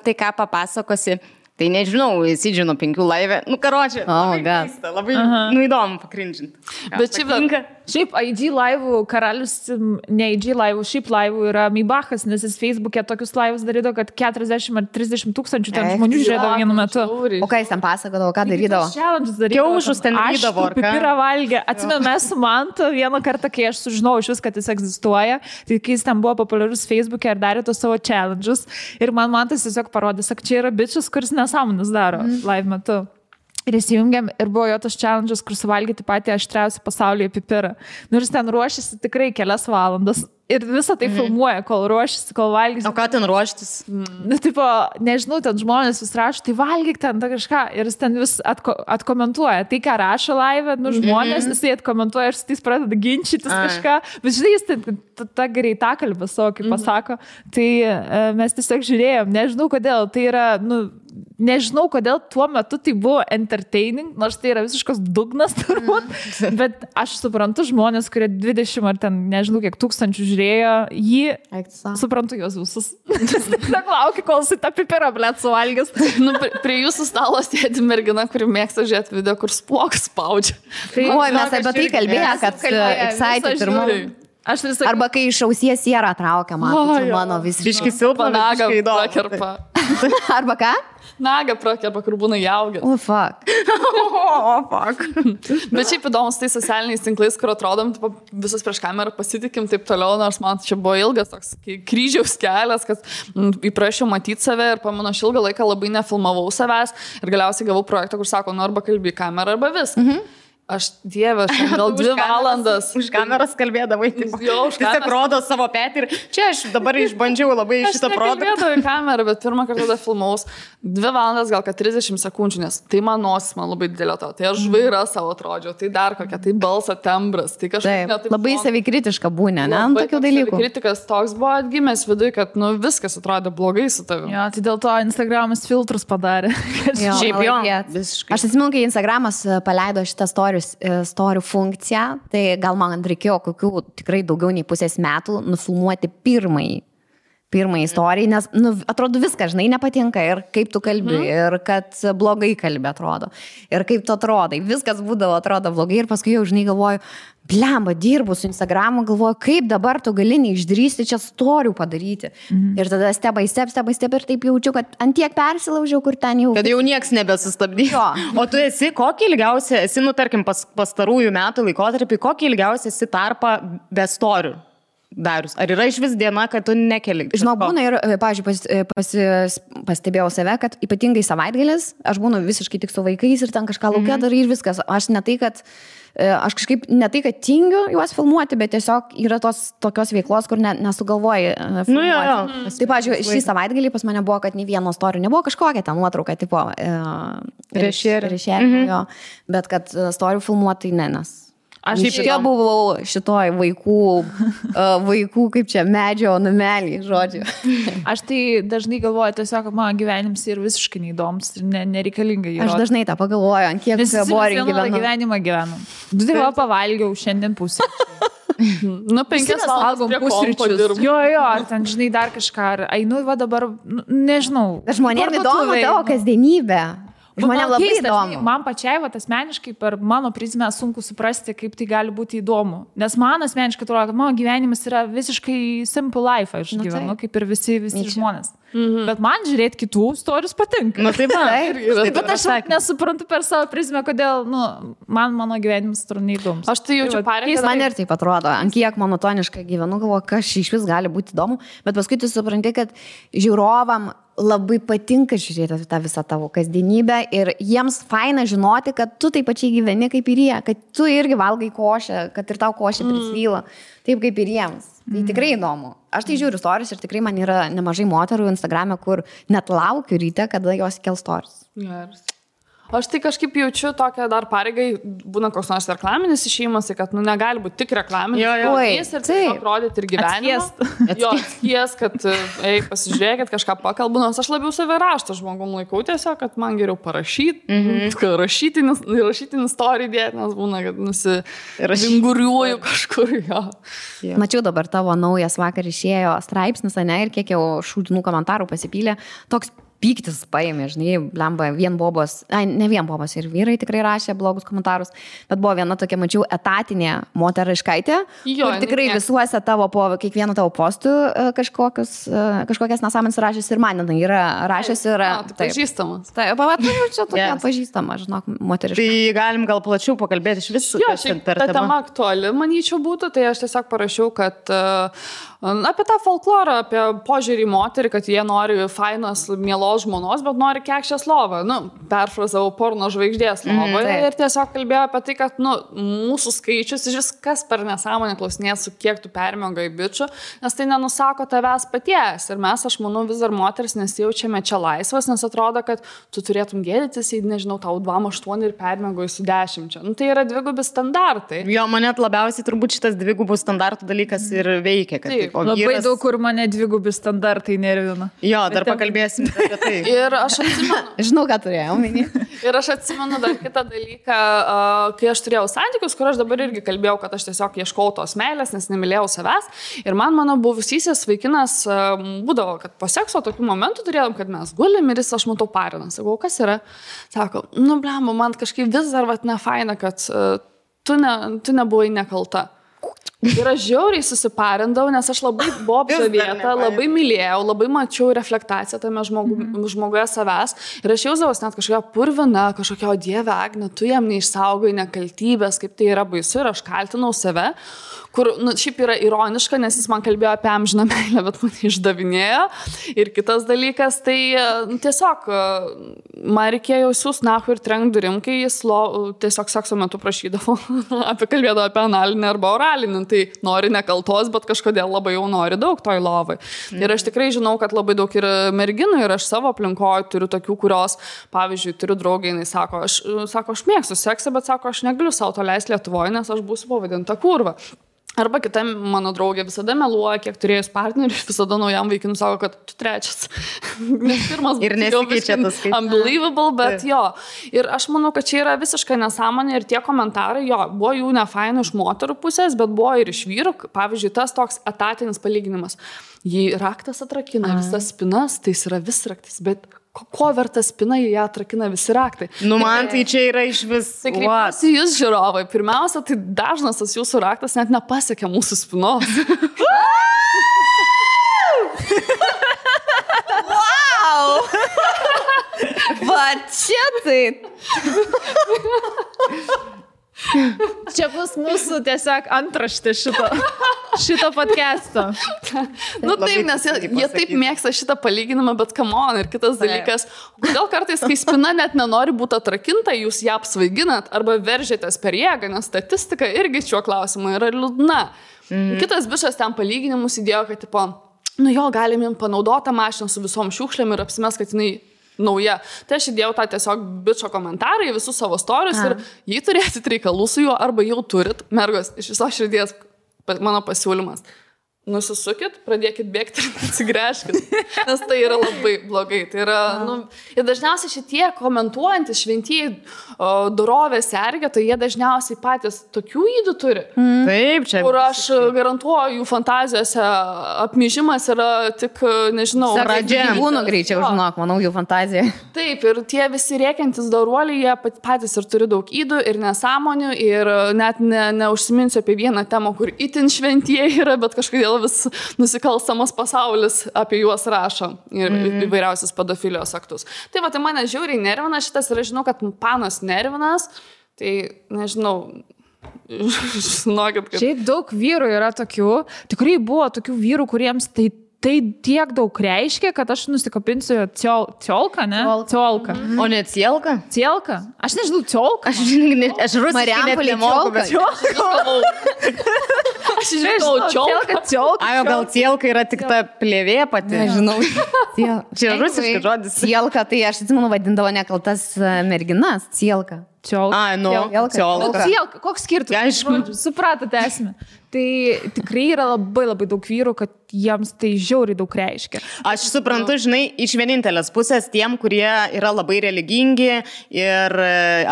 tai ką papasakosi, tai nežinau, sėdžiu nuo 5 laivę, karočią, labai įdomu pakrindžinti. Bet šiaip IG laivų karalius, ne IG laivų, šiaip laivų yra Maybachas, nes jis Facebook'e tokius laivus darydavo, kad 40 ar 30 tūkstančių ten žmonių žiūrėdavo vienu metu. O ką jis ten pasakodavo, ką darydavo? Kiaušus ten darydavo, ar ką? Pipirą valgė. Atsimenu, mes su Mantu vieną kartą, kai aš sužinojau iš vis, kad jis egzistuoja, tai kai jis ten buvo populiarus Facebook'e ir darė tos savo challenges ir Mantas tiesiog parodė, sak, čia yra bičias, kuris nesąmonis daro live metu. Ir įsijungiam ir buvo jo tas challenge'as, kur suvalgyti patį aštriausią pasaulyje pipirą. Ir jis ten ruošiasi tikrai kelias valandas. Ir visą tai filmuoja, kol ruošiasi, kol valgys. O ką ten ruoštis? Tipo, nežinau, ten žmonės vis rašo, tai valgyk ten kažką. Ir jis ten vis atkomentuoja. Tai, ką rašo live, žmonės, jis atkomentuoja ir jis pradeda ginčytis kažką. Bet žinai, jis ten tą greitakalbę savo, kaip pasako. Tai mes tiesiog žiūrėjom. Nežinau, kodėl. Tai yra, nežinau, kodėl tuo metu tai buvo entertaining, nors tai yra visiškas dugnas turbūt. Bet aš suprantu žmonės, kurie 20 ar ten, nežinau, kiek tūkstančių žiūrėjo jį, suprantu juos visus. Tik laukia, kol jis tą pipirą, blėt, suvalgęs. Prie jūsų stalo sėdi mergina, kuri mėgsta žiūrėti video, kur spoks spaudžia. Oi, mes apie tai kalbėjome, kad excited ir mum. Arba kai iš ausies siera traukia, mano visiškai. Biški silpna, naga prakerpa. Arba ką? Naga prakerpa, kur būna jaugė. Fuck. Fuck. Bet šiaip įdomus tai socialiniais tinklais, kur atrodom, visas prieš kamerą pasitikim taip toliau, nors man čia buvo ilgas toks kryžiaus kelias, kad įprašiau matyti save ir pamenu, aš ilgą laiką labai nefilmavau savęs ir galiausiai gavau projektą, kur sako, arba kalbi kamerą, arba viską. Aš dievę, aš gal 2 valandas. Už kameros kalbėdavai. Jo, už kameros. Tiesiog rodo savo petį ir čia aš dabar išbandžiau labai šitą produktą. Aš nekalbėdavau į kamerą, bet pirmą kartą tada filmaus 2 valandas, gal 30 sekundžių, nes tai man nosis man labai didelio to. Tai aš žvaira savo atrodžiau, tai dar kokia, tai balso tembras. Tai kažkaip labai savikritiška būna, ne? Tokių dalykų. Kritikas toks buvo atgimęs viduje, kad viskas atrodė blogai su tavimi. Jo, tai dėl to Instagramas filtrus padarė. Šiaip jo, visiškai. Aš atsimenu, kai Instagramas paleido šitą storių funkciją, tai gal man reikėjo kokių tikrai daugiau nei pusės metų nufilmuoti pirmąjį istoriją, nes atrodo viskas, žinai, nepatinka ir kaip tu kalbi, ir kad blogai kalbi atrodo, ir kaip tu atrodai, viskas būdavo atrodo blogai ir paskui jau, žinai, galvoju, blemba, dirbu su Instagramu, galvoju, kaip dabar tu gali neišdrįsti čia storių padaryti. Ir tada step by step ir taip jaučiu, kad antiek persilaužiau, kur ten jau... Kad jau nieks nebesustabdėjo. O tu esi kokį ilgiausią, tarkim, pastarųjų metų laikotarpį, kokį ilgiausią esi tarpą be storių darius? Ar yra iš vis diena, kad tu nekeli? Žinau, būna ir, pavyzdžiui, pastebėjau save, kad ypatingai savaitgalis, aš būnu visiškai tik su vaikais ir ten kažką laukia darai ir viskas. Aš kažkaip ne tai, kad tingiu juos filmuoti, bet tiesiog yra tokios veiklos, kur nesugalvoji filmuoti. Tai, pavyzdžiui, šį savaitgalį pas mane buvo, kad nei vieno storio nebuvo, kažkokia ten nuotrauka, tipo rešėrė, bet kad storių filmuoti ne, nes aš čia buvau šitoj vaikų, kaip čia, medžio namelį, žodžiu. Aš tai dažnai galvoju tiesiog, kad mano gyvenims yra visiškai neįdomus ir nereikalinga įrodyti. Aš dažnai tą pagalvoju, ant kiek gyvenimą gyvenam. Du tai pavalgiau šiandien pusę. 5 valgom pusryčius. Jo, ar ten, žinai, dar kažką, ar einu, va dabar, nežinau. Žmonėm įdomu tavo kasdienybė. Žmonėm labai įdomu. Man pačiai, asmeniškai, per mano prizmę sunku suprasti, kaip tai gali būti įdomu. Nes man asmeniškai atrodo, kad mano gyvenimas yra visiškai simple life, aš gyvenu, kaip ir visi žmonės. Bet man žiūrėti kitų storius patinka. Taip, bet aš nesuprantu per savo prizmę, kodėl mano gyvenimas atrodo neįdomus. Aš tai jaučiu pareigą. Man ir taip atrodo, ant kiek monotoniškai gyvenu, galvoju, kas iš vis gali būti įdomu, bet paskui tu supranti, kad žiūrovam labai patinka žiūrėti tą visą tavo kasdienybę ir jiems faina žinoti, kad tu taip pačiai gyveni kaip ir jie, kad tu irgi valgai košę, kad ir tau košė prisvyla, taip kaip ir jiems. Tai tikrai įdomu. Aš tai žiūriu stories ir tikrai man yra nemažai moterų Instagrame, kur net laukiu ryte, kada jos kels stories. Geras. Aš tai kažkaip jaučiu tokią dar pareigai, būna koks nors reklaminis išėjimas, kad negali būti tik reklaminis. Ir taip rodyti ir gyvenimą. Atskies, kad pasižiūrėkit, kažką pakalbu, nors aš labiau save raštą žmogum laikau tiesiog, kad man geriau parašyti, rašytinį story dėti, nes būna, kad nusivinguriuoju kažkur. Mačiau dabar tavo naujas vakar išėjo straipsnis, ne, ir kiek jau šūdinų komentarų pasipylė, toks pyktis paėmė, žinai, blemba, ne vien bobos ir vyrai tikrai rašė blogus komentarus, bet buvo viena tokia, mačiau, etatinė moteriškaitė, kur tikrai visuose tavo, kiekvieno tavo postų kažkokias nesąmonės rašęs ir man yra rašęs ir... Pažįstamas. Taip, čia tokia pažįstama, žinok, moteriška. Tai galim gal plačiau pakalbėti iš visų. Ta tema aktuali, manyčiau, būtų, tai aš tiesiog parašiau, kad apie tą folklorą, apie požiūrį į moterį, kad jie nori fainos, mielos žmonos, bet nori kekščias lovą. Perfrazavau porno žvaigždės lovoje ir tiesiog kalbėjau apie tai, kad mūsų skaičius iš viskas per nesąmonę klausinės, su kiek tu permiogai bičių, nes tai nenusako tavęs paties. Ir mes, aš manau, vis dar moteris nesijaučiame čia laisvas, nes atrodo, kad tu turėtum gėdytis, nežinau, tau 2,8 ir permiogai su 10. Tai yra dvigubi standartai. Jo, man net labiausiai turbūt šitas dvigubų standartų dalykas ir veikia. Labai daug, kur mane dvigubi standartai nervina. Jo, dar pakalbėsim apie tai. Ir aš atsimenu. Žinau, ką turėjau omeny. Ir aš atsimenu dar kitą dalyką, kai aš turėjau santykius, kur aš dabar irgi kalbėjau, kad aš tiesiog ieškau tos meilės, nes nemylėjau savęs. Ir mano buvusysis vaikinas būdavo, kad po sekso tokių momentų turėjom, kad mes gulim ir jis, aš matau, parina. Sakau, kas yra? Sako, blemba, man kažkaip vis dar nefaina, kad tu nebuvai nekalta. Ir aš žiauriai susiparindavau, nes aš labai buvau apžavėta, labai mylėjau, labai mačiau reflektaciją tame žmoguje savęs. Ir aš jausdavos net kažkokia purvina, kažkokia, o Dieve, Agne, tu jam neišsaugai nekaltybės, kaip tai yra baisu. Ir aš kaltinau save, kur, šiaip yra ironiška, nes jis man kalbėjo apie amžiną meilę, bet mane išdavinėjo. Ir kitas dalykas, tai tiesiog man reikėjo siūs nahu ir trenk durim, kai jis tiesiog sekso metu prašydavo, kalbėdavo apie analinį arba oralinį. Tai nori nekaltos, bet kažkodėl labai jau nori daug toj lovai. Ir aš tikrai žinau, kad labai daug yra merginų ir aš savo aplinkoje turiu tokių, kurios, pavyzdžiui, turiu draugą, jinai sako, aš mėgstu seksą, bet sako, aš negaliu savo to leisti Lietuvoje, nes aš būsiu pavadinta kurva. Arba kita mano draugė visada meluoja, kiek turėjus partnerių, visada naujam vaikinu sako, kad tu trečias. Nes pirmas ir nesikeičia tas skaičius. Unbelievable, bet jo. Ir aš manau, kad čia yra visiškai nesąmonė ir tie komentarai, jo, buvo jų nefainų iš moterų pusės, bet buvo ir iš vyrų. Pavyzdžiui, tas toks etatinis palyginimas. Jei raktas atrakina visas spinas, tai jis yra visraktis, bet ko verta spina, jei ją atrakina visi raktai. Man tai čia yra iš vis... Tai kreipiuosi jūs, žiūrovai. Pirmiausia, tai dažnas tas jūsų raktas net nepasiekia mūsų spinos. Wow! Va čia tai... Čia bus mūsų tiesiog antraštė šito podcast'o. Taip, nes jie taip mėgsta šitą palyginimą, bet come on, ir kitas dalykas, kodėl kartais, kai spina net nenori būti atrakinta, jūs ją apsvaiginat arba veržėtės per jėgą, nes statistika irgi šiuo klausimu yra liūdna. Kitas bišas ten palyginimus įdėjo, kad tipo, galim jam panaudotą mašiną su visom šiukšlėm ir apsimes, kad jinai nauja. Tai aš įdėjau tą tiesiog bičo komentarą į visus savo storius ir jei turėsit reikalų su juo arba jau turit, mergos, iš viso širdies mano pasiūlymas. Nusisukit, pradėkit bėgti ir atsigręžkit, nes tai yra labai blogai. Tai yra, ir dažniausiai šitie komentuojantys šventieji dorovės sergėtojai, jie dažniausiai patys tokių ydų turi. Taip, čia. Kur aš garantuoju, jų fantazijose apmyžimas yra tik, nežinau, gyvūnų greičiau, žinok, manau, jų fantazija. Taip, ir tie visi rėkiantys doruoliai, jie patys ir turi daug ydų ir nesąmonių ir net neužsiminsiu apie vieną temą, kur itin šventieji yra, bet kažkodėl vis nusikalstamas pasaulis apie juos rašo ir įvairiausius pedofilijos aktus. Tai va, tai mane žiauriai nervina šitas ir aš žinau, kad panas nervinas, tai nežinau, žinokit, kad... Šiaip daug vyrų yra tokių, tikrai buvo tokių vyrų, kuriems tai tiek daug reiškia, kad aš nusikopinsiu ciolką, ne? Ciolką. O ne cielka? Cielka. Aš nežinau, ciolka. Aš rusiškai net nemoku, bet... Aš žinau, ciolka. Ajo, gal cielka yra tik ta plėvė pati? Nežinau. Čia rusiškai žodis. Cielka, tai aš atsimenu vadindavo nekaltas merginas. Cielka. Ciolka. Cielka. Koks skirtumas? Supratote esmę. Tai tikrai yra labai daug vyrų, kad jiems tai žiauriai daug reiškia. Aš suprantu, žinai, iš vienintelės pusės tiem, kurie yra labai religingi ir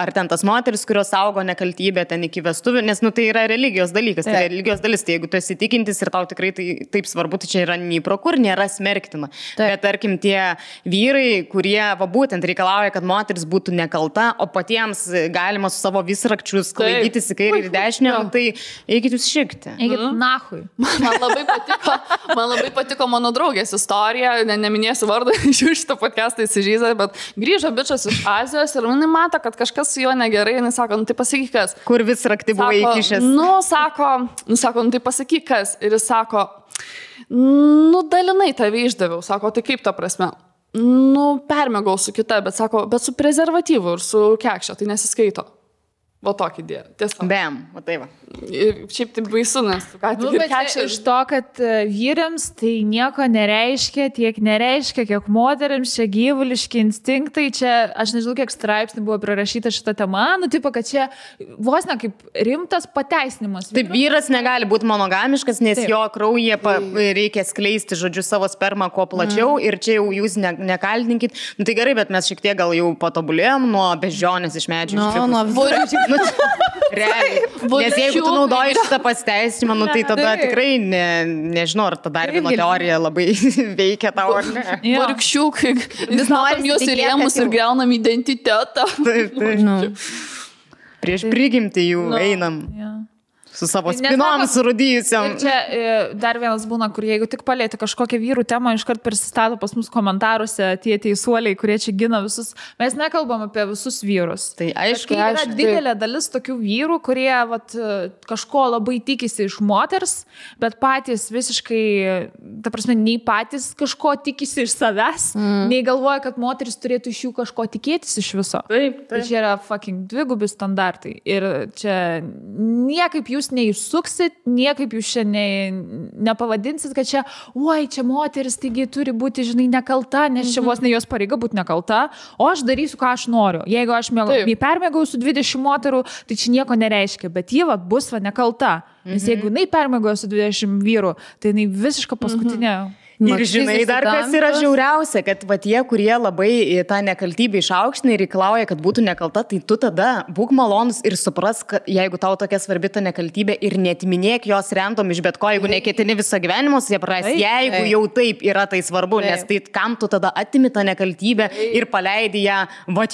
ar ten tas moteris, kurios saugo nekaltybę ten iki vestuvių, nes tai yra religijos dalykas, tai yra religijos dalis, tai jeigu tu esi tikintis ir tau tikrai tai taip svarbu, tai čia yra nei pro kur, nėra smerktina. Bet tarkim tie vyrai, kurie būtent reikalauja, kad moteris būtų nekalta, o patiems galima su savo visrakčius klaidytis į kairę ir dešinę, tai eikit jūs šikti. Eikit nahui. Man labai patiko mano draugės istorija, neminėsiu vardą, iš šitą podcastą įsižyzę, bet grįžo bičas iš Azijos ir jinai mato, kad kažkas su juo negerai, jinai sako, tai pasakyk kas. Kur visraktį buvo įkišęs? Sako, tai pasakyk kas. Ir jis sako, dalinai tave išdaviau. Sako, tai kaip ta prasme? Permėgau su kita, bet sako, bet su prezervatyvu ir su kekšė, tai nesiskaito. Va tokį dėjo. Tiesiog. Bam, o tai va. Šiaip tai baisu, nes ką tik iš to, kad vyrams tai nieko nereiškia, tiek nereiškia, kiek moteriams čia gyvuliški instinktai, čia, aš nežinau, kiek straipsnių buvo prirašyta šitą temą, tipo, kad čia vos ne kaip rimtas pateisinimas. Taip, vyras negali būti monogamiškas, nes jo kraujyje reikia skleisti, žodžiu, savo spermą kuo plačiau ir čia jau jūs nekaltinkit. Tai gerai, bet mes šiek tiek gal jau patobulėjom nuo beždžionės iš medžių. Realiai. Nes jeigu tu naudoji šitą pasiteisinimą, tai tada tikrai nežinau, ar ta Darvino teorija labai veikia tau ar ne. Vargšių, kai vis matom juos įrėmus ir greunam identitetą. Taip. Prieš prigimtį jų einam. Su savo spinom surūdyjusiam. Ir čia dar vienas būna, kur jeigu tik palėti kažkokią vyrų temą, iškart prisistato pas mus komentaruose tie teisuoliai, kurie čia gina visus. Mes nekalbam apie visus vyrus. Tai aišku, yra didelė dalis tokių vyrų, kurie kažko labai tikisi iš moters, bet patys visiškai, ta prasme, nei patys kažko tikisi iš savęs, nei galvoja, kad moteris turėtų iš jų kažko tikėtis iš viso. Taip. Tai čia yra fucking dvigubi standartai. Ir čia niekaip jūs neįsuksit, niekaip jūs čia nepavadinsit, kad čia, oi, čia moteris, taigi turi būti, žinai, nekalta, nes čia vos ne jos pareiga būti nekalta, o aš darysiu, ką aš noriu. Jeigu aš permėgau su 20 moterų, tai čia nieko nereiškia, bet ji bus nekalta. Nes jeigu jinai permėgojo su 20 vyrų, tai jinai visiška paskutinė. Ir žinai, dar kas yra žiauriausia, kad tie, kurie labai tą nekaltybę išaukština ir reikalauja, kad būtų nekalta, tai tu tada būk malonus ir supras, kad jeigu tau tokia svarbi ta nekaltybė ir netiminėk jos random iš bet ko, jeigu neketini visą gyvenimą su jie praeis, jeigu jau taip yra tai svarbu, nes tai kam tu tada atimi tą nekaltybę ir paleidi ją,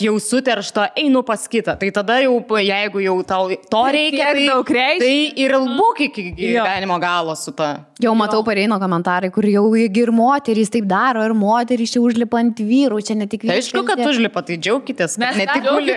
jau suteršto, einu pas kitą. Tai tada jau, jeigu jau tau to reikia, tai ir būk iki gyvenimo galo su ta. Jau matau pareino komentarai, kur jau ir moterys taip daro, ir moterys čia užlipa ant vyrų, čia ne tik vyrai. Aišku, kad užlipa, tai džiaukitės, kad ne tik guli.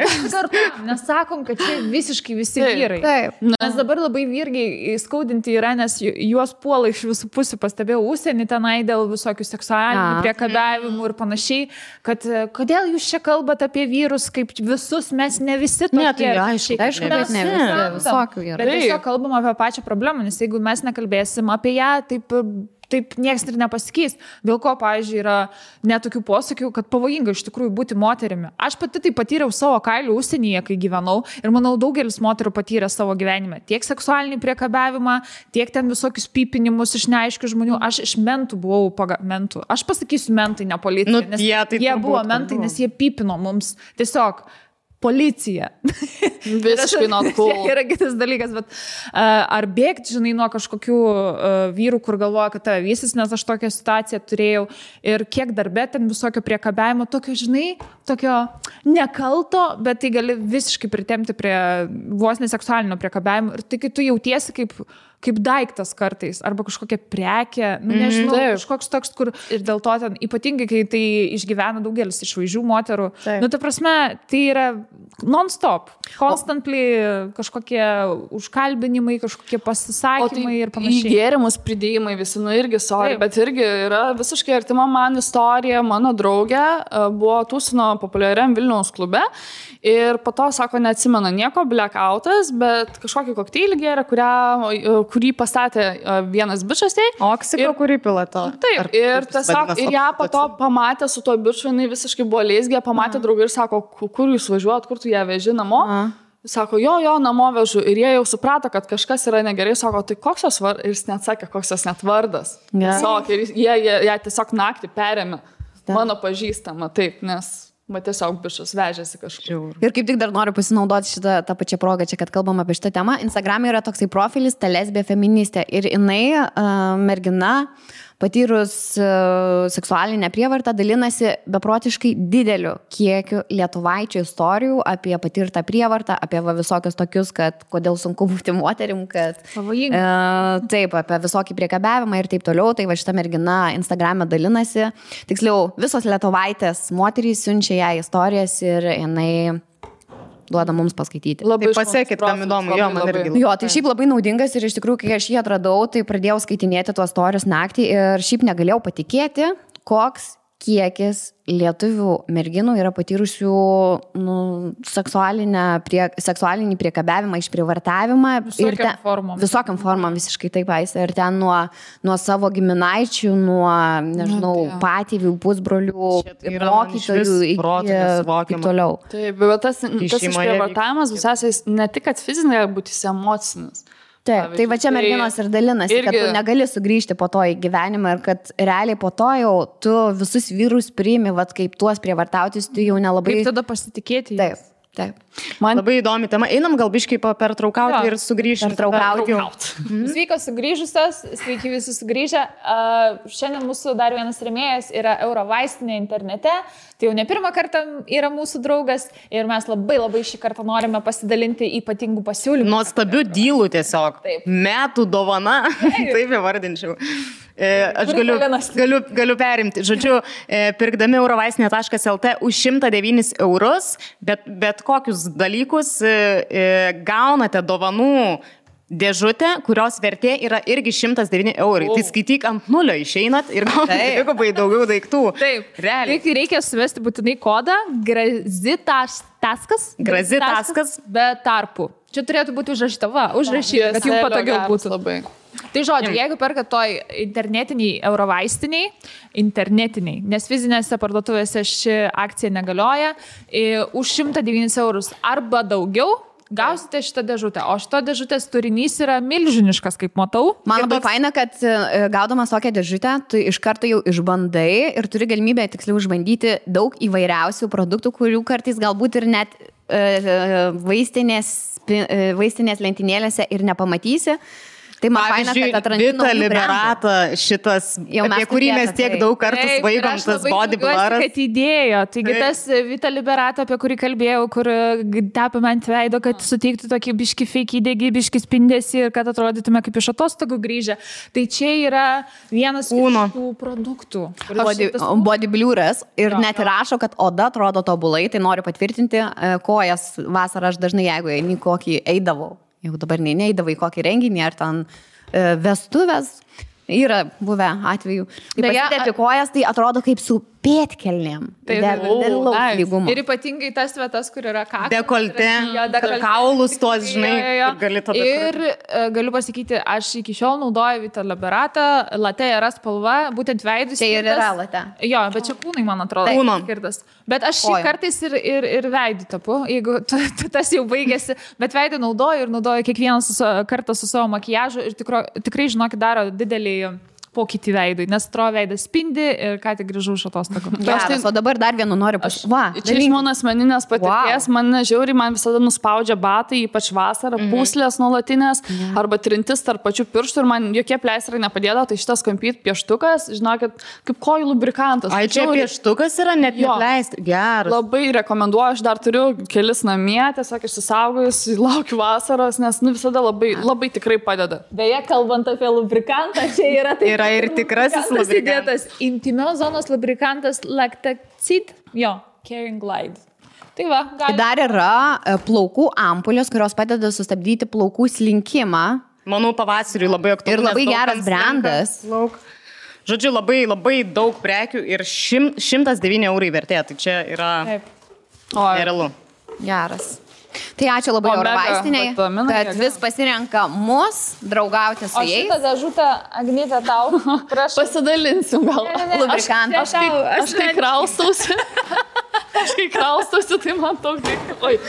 Mes sakom, kad čia visiškai visi vyrai. Taip. Nes dabar labai vyrgiai skaudinti yra, nes juos puola iš visų pusių, pastebėjau užsienį tenai dėl visokių seksualinių priekabiavimų ir panašiai, kad kodėl jūs čia kalbate apie vyrus, kaip visus, mes ne visi tokie. Ne, tai aišku, bet ne visi, visokių yra. Bet tiesiog kalbam apie pačią problemą, nes jeigu mes nekalbėsim apie ją, taip nieks ir nepasikeis. Dėl ko, pavyzdžiui, yra netokių posakių, kad pavojinga iš tikrųjų būti moterimi. Aš pati tai patyriau savo kailių užsienyje, kai gyvenau, ir manau, daugelis moterų patyrė savo gyvenime. Tiek seksualinį priekabiavimą, tiek ten visokius pypinimus iš neaiškių žmonių. Aš iš mentų buvau mentų. Aš pasakysiu mentai, ne policija. Nes jie buvo mentai, nes jie pypino mums tiesiog. Policija. Visiškai not cool. Tai yra kitas dalykas, bet ar bėgti, žinai, nuo kažkokių vyrų, kur galvoja, kad tave vysis, nes aš tokią situaciją turėjau ir kiek darbė ten visokio priekabiavimo, tokio, žinai, tokio nekalto, bet tai gali visiškai pritemti prie vos neseksualinio priekabiavimo ir tai, kai tu jautiesi kaip daiktas kartais, arba kažkokia prekė, nežinau, kažkoks toks, kur ir dėl to ten, ypatingai, kai tai išgyvena daugelis išvaizdžių moterų, ta prasme, tai yra non-stop, constantly kažkokie užkalbinimai, kažkokie pasisakymai ir panašiai. Į gėrimus pridėjimai visi, irgi, bet irgi yra visiškai artima man istorija, mano draugė buvo tūsino populiariam Vilniaus klube ir po to, sako, neatsimena nieko, blackoutas, bet kažkokį kokteilį gėrė, kurį pastatė vienas bičas jai. Oksiko, kurį pilato. Taip, ir tiesiog, ir ją po to pamatė su tuo biču, jinai visiškai buvo leisgė, pamatė draugai ir sako, kur jūs važiuojat, kur tu ją veži namo. Sako, jo, namo vežu. Ir jie jau suprato, kad kažkas yra negerai, sako, tai koks jos vardas, ir jis net sakė, koks jos net vardas. Tiesiog, ir jie tiesiog naktį perėmė mano pažįstamą, taip, nes tiesiog bišas vežėsi kažkur. Ir kaip tik dar noriu pasinaudoti tą pačią progą čia, kad kalbam apie šitą temą. Instagram'e yra toksai profilis, ta lesbė feministė. Ir jinai, mergina, patyrus seksualinę prievartą, dalinasi beprotiškai dideliu kiekiu lietuvaičių istorijų apie patirtą prievartą, apie visokius tokius, kad kodėl sunku būti moterim, kad taip, apie visokį priekabiavimą ir taip toliau. Tai va šita mergina Instagram'e dalinasi. Tiksliau, visos lietuvaitės moterys siunčia ją istorijas ir jinai duoda mums paskaityti. Labai pasiekit, kam įdomu, jo, man irgi. Jo, tai šiaip labai naudingas ir iš tikrųjų, kai aš jį atradau, tai pradėjau skaitinėti tuos stories naktį ir šiaip negalėjau patikėti, koks kiekis lietuvių merginų yra patyrusių seksualinį priekabiavimą, išprievartavimą. Visokiam formom visiškai taip eis. Ir ten nuo savo giminaičių, nuo, nežinau, patėvių, pusbrolių, mokytojų iki taip toliau. Taip, bet tas išprievartavimas visais ne tik kad fizinis, bet jis emocinis. Taip, tai va čia merginos ir dalinasi, kad tu negali sugrįžti po to į gyvenimą ir kad realiai po to jau tu visus vyrus priimi, kaip tuos prievartautis, tu jau nelabai... Kaip tada pasitikėti? Taip. Taip. Man labai įdomi tema. Einam gal biškai pertraukauti ir sugrįžim. Sveika sugrįžusios, sveiki visi sugrįžę. Šiandien mūsų dar vienas rėmėjas yra Eurovaistinė internete. Tai jau ne pirmą kartą yra mūsų draugas ir mes labai šį kartą norime pasidalinti ypatingų pasiūlymų. Nuostabių dylų tiesiog. Taip. Metų dovana. Taip įvardinčiau. Aš galiu perimti. Žodžiu, pirkdami eurovaistinė.lt už 109 eurus, bet kokius dalykus gaunate dovanų dėžutę, kurios vertė yra irgi 109 eurai. Tai skaityk ant nulio išeinat ir gaunate daugiau daiktų. Taip. Realiai. Reikia suvesti būtinai kodą grazitaskas be tarpų. Čia turėtų būti užrašyta, kad jums patogiau būtų. Labai. Tai žodžiu, jeigu perkat toj internetiniai eurovaistiniai, nes fizinėse parduotuvėse ši akcija negalioja, už 109 eurus arba daugiau gausite šitą dėžutę. O šito dėžutės turinys yra milžiniškas, kaip matau. Man labai faina, kad gaudamas tokią dėžutę, tu iš karto jau išbandai ir turi galimybę tiksliau išbandyti daug įvairiausių produktų, kurių kartais galbūt ir net vaistinės lentynėlėse ir nepamatysi. Tai man faina, kad atrandi Vita Liberata šitas, apie kurį mes tiek daug kartų svaigom, tas body blurras. Kad įdėjo. Taigi tas Vita Liberata, apie kurį kalbėjau, kur tepame ant veido, kad suteiktų tokį biški fake įdėgį, biški spindėsi ir kad atrodytume kaip iš atostogų grįžę. Tai čia yra vienas iš tų produktų. Body blurras ir net rašo, kad oda atrodo tobulai, tai noriu patvirtinti, kojas vasarą aš dažnai, jeigu kokį eidavau. Jau dabar neįdavai kokį renginį ar ten vestuvės, yra buvę atvejų. Tai pasitepi kojas, tai atrodo kaip su pėtkelnėm. Ir ypatingai tas vietas, kur yra kaklas. Dekolte, kaulus tuos, žinai, gali tada. Ir galiu pasakyti, aš iki šiol naudoju Vita Liberata, latte yra spalva, būtent veidus. Tai ir yra latte. Jo, bet čia kūnai, man atrodo, skirtas. Bet aš šį kartais ir veidų tapu, jeigu tas jau baigėsi, bet veidą naudoju kiekvienas kartą su savo makiažu ir tikrai, žinokit, daro didelį pokytį veidui, nes atrodo veidas spindi ir ką tik grįžau iš atostogų. O dabar dar vienu noriu pasakyti. Čia iš mano asmeninės patirties, man visada nuspaudžia batai, ypač vasarą, pūslės nuolatinės, arba trintis tarp pačių pirštų ir man jokie pleistrai nepadėdavo, tai šitas kompyt pieštukas, žinokit, kaip kojų lubrikantas. Ai, čia pieštukas yra net nepleistrai. Geras. Labai rekomenduoju, aš dar turiu kelis namie, tiesiog išsisaugojus, laukiu vasaros, nes visada labai tikrai padeda. Beje, kalbant apie lubrikantą, čia yra tai ir tikrasis lubrikantas. Intimios zonos lubrikantas Lactacid, Caring Glide. Tai va, gali. Dar yra plaukų ampulės, kurios padeda sustabdyti plaukų slinkimą. Manau, pavasariui labai aktualus. Ir labai geras brandas. Žodžiu, labai daug prekių ir 109 eurai vertė. Tai čia yra nerealu. Geras. Tai ačiū labai Eurovaistiniai, kad vis pasirenka mus draugauti su jais. O šitą dėžutę, Agnita, tau, prašau. Pasidalinsim gal. Lubrikantą. Aš kai kraustausi, tai man toks reikia.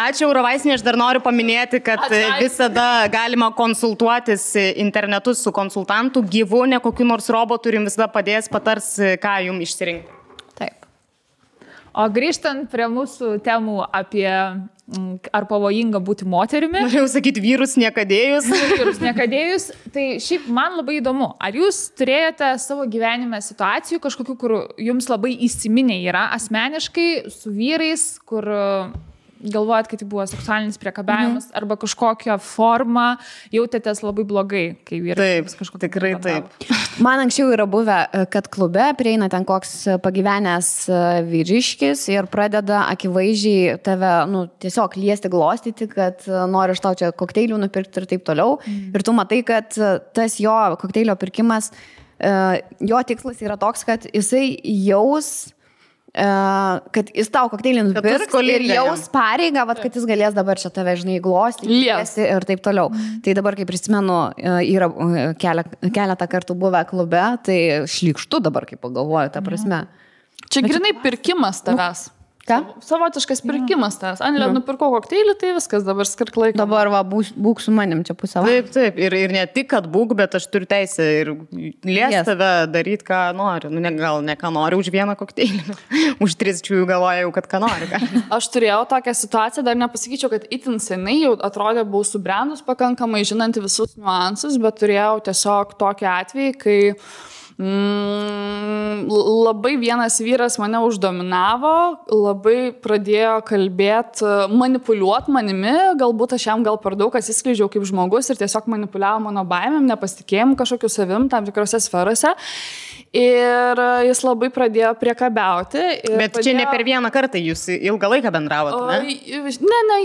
Ačiū Eurovaistinė, aš dar noriu paminėti, kad visada galima konsultuotis internetu su konsultantu, gyvu, ne kokiu nors robotu, jums visada padės, patars, ką jums išsirinkti. O grįžtant prie mūsų temų apie ar pavojinga būti moterimi. Norėjau sakyti, vyrus niekadėjus. Tai šiaip man labai įdomu, ar jūs turėjote savo gyvenime situacijų kažkokių, kur jums labai įsiminė yra asmeniškai su vyrais, kur galvojat, kad tai buvo seksualinis priekabiavimas arba kažkokią formą jautėtės labai blogai, kai vyras kažkokią. Tikrai taip. Man anksčiau yra buvę, kad klube prieina ten koks pagyvenęs vyriškis ir pradeda akivaizdžiai tave tiesiog liesti, glostyti, kad nori iš tau čia kokteilių nupirkti ir taip toliau. Ir tu matai, kad tas jo kokteilio pirkimas, jo tikslas yra toks, kad jisai jaus kad jis tau kokteilį nupirks ir jaus pareigą, kad jis galės dabar čia tave, žinai, glostyti ir taip toliau. Tai dabar, kai prisimenu, yra keletą kartų buvę klube, tai šlykštu dabar, kaip pagalvoju, ta prasme. Čia grinai pirkimas tavęs. Savotiškas pirkimas tas. Anelė nupirko kokteilį, tai viskas, dabar skirk laiką. Dabar būk su manim čia pusę. Taip. Ir ne tik, kad būk, bet aš turiu teisę ir lies tave daryti, ką nori. Nu, gal ne ką nori už vieną kokteilį. Už 3 galvojau, kad ką nori. Aš turėjau tokią situaciją, dar nepasakyčiau, kad itin seniai jau atrodė, buvau subrendus pakankamai, žinanti visus niuansus, bet turėjau tiesiog tokį atvejį, kai labai vienas vyras mane uždominavo, labai pradėjo kalbėti, manipuliuoti manimi, galbūt aš jam gal per daug atsiskleidžiau kaip žmogus ir tiesiog manipuliavo mano baimėm, nepasitikėjimu kažkokiu savim tam tikrose sferose. Ir jis labai pradėjo priekabiauti. Bet čia ne per vieną kartą, jūs ilgą laiką bendravot, ne?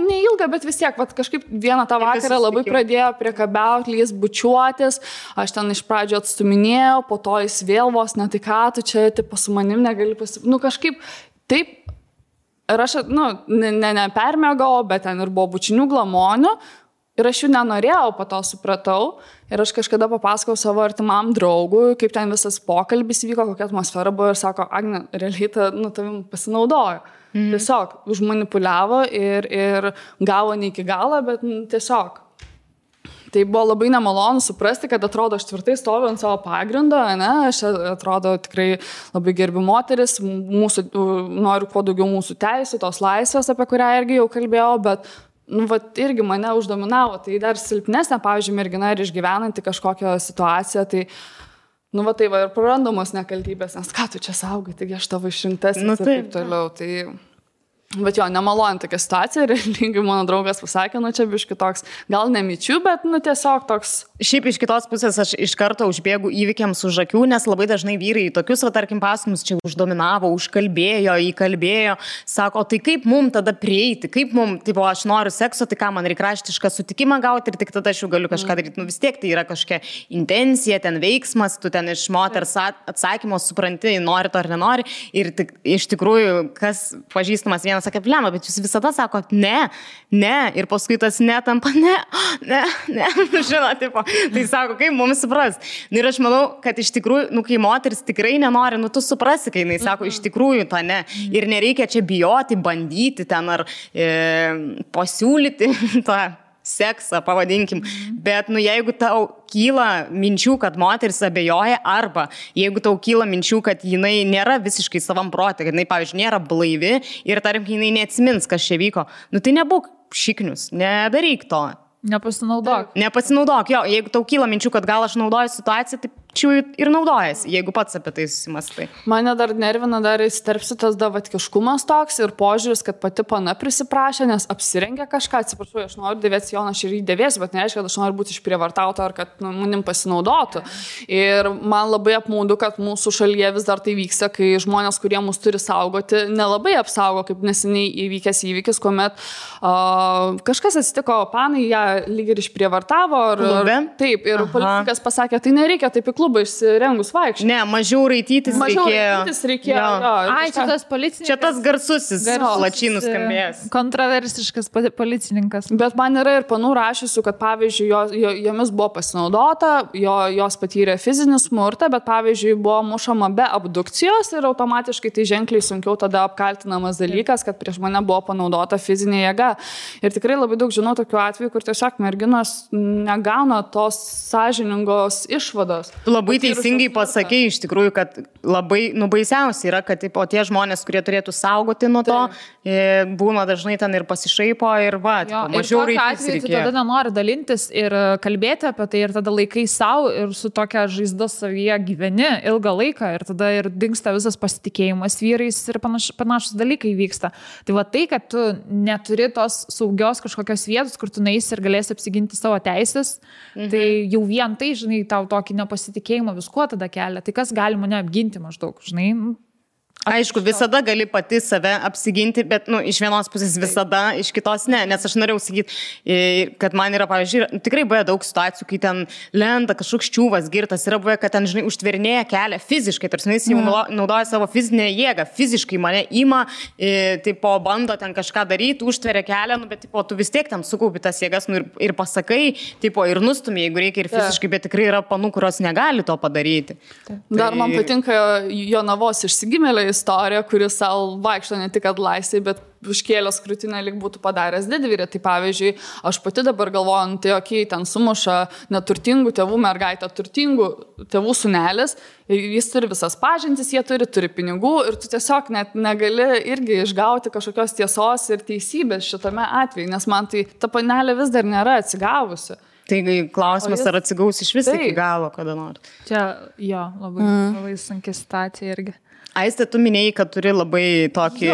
Ne ilgą, bet vis tiek, kažkaip vieną tą vakarą labai pradėjo priekabiauti, jis bučiuotis, aš ten iš pradžio atstuminėjau, po to jis vėl vos, ne tai ką, tu čia tipo, su manim negali kažkaip taip, ir aš, nepermėgau, bet ten ir buvo bučinių glamonių. Ir aš jų nenorėjau, po to supratau. Ir aš kažkada papasakau savo artimam draugui, kaip ten visas pokalbis vyko, kokia atmosfera buvo. Ir sako, Agne, realiai tavim pasinaudojo. Tiesiog užmanipuliavo ir gavo ne iki galo, bet tiesiog. Tai buvo labai nemalonu suprasti, kad atrodo, aš tvirtai stoviu ant savo pagrindo, ne? Aš atrodo tikrai labai gerbiu moteris, noriu kuo daugiau mūsų teisų, tos laisvės, apie kurią irgi jau kalbėjau, bet irgi mane uždominavo, tai dar silpnesnė, pavyzdžiui, mergina ir išgyvenanti kažkokią situaciją, tai, ir prarandamos nekaltybės, nes ką tu čia saugai, taigi aš tavo išrinktasis ir taip toliau, tai... Bet jo, nemaloni tokia situacija ir lygiai mano draugas pasakė, čia biški toks, gal nemičiu, bet tiesiog toks. Šiaip iš kitos pusės aš iš karto užbėgu įvykiams už akių, nes labai dažnai vyrai tokius, tarkim, pasakymus čia uždominavo, užkalbėjo, įkalbėjo, sako, tai kaip mum tada prieiti, kaip mum, tipo, aš noriu sekso, tai ką man reikia raštišką sutikimą gauti ir tik tada aš jau galiu kažką daryti. Vis tiek tai yra kažkokia intencija, ten veiksmas, tu ten iš moters atsakymo supranti, nori to ar nenori. Ir iš tikrųjų, kas pažįstamas vienas sakė, blema, bet jūs visada sakot, ne, ir paskui tas netampa, ne, žinot, tipo, tai sako, kaip mums supras. Ir aš manau, kad iš tikrųjų, kai moteris tikrai nenori, tu suprasi, kai jinai sako, iš tikrųjų to ne. Ir nereikia čia bijoti, bandyti ten ar pasiūlyti tą seksą, pavadinkim. Bet, jeigu tau kyla minčių, kad moteris abejoja, arba jeigu tau kyla minčių, kad jinai nėra visiškai savam prote, kad jinai, pavyzdžiui, nėra blaivi ir tarkim, jinai neatsimins, kas čia vyko, tai nebūk šiknius, nedaryk to. Nepasinaudok, jo, jeigu tau kyla minčių, kad gal aš naudoju situaciją, tai čia ir naudojasi, jeigu pats apie tai susimastai. Mane dar nervina, dar įsterpsi tas davatkiškumas toks ir požiūris, kad pati pana prisiprašė, nes apsirengia kažką, atsiprašau, aš noriu dėvėti sijoną, aš ir jį dėvėsiu, bet nereiškia, kad aš noriu būti išprievartauta ar kad manim pasinaudotų. Ir man labai apmaudu, kad mūsų šalyje vis dar tai vyksta, kai žmonės, kurie mus turi saugoti, nelabai apsaugo, kaip neseniai įvykęs įvykis, kuomet kažkas atsitiko, panai ją lyg ir išprievartavo. Taip, ir politikas pasakė, tai nereikia taip į klubą išsirengus vaikščioti. Ne, mažiau raitytis reikėjo. Ai, čia tas policininkas. Čia tas garsusis, plačiai nuskambėjęs. Kontroversiškas policininkas. Bet man yra ir panų rašysiu, kad pavyzdžiui, jomis buvo pasinaudota, jos patyrė fizinį smurtą, bet pavyzdžiui, buvo mušama be abdukcijos ir automatiškai tai ženkliai sunkiau tada apkaltinamas dalykas, kad prieš mane buvo panaudota fizinė jėga. Ir tikrai labai daug žinau tokių atvejų, kur tiesiog merginos negauna tos sąžiningos išvados. Labai teisingai pasakei, iš tikrųjų, kad labai baisiausia yra, kad tie žmonės, kurie turėtų saugoti nuo to, būna dažnai ten ir pasišaipo ir mažiau raitytis reikėjo. Tu tada nenori dalintis ir kalbėti apie tai ir tada laikai savo ir su tokia žaizda savyje gyveni ilgą laiką ir tada ir dingsta visas pasitikėjimas vyrais ir panašus dalykai vyksta. Tai tai, kad tu neturi tos saugios kažkokios vietos, kur tu neįsi ir galėsi apsiginti savo teisės, tai jau vien tai, žinai, tau tokį nepasitikėjimą viskuo tada kelia. Tai kas gali mane apginti maždaug, žinai? Aišku, visada gali pati save apsiginti, bet iš vienos pusės visada, iš kitos ne, nes aš norėjau sakyti, kad man yra, pavyzdžiui, tikrai buvo daug situacijų, kai ten lenda kažkoks čiūvas girtas, yra buvę, kad ten, žinai, užtvernėja kelią fiziškai, tarsi jis jau naudoja savo fizinę jėgą, fiziškai mane ima, tipo, bando ten kažką daryti, užtveria kelią, bet tipo, tu vis tiek ten sukaupi tas jėgas ir pasakai, tipo, ir nustumi, jeigu reikia ir fiziškai, bet tikrai yra panų, kurios negali to padaryti. Dar man patinka Jonavos išsigimėliai istorija, kuris savo vaikšto ne tik atlaistai, bet užkėlęs krūtinę lyg būtų padaręs didvyrį. Tai pavyzdžiui, aš pati dabar galvoju, tai okei, ten sumuša neturtingų tėvų mergaitę, turtingų tėvų sūnelis, jis turi visas pažintis, jie turi pinigų ir tu tiesiog net negali irgi išgauti kažkokios tiesos ir teisybės šitame atveju, nes man tai ta panelė vis dar nėra atsigavusi. Tai klausimas, ar atsigaus iš vis iki galo kada nors. Čia, jo, labai sunki situacija irgi. Aiste, tu minėjai, kad turi labai tokį...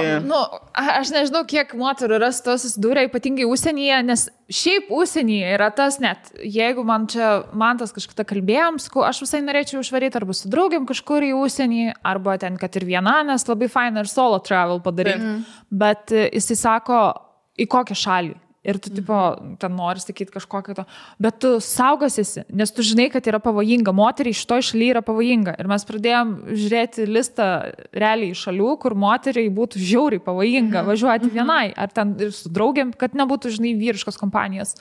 Aš nežinau, kiek moterų yra su to susidūrę, ypatingai užsienyje, nes šiaip užsienyje yra tas net, jeigu man tas kažkada kalbėjom, aš visai norėčiau išvaryti arba su draugiam kažkur į užsienį, arba ten, kad ir viena, nes labai faina ir solo travel padaryti. Bet jisai sako, į kokią šalį. Ir tu, tipo, ten nori sakyti kažkokią to, bet tu saugosiesi, nes tu žinai, kad yra pavojinga. Moteriai šitoj šalyje yra pavojinga. Ir mes pradėjom žiūrėti listą realiai šalių, kur moteriai būtų žiauriai pavojinga važiuoti vienai, ar ten ir su draugiam, kad nebūtų, žinai, vyriškos kompanijos.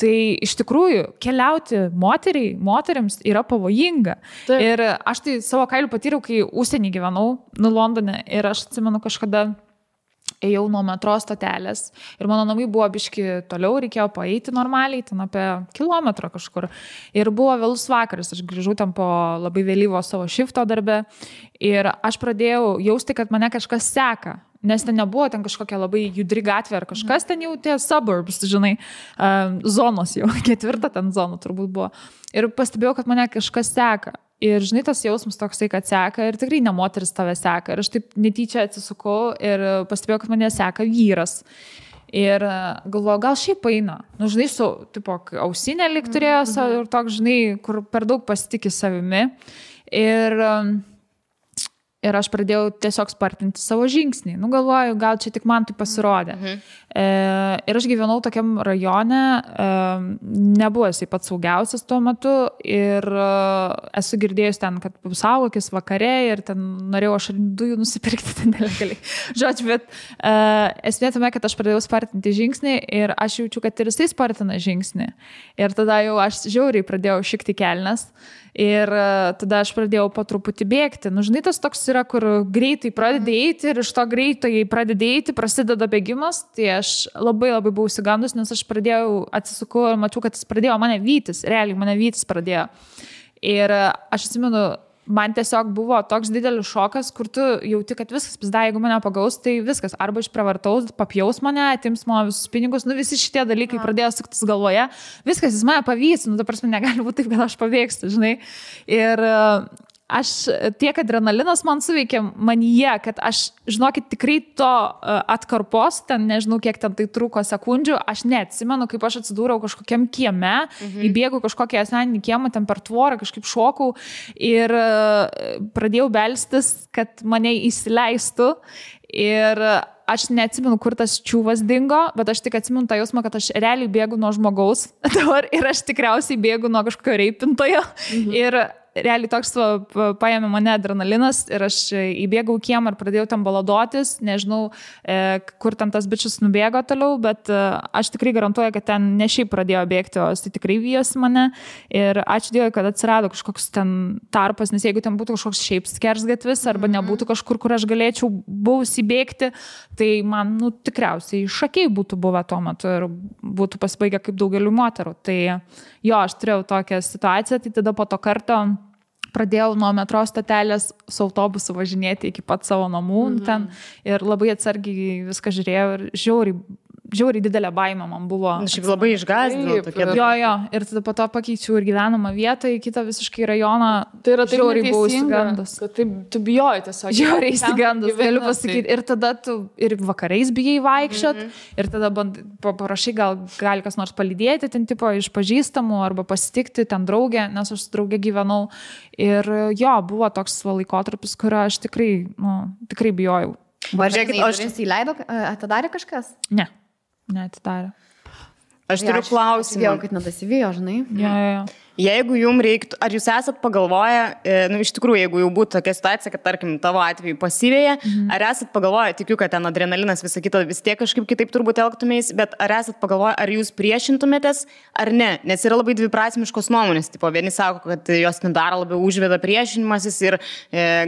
Tai iš tikrųjų keliauti moteriams yra pavojinga. Taip. Ir aš tai savo kailiu patyriau, kai užsienį gyvenau, Londone, ir aš atsimenu kažkada ėjau nuo metro stotelės ir mano namai buvo biški toliau, reikėjo paeiti normaliai, ten apie kilometrą kažkur. Ir buvo vėlus vakaras, aš grįžau ten po labai vėlyvo savo šifto darbe ir aš pradėjau jausti, kad mane kažkas seka. Nes ten nebuvo ten kažkokia labai judri gatvė ar kažkas, ten jau tie suburbs, žinai, zonos jau, 4 ten zonų turbūt buvo. Ir pastebėjau, kad mane kažkas seka. Ir žinai, tas jausmas toksai, kad seka ir tikrai ne moteris tave seka. Ir aš taip netyčia atsisukau ir pastebėjau, kad mane seka vyras. Ir galvoju, gal šiaip eina. Žinai, su, tipo, ausinė lyg turėjo ir toks, žinai, kur per daug pasitikė savimi. Ir aš pradėjau tiesiog spartinti savo žingsnį. Galvoju, gal čia tik man tai pasirodė. Ir aš gyvenau tokiam rajone, nebuvo jisai pats saugiausias tuo metu ir esu girdėjus ten, kad saugokis vakare ir ten norėjau aš dujų nusipirkti ten nelegaliai. Žodžiu, bet esmė tame, kad aš pradėjau spartinti žingsnį ir aš jaučiu, kad ir jisai spartina žingsnį. Ir tada jau aš žiauriai pradėjau šikti kelnes. Ir tada aš pradėjau po truputį bėgti. Žinai, tas toks yra, kur greitai pradedi eiti ir iš to greitai pradedi eiti, prasideda bėgimas. Tai aš labai buvau įsigandus, nes aš pradėjau atsisukau ir mačiau, kad jis pradėjo mane vytis. Realiai mane vytis pradėjo. Ir aš atsimenu, man tiesiog buvo toks didelis šokas, kur tu jauti, kad viskas pizda, jeigu mane pagaus, tai viskas. Arba išprievartaus, papjaus mane, atims mano visus pinigus, visi šitie dalykai pradėjo suktis galvoje. Viskas, jis mane pavys, ta prasme, negali būti taip, kad aš pavėkstu, žinai. Ir aš tiek adrenalinas man suveikė manyje, kad aš, žinokit, tikrai to atkarpos, ten nežinau, kiek ten tai truko sekundžių, aš neatsimenu, kaip aš atsidūriau kažkokiam kieme, įbėgau kažkokį asmeninį kiemą, ten per tvorą kažkaip šokau ir pradėjau belstis, kad mane įsileistų ir aš neatsimenu, kur tas čiūvas dingo, bet aš tik atsimenu tą jausmą, kad aš realiai bėgu nuo žmogaus dabar ir aš tikriausiai bėgu nuo kažkokio reipintojo ir realiai toks paėmė mane adrenalinas ir aš įbėgau kiemą ir pradėjau ten baladotis, nežinau, kur ten tas bičias nubėgo toliau, bet aš tikrai garantuoju, kad ten ne šiaip pradėjo bėgti, o jis tikrai vyjosi mane ir ačiū Dievui, kad atsirado kažkoks ten tarpas, nes jeigu ten būtų kažkoks šiaip skersgatvis arba nebūtų kažkur, kur aš galėčiau buvusi bėgti, tai man, tikriausiai šakiai būtų buvę tuo metu ir būtų pasibaigę kaip daugeliu moterų. Tai jo, aš turėjau tokią situaciją, tai tada po to karto pradėjau nuo metro stotelės su autobusu važinėti iki pat savo namų ten ir labai atsargiai viską žiūrėjau ir žiauriai didelė baimė man buvo. Šiaip labai išgąsdino tokie. Jo, ir tada po to pakeičiau ir gyvenamą vietą į kitą visiškai rajoną. Tai yra taip žiauriai buvau įsigandus. Tu bijojai tiesiog. Žiauriai įsigandus, galiu pasakyti. Ir tada tu ir vakarais bijai vaikščiot ir tada paprašai, gali kas nors palydėti ten tipo iš pažįstamų arba pasitikti ten draugę, nes aš su draugė gyvenau. Ir jo, buvo toks laikotarpis, kurio aš tikrai bijojau. Žiūrėkit, aš įleido, atidarė kažkas? Ne, atidarė. Aš turiu klausimą. Jau, kad nedasivijo, žinai. Jo. Jeigu jums reiktų, ar jūs esat pagalvoję, iš tikrųjų, jeigu jau būtų tokia situacija, kad, tarkim, tavo atveju pasivėja, ar esat pagalvoję, tikiu, kad ten adrenalinas visą kitą vis tiek kažkaip kitaip turbūt elgtumės, bet ar esat pagalvoję, ar jūs priešintumėtės, ar ne? Nes yra labai dviprasmiškos nuomonės. Tipo, vieni sako, kad jos dar labiau užveda priešinimasis ir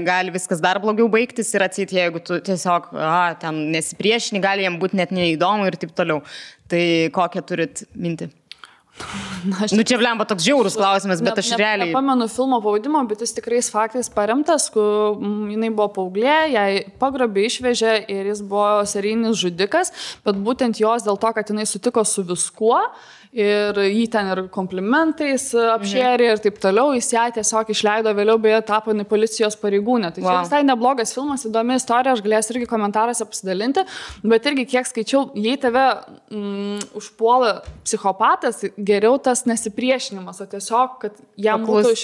gali viskas dar blogiau baigtis ir atseit, jeigu tu tiesiog ten nesipriešini, gali jam būti net neįdomu ir taip toliau. Tai kokią turit mintį? Čia blemba toks žiaurus klausimas, bet aš realiai... Nepamenu filmo pavadimo, bet jis tikrais faktais paremtas, kur jinai buvo paauglė, jai pagrobė, išvežė ir jis buvo serijinis žudikas, bet būtent jos dėl to, kad jinai sutiko su viskuo ir jį ten ir komplimentais apšėrė ir taip toliau, jis ją tiesiog išleido, vėliau beje tapo policijos pareigūnė. Tai čia visai neblogas filmas, įdomi istorija, aš galėsiu irgi komentaruose pasidalinti, bet irgi kiek skaičiau, jei tave užpuola psichopatas, geriau tas nesipriešinimas, o tiesiog, kad jam būtų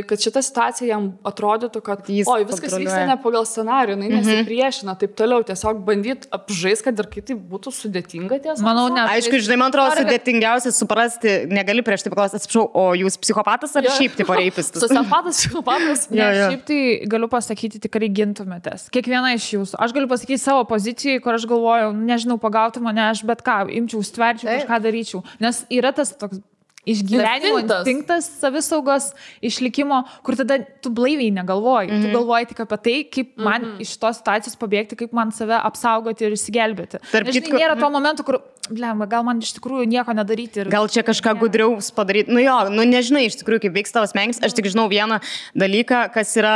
kad šita situacija jam atrodytų, kad viskas vyksta ne pagal scenarijų, nesipriešina, taip toliau, tiesiog bandyt apžais, kad ir kai tai būtų sudėtinga tiesa. Manau, ne. Aišku, žinai, man atrodo, sudėtingiausia suprasti, negali prieš tai paklausti, atsiprašau, o jūs psichopatas ar šiaip tipo reipistas? Sociopatas, psichopatas. Šiaip tai galiu pasakyti, tikrai gintumėtės. Kiekviena iš jūsų. Aš galiu pasakyti savo pozicijai, kur aš galvoju, nežinau, pagauti mane, aš bet ką, imčiau, stverčiau, kažką daryčiau. Nes yra tas toks išgyvenimo instinktas, savisaugos išlikimo, kur tada tu blaiviai negalvoji. Tu galvoji tik apie tai, kaip man iš tos situacijos pabėgti, kaip man save apsaugoti ir įsigelbėti. Nežinai, nėra to momentų, kur, gal man iš tikrųjų nieko nedaryti. Gal čia kažką gudriau padaryti. Nežinai iš tikrųjų, kaip veiks tavo smegenys. Aš tik žinau vieną dalyką, kas yra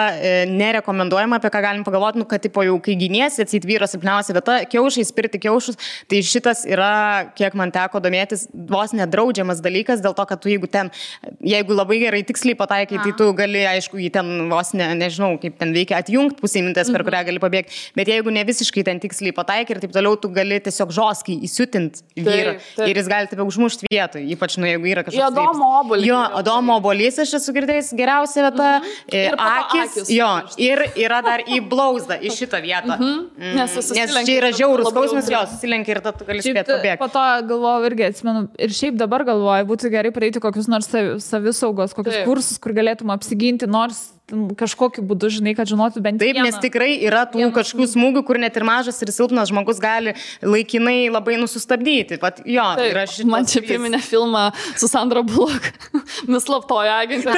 nerekomenduojama, apie ką galim pagalvoti, kad tipo jau kai giniesi, atsit vyro silpniausia vieta, kiaušai, spirti kiaušus, tai šitas yra, kiek man teko domėtis, vos nedraudžiamas dalykas, dėl to, kad tu jeigu labai gerai tiksliai pataikai, tai tu gali, aišku, jį ten vos nežinau, kaip ten veikia, atjungti pusę minutės, per kurią gali pabėgti, bet jeigu ne visiškai ten tiksliai pataikai ir taip toliau, tu gali tiesiog žoskai įsiutinti vyrą ir jis gali tave užmušti vietoj, ypač, jeigu yra kažkoks Adomo obuolys. Adomo obuolys, aš esu girdėjęs, geriausia vieta, akis, ir yra dar į blauzdą, į šitą vietą. Nes čia yra žiaurus skausmas, susilenkia ir tada tu gali spėti pabėgti. Po to galvoju irgi, atsimenu, ir šiaip dabar galvoju, būtų gerai praeiti kokius nors savisaugos, kokius kursus, kur galėtum apsiginti, nors kažkokiu būdu, žinai, kad žinotų bent vieną. Taip, nes tikrai yra tų kažkokių smūgių, kur net ir mažas ir silpnas žmogus gali laikinai labai nusustabdyti. Man čia priminė filmą su Sandra Bullock, Nuslaptoja agentė.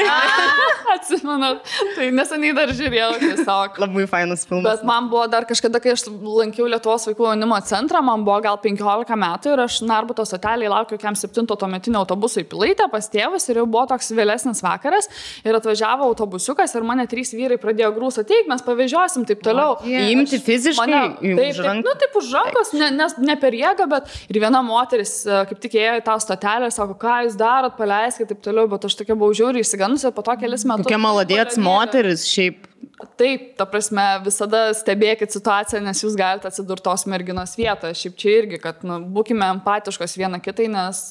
Atsimenu, tai neseniai dar žiūrėjau tiesiog. Labai fainas filmas. Bet man buvo dar kažkada, kai aš lankiau Lietuvos vaikų jaunimo centrą, man buvo gal 15 metų ir aš Narbuto stotelėje laukiau kiam 7 tuometinio autobuso į Pilaitę pas tėvus ir jau buvo toks vėlesnis vakaras ir atvažiavo autobusiukas ir mane 3 vyrai pradėjo grūsą, ateik, mes pavežiosim, taip toliau. Imti fiziškai už rankos? Taip už rankos, ne per jėgą, bet ir viena moteris, kaip tik ėjo į tą stotelę, sako, ką jūs darot, paleiskit, taip toliau, bet aš tokia buvau žiauriai išsigandusi, po to kelis metus. Kokia maladėts moteris šiaip. Taip, ta prasme, visada stebėkit situaciją, nes jūs galite atsidurti tos merginos vietoje. Šiaip čia irgi, kad būkime empatiškos viena kitai, nes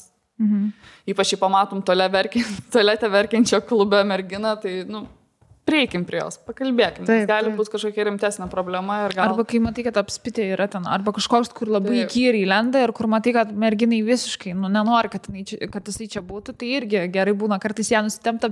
ypač jį pamatom tolete verkiančio klube merginą, tai, prieikim prie jos, pakalbėkim. Taip, gali būti kažkokia rimtesnė problema. Arba kai matai, kad apspitė yra ten, arba kažkoks, kur labai įkyriai lenda ir kur matai, kad merginai visiškai nenori, kad jisai čia būtų, tai irgi gerai būna kartais ją nusitempti,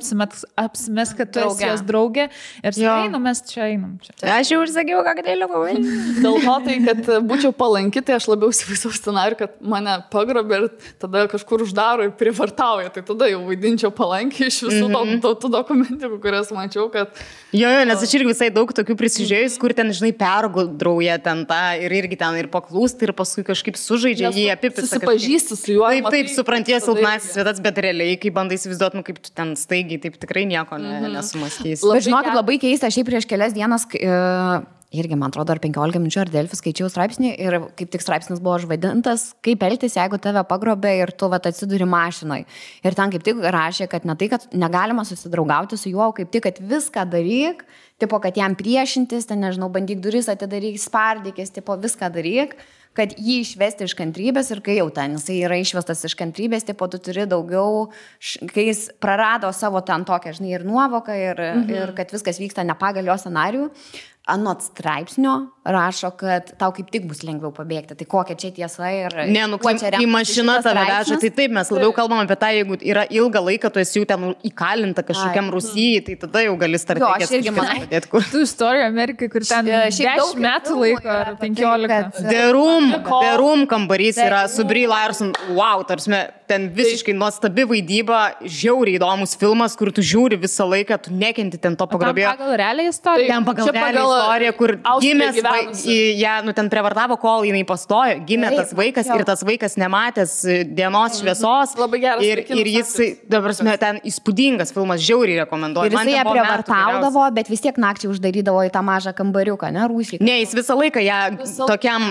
apsimes, kad tu esi jos draugė ir sakai, mes čia einam. Aš jau užsakiau, ką galėjau pavadinti. Dėl to, tai, kad būčiau palanki, tai aš labiau įsivaizdavau scenarijų, kad mane pagrobė ir tada kažkur uždaro ir privartauja. Tai tada jau vaidinčiau palankiai iš visų tų dokumentikų, kurias mačiau, kad nes aš irgi visai daug tokių prisižiūrėjus, kur ten, žinai, pergudrauja ten tą ir irgi ten ir paklūsti ir paskui kažkaip sužaidžia, jį apipisa. Susipažįsti su juo. Taip, supranties silpnasis vietas, bet realiai, kai bandai įsivaizduoti, kaip tu ten staigiai, taip tikrai nieko nesumastys. Bet žinokit, labai keista, šiaip prieš kelias dienas... Irgi, man atrodo, ar 15 minučių ar Delfi skaičiau straipsnį ir kaip tik straipsnis buvo užvadintas, kaip elgtis, jeigu tave pagrobė ir tu atsiduri mašinoj. Ir ten kaip tik rašė, kad ne tai, kad negalima susidraugauti su juo, kaip tik, kad viską daryk, tipo, kad jam priešintis, ten, nežinau, bandyk duris atidaryk, spardykis, tipo, viską daryk, kad jį išvesti iš kantrybės ir kai jau ten jisai yra išvestas iš kantrybės, tipo, tu turi daugiau, kai jis prarado savo ten tokią, žinai, ir nuovoką ir kad viskas vyksta ne pagal jo scenarijų. Anot straipsnio rašo, kad tau kaip tik bus lengviau pabėgti. Tai kokia čia tiesa ir... Ne, nu, kai į mašiną tave veža, tai taip, mes labiau kalbam apie tai, jeigu yra ilgą laiką, tu esi jau ten įkalinta kažkokiam Rusijai, tai tada jau gali strategijas padėti kur. Tu istorija Amerikai, kur ten 10 metų laiko ar 15. The Room kambarys yra su Brie Larson. Wow, tarsi ten visiškai nuostabi vaidyba, žiauriai įdomus filmas, kur tu žiūri visą laiką, tu nekenti ten to pagrobėjo. Ten pagal realią istoriją? Ten pagal realią istoriją, kur gimęs, nu ten prievartavo, kol jinai pastojo, gimė tas vaikas ir tas vaikas nematęs dienos šviesos. Labai geras. Ir jis, dabar ten įspūdingas filmas, žiauriai rekomenduoju. Ir jisai ją prievartaudavo, bet vis tiek nakčiai uždarydavo į tą mažą kambariuką, ne, Rūsį. Ne, jis visą laiką ją tokiam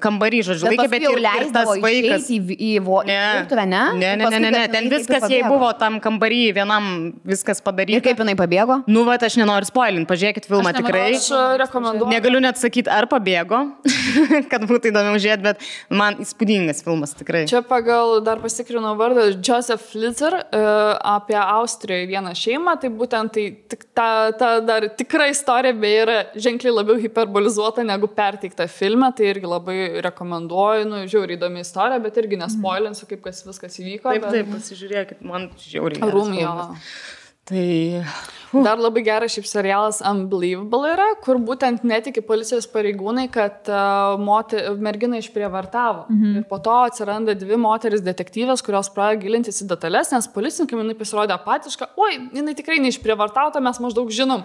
kambarį, žodžiu, laikė, bet ir tas vaikas į virtuvę, ne? Ne, ten viskas jai buvo tam kambarį, vienam viskas padaryta. Ir kaip jinai pabėgo? Nu, va, aš nenoriu spoilint, pažiūrėkit filmą tikrai. Aš rekomenduoju. Negaliu net sakyti, ar pabėgo, kad būtų įdomiau žiūrėti, bet man įspūdingas filmas tikrai. Čia pagal, dar pasikrino vardą, Joseph Flitzer apie Austrijoje vieną šeimą, tai būtent ta dar tikra istorija, beje, yra ženkliai labiau hiperbolizuota negu perteikta filme, tai irgi labai rekomenduoju, nu, žiauriai įdomi istorija, bet irgi nespoilinsiu, kaip viskas įvyko. Taip, pasižiūrėkit, man žiauriai. Rūmija. Tai... Dar labai geras šiaip serialas Unbelievable yra, kur būtent netiki policijos pareigūnai, kad merginą išprievartavo. Ir po to atsiranda 2 moteris detektyvės, kurios pradėjo gilintis į detalės, nes policininkai jinai pasirodė apatiška. Oi, jinai tikrai neišprievartauta, mes maždaug žinom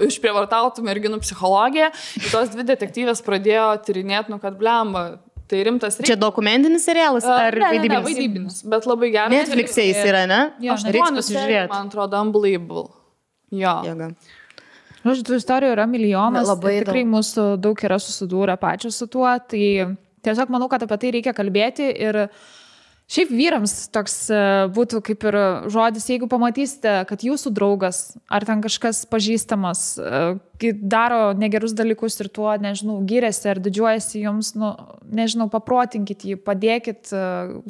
išprievartautų merginų psichologiją. Ir tos 2 detektyvės pradėjo tyrinėti, nu kad blemba. Tai rimtas reikia. Čia dokumentinis serialas ar vaidybinis? Ne, vaidybinis, bet labai geras. Netflix'e jis yra, ne? Reiks pasižiūrėti. Man atrodo, Unbelievable. Jo. Žodžiu, tų istorijų yra milijonas. Labai tikrai mūsų daug yra susidūrę pačios su tuo. Tai tiesiog manau, kad apie tai reikia kalbėti ir šiaip vyrams toks būtų kaip ir žodis, jeigu pamatysite, kad jūsų draugas ar ten kažkas pažįstamas daro negerus dalykus ir tuo, nežinau, giriasi ar didžiuojasi jums, nu, nežinau, paprotinkit jį, padėkit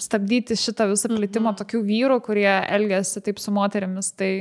stabdyti šitą visą plitimą tokių vyrų, kurie elgiasi taip su moterimis. Tai,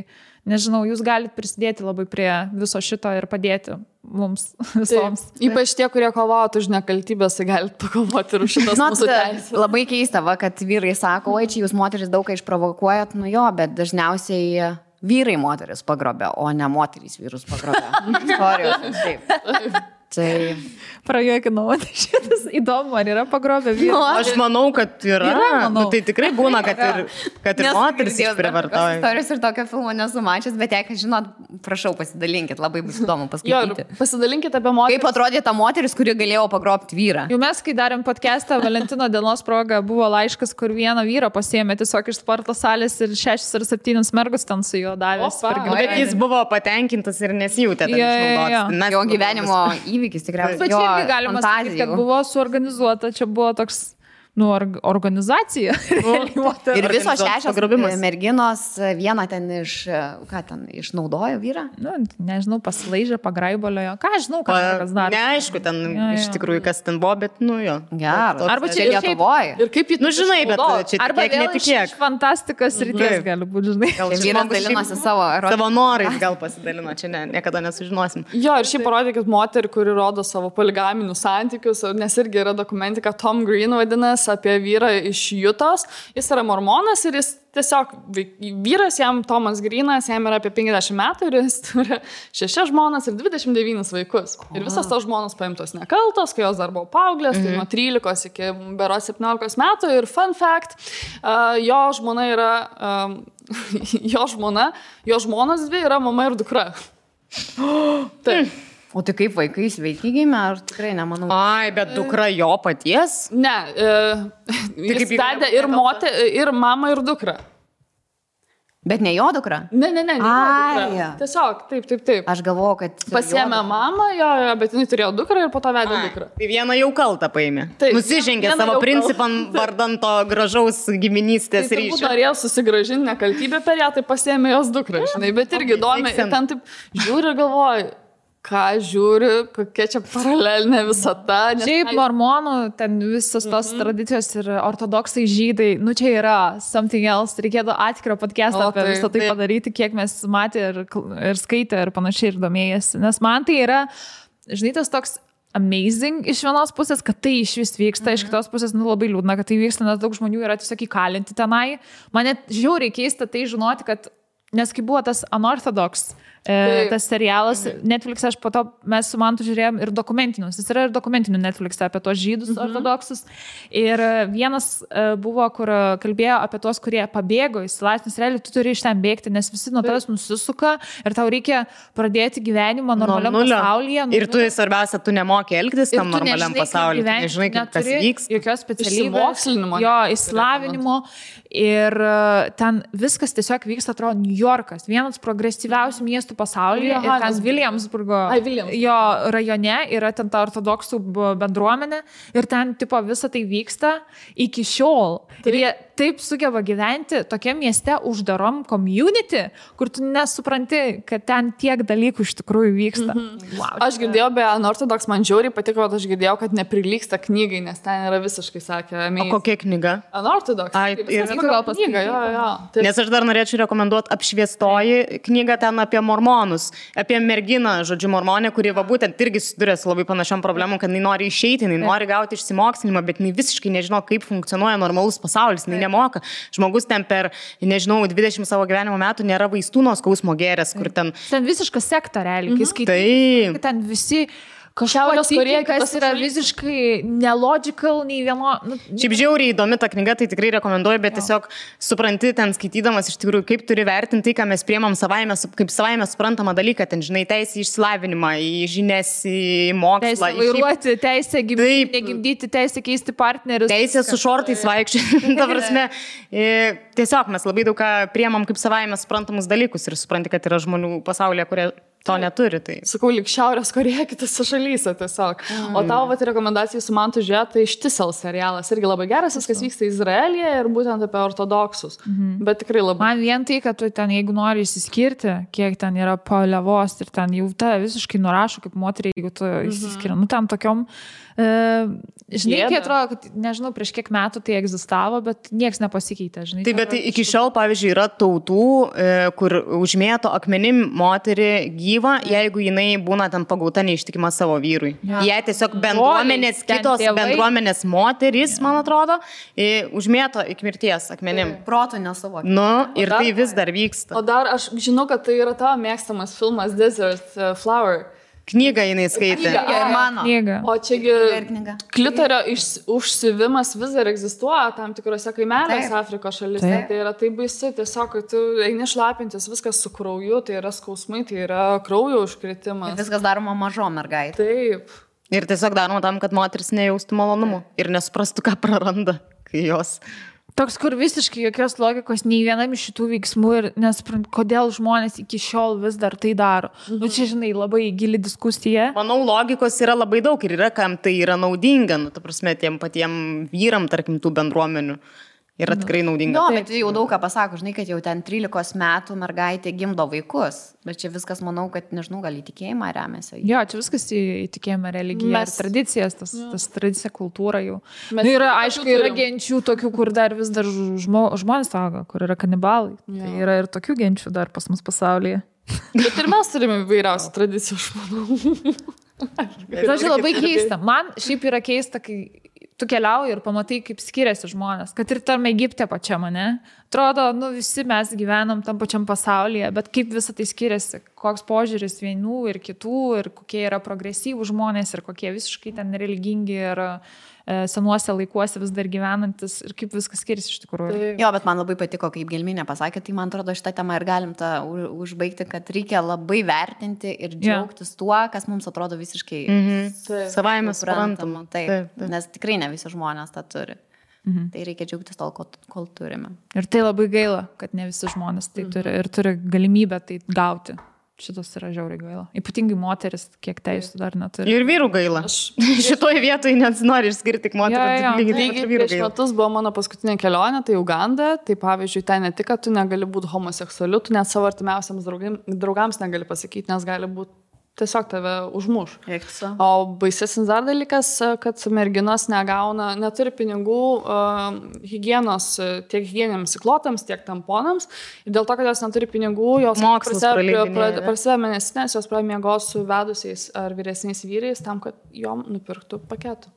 nežinau, jūs galite prisidėti labai prie viso šito ir padėti mums visoms. Ypač tie, kurie kovotų už nekaltybės, tai galite pakovoti ir už šitas mūsų teisės. Labai keista, kad vyrai sako, oi, čia jūs moteris daug ką išprovokuojat, nu jo, bet dažniausiai vyrai moteris pagrobia, o ne moterys vyrus pagrobia. Istorijos, taip. Tai prajuokinau, šitas įdomu, ar yra pagrobę vyrų? Aš manau, kad yra. Nu, tai tikrai būna, kad ir moteris išprievartauja. Istorijos ir tokio filmo nesu mačius, bet jei, žinot, prašau pasidalinkit, labai bus įdomu paskaityti. Pasidalinkit apie moterį. Kaip atrodė ta moteris, kuri galėjo pagrobti vyrą? Jau mes, kai darėm podcastą, Valentino dienos proga buvo laiškas, kur vieną vyrą pasiėmė tiesiog iš sporto salės ir 6 ar 7 mergus ten su juo davė. Bet jis buvo patenkintas ir nesijautė išnaudotas. Jo gyvenimo įvykis tikriausiai. Bet čia galima sakyti, kad buvo suorganizuota, čia buvo toks, nu, organizacija. Ir visos 6 merginos vieną ten išnaudojo vyrą? Nu, nežinau, pasilaižė, pagraibolio. Ką žinau, kas dar. Neaišku, ten iš tikrųjų, kas ten buvo, bet, nu, jo. Geras. Arba čia Lietuvoje. Ir kaip jį, nu, žinai, bet čia arba netikėk. Iš fantastikos ryties gali būti, žinai. Vyras dalinosi savo norais, gal pasidalino, čia niekada nesužinosim. Jo, ir šiaip parodykit moterį, kuri rodo savo poligaminius santykius, nes irgi yra dokumentika Tom Green vadinasi, apie vyrą iš Jutos. Jis yra mormonas ir jis tiesiog vyras, jam Tomas Greenas, jam yra apie 50 metų ir jis turi 6 žmonas ir 29 vaikus. Ir visas tos žmonos paimtos nekaltos, kai jos dar buvo paauglės, tai nuo 13 iki berods 17 metų. Ir fun fact, jo žmona yra, jo žmonos 2 yra mama ir dukra. Taip. O tai kaip vaikai sveiki gimė, ar tikrai nemanau? Ai, bet dukra jo paties? Ne, jis vedė ir mamą, ir dukrą. Bet ne jo dukra? Ne, dukra. Tiesiog, taip. Aš galvoju, kad... Pasiėmė mamą, jo, bet jinai turėjo dukrą ir po to vedė dukrą. Tai vieną jau kaltą paėmė. Nusižengė savo principam vardan to gražaus giminystės ryšio. Tai norėjo susigražinti nekaltybę per ją, tai pasiėmė jos dukrą, žinai, bet irgi įdomi. Ir ten taip žiūri ir galvoju, ką žiūri, kokia čia paralelinė visata. Šiaip mormonų, ten visas tos tradicijos ir ortodoksai žydai, nu čia yra something else, reikėtų atskirą podcastą apie visą tai padaryti, kiek mes matė ir skaitė ir panašiai ir domėjasi. Nes man tai yra, žinai, tas toks amazing iš vienos pusės, kad tai iš vis vyksta, iš kitos pusės, labai liūdna, kad tai vyksta, nes daug žmonių yra tiesiog įkalinti tenai. Man net žiauriai keista tai žinoti, kad, nes kai buvo tas Unorthodox, tas serialas, Netflix, aš po to mes su Mantu žiūrėjom ir dokumentinius. Jis yra ir dokumentinių Netflix apie tos žydus ortodoksus. Ir vienas buvo, kur kalbėjo apie tos, kurie pabėgo į laisvės, realiai tu turi iš ten bėgti, nes visi nuo tavęs nusisuka ir tau reikia pradėti gyvenimą normaliam pasaulyje. Ir tu, svarbiausia, tu nemoki elgtis tam normaliam pasaulyje. Tu nežinai, kaip tas vyks. Jokios specialybės, jo išsilavinimo. Ir ten viskas tiesiog vyksta, atrodo, New Yorkas, vienas progresyviausių miestų pasaulyje. Ir ten Williamsburgo jo rajone yra ten ta ortodoksų bendruomenė ir ten tipo visą tai vyksta iki šiol. Ir jie taip sugeba gyventi tokiam mieste uždarom community, kur tu nesupranti, kad ten tiek dalykų iš tikrųjų vyksta. Wow. Aš girdėjau, be Unorthodox man žiauriai patiko, kad aš girdėjau, kad neprilygsta knygai, nes ten yra visiškai, sakė, O kokia knyga? Unorthodox. Gal knyga, jo. Nes aš dar norėčiau rekomenduoti Apšviestoji knygą ten apie mormonus, apie merginą, žodžiu, mormonę, kuri va būtent irgi susidūrė su labai panašiom problemom, kad jinai nori išeiti, jinai nori gauti išsimokslinimą, bet jinai visiškai nežino, kaip funkcionuoja normalus pasaulis, jinai nemoka. Žmogus ten per, nežinau, 20 savo gyvenimo metų nėra vaistų nuo skausmo gėręs, kur ten... Ten visiška sekta, realiai, kai skaitai, ten visi... Šiaurės Korėja, kas yra visiškai nelogical, nei vieno... Šiaip žiauriai įdomi ta knyga, tai tikrai rekomenduoju, bet tiesiog supranti ten skaitydamas iš tikrųjų, kaip turi vertinti tai, ką mes priemam kaip savaime suprantamą dalyką, ten, žinai, teisę į išsilavinimą, į žinias, į mokslą. Teisę vairuoti, teisę negimdyti, teisę keisti partnerius. Teisę su šortais vaikščioti. Ta prasme, tiesiog mes labai daug ką priemam kaip savaime suprantamus dalykus ir supranti, kad yra žmonių pasaulyje, kurie to neturi. Tai. Sakau, lyg Šiaurės Korėja kitose šalyse tiesiog. O tavo rekomendacijų su Mantu žiūrėti, tai Štisel serialas irgi labai geras, viskas vyksta Izraelyje ir būtent apie ortodoksus. Bet tikrai labai. Man vien tai, kad tu ten, jeigu nori įsiskirti, kiek ten yra palievos ir ten jau ta visiškai nurašo kaip moteriai, jeigu tu įsiskiri. Ten tokiom... žinai, kai atrodo, kad, nežinau, prieš kiek metų tai egzistavo, bet nieks nepasikeitė. Žinai, taip, bet iki šiol, pavyzdžiui, yra tautų, kur užmėto akmenim moterį gyvą, jeigu jinai būna ten pagauta neištikima savo vyrui. Jie tiesiog bendruomenės, kitos bendruomenės moterys, man atrodo, užmėto iki mirties akmenim. Proto nesuvokia. Ir tai vis dar vyksta. O dar aš žinau, kad tai yra tavo mėgstamas filmas Desert Flower. Knygą jinai skaitė. Ir mano. O čiagi klitorio užsiuvimas vis dar egzistuoja tam tikrose kaimelėse Afrikos šalyse. Tai yra taip baisu, tiesiog, kai tu eini šlapintis, viskas su krauju, tai yra skausmai, tai yra kraujo užkritimas. Ir viskas daroma mažo mergaitė. Taip. Ir tiesiog daroma tam, kad moteris nejaustų malonumu ir nesuprastų, ką praranda, kai jos... Toks, kur visiškai jokios logikos nei vienam iš šitų veiksmų ir nesuprantu, kodėl žmonės iki šiol vis dar tai daro. Čia, žinai, labai gili diskusija. Manau, logikos yra labai daug ir yra, kam tai yra naudinga, ta prasme, tiem patiem vyram, tarkim, tų bendruomenių. Yra tikrai naudinga. Bet jau daug ką pasako, žinai, kad jau ten 13 metų mergaitė gimdo vaikus. Bet čia viskas, manau, kad, nežinau, gal įtikėjimą remiasi. Jo, čia viskas įtikėjimą religiją ir tradicijas, tas tradicija, kultūra jau. Yra, aišku, yra genčių tokių, kur dar vis dar žmonės auga, kur yra kanibalai. Tai yra ir tokių genčių dar pas mus pasaulyje. Bet ir mes turime įvairiausių tradicijų, aš manau. Tai labai keista. Man šiaip yra keista, kai tu keliauji ir pamatai, kaip skiriasi žmonės. Kad ir tam Egipte pačiam, ne? Atrodo, visi mes gyvenam tam pačiam pasaulyje, bet kaip visą tai skiriasi, koks požiūris vienų ir kitų, ir kokie yra progresyvų žmonės, ir kokie visiškai ten religingi ir senuose laikuose vis dar gyvenantis, ir kaip viskas skiriasi iš tikrųjų. Jo, bet man labai patiko, kaip Gelminė pasakė, tai man atrodo šitą temą ir galim tą užbaigti, kad reikia labai vertinti ir džiaugtis tuo, kas mums atrodo visiškai savaime suprantama. Taip, nes tikrai ne visi žmonės tą turi. Tai reikia džiaugtis tol, kol turime. Ir tai labai gaila, kad ne visi žmonės tai turi ir turi galimybę tai gauti. Šitas yra žiauriai gaila. Ypatingai moteris, kiek teisų dar neturi. Ir vyrų gaila. Šitoje vietoje nesinori išskirti tik moterų. Lygiai prieš metus buvo mano paskutinė kelionė, tai Uganda. Tai pavyzdžiui, ten ne tik, kad tu negali būti homoseksualiu, tu net savo artimiausiams draugams negali pasakyti, nes gali būti tiesiog tave užmuš. Eiksa. O baisesnis dar dalykas, kad merginos neturi pinigų higienos, tiek higieniams įklotams, tiek tamponams. Ir dėl to, kad jos neturi pinigų, jos prasideda mėnesinės, jos pradeda miegos su vedusiais ar vyresniais vyrais tam, kad jom nupirktų paketų.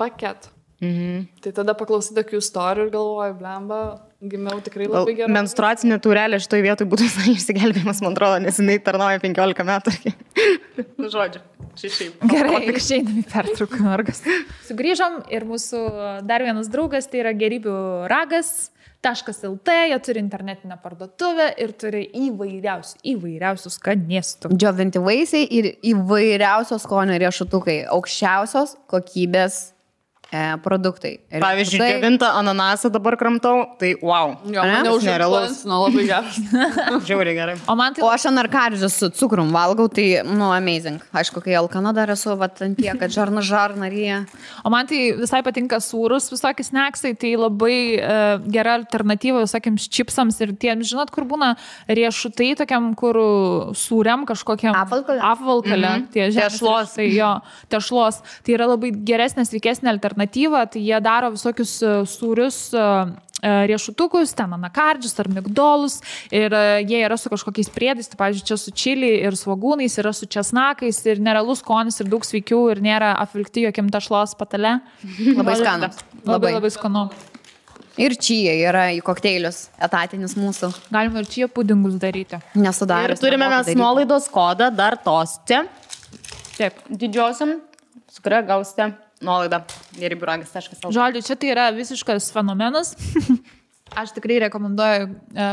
Paketų. Tai tada paklausai tokių istorijų ir galvoju, blemba, gimiau tikrai labai gerai. Menstruacinė turelė šitoj vietoj būtų išsigelbėjimas, man atrodo, nes jinai tarnauja 15 metų. Žodžiu, šiaip. Gerai, išeinam į pertrauką, Margas. Sugrįžom ir mūsų dar vienas draugas, tai yra Gerybių ragas. .lt, jie turi internetinę parduotuvę ir turi įvairiausių skanėstų. Džiovinti vaisiai ir įvairiausios skonio riešutukai, aukščiausios kokybės produktai. Pavyzdžiui, džiovintą ananasą dabar kramtau, tai wow. Jo, neužnerealus, labai geras. Žiauriai gerai. O aš anarkardžius su cukrum valgau, tai, amazing. Aišku, kai alkana dar esu, ant tiek, kad žarna ryja. O man tai visai patinka sūrus visokie snacksai, tai labai gera alternatyva visokiams čipsams ir tiems, žinot, kur būna riešutai tokiam, kur sūriam kažkokiam apvalkalė. Tešlos. Tai jo, tešlos. Tai yra labai geresnė, sveikesnė alternatyva. Tai jie daro visokius sūrius riešutukus, ten anakardžius ar migdolus ir jie yra su kažkokiais priedais, tai pavyzdžiui, čia su čili ir svogūnais, yra su česnakais ir nerealus skonis ir daug sveikiau ir nėra apvilkti jokiam tešlos patale. Labai skanu. Labai skanu. Ir čia yra į kokteilius etatinis mūsų. Galima ir čia pudingus daryti. Nesudarė. Ir turime mes nuolaidos kodą dar toste. Taip. Didžiosiam, su kuria gausite nuolaidą gerybiuragas.lt. Žodžiu, čia tai yra visiškas fenomenas. Aš tikrai rekomenduoju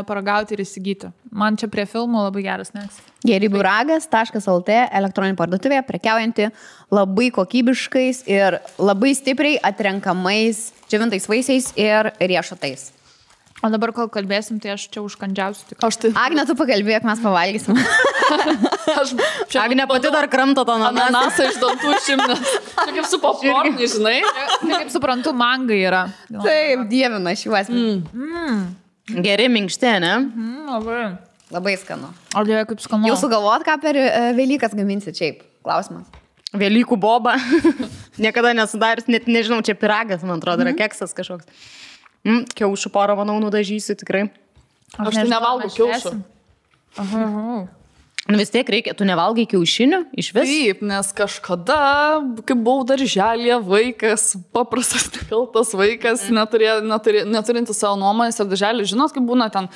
paragauti ir įsigyti. Man čia prie filmų labai geras snacks. Gerybiuragas.lt elektroninė parduotuvė, prekiaujanti labai kokybiškais ir labai stipriai atrenkamais džiovintais vaisiais ir riešutais. O dabar, kol kalbėsim, tai aš čia užkandžiausiu. Agne, tu pakalbėk, mes pavalgysim. Agne pati dar kramto tą ananasą iš dantų šimnes. Čia kaip su popcornai, žinai. Kaip suprantu, mangai yra. Taip, dievina šiuos. Geri minkštė, ne? Labai. Labai skanu. O dėja, kaip skanu. Jau sugalvot, ką per Velykas gaminsit šiaip? Klausimas. Velykų boba. Niekada nesudarys, net nežinau, čia piragas, man atrodo, yra keksas kažkoks. Kiaušų porą, manau, nudažysiu tikrai. Aš tai nevalgau kiaušų. Vis tiek reikia, tu nevalgai kiaušinių iš vis? Taip, nes kažkada, kai buvau darželėje, vaikas, paprastas nekaltas vaikas, neturintis savo nuomonės ir darželį, žinot, kaip būna ten,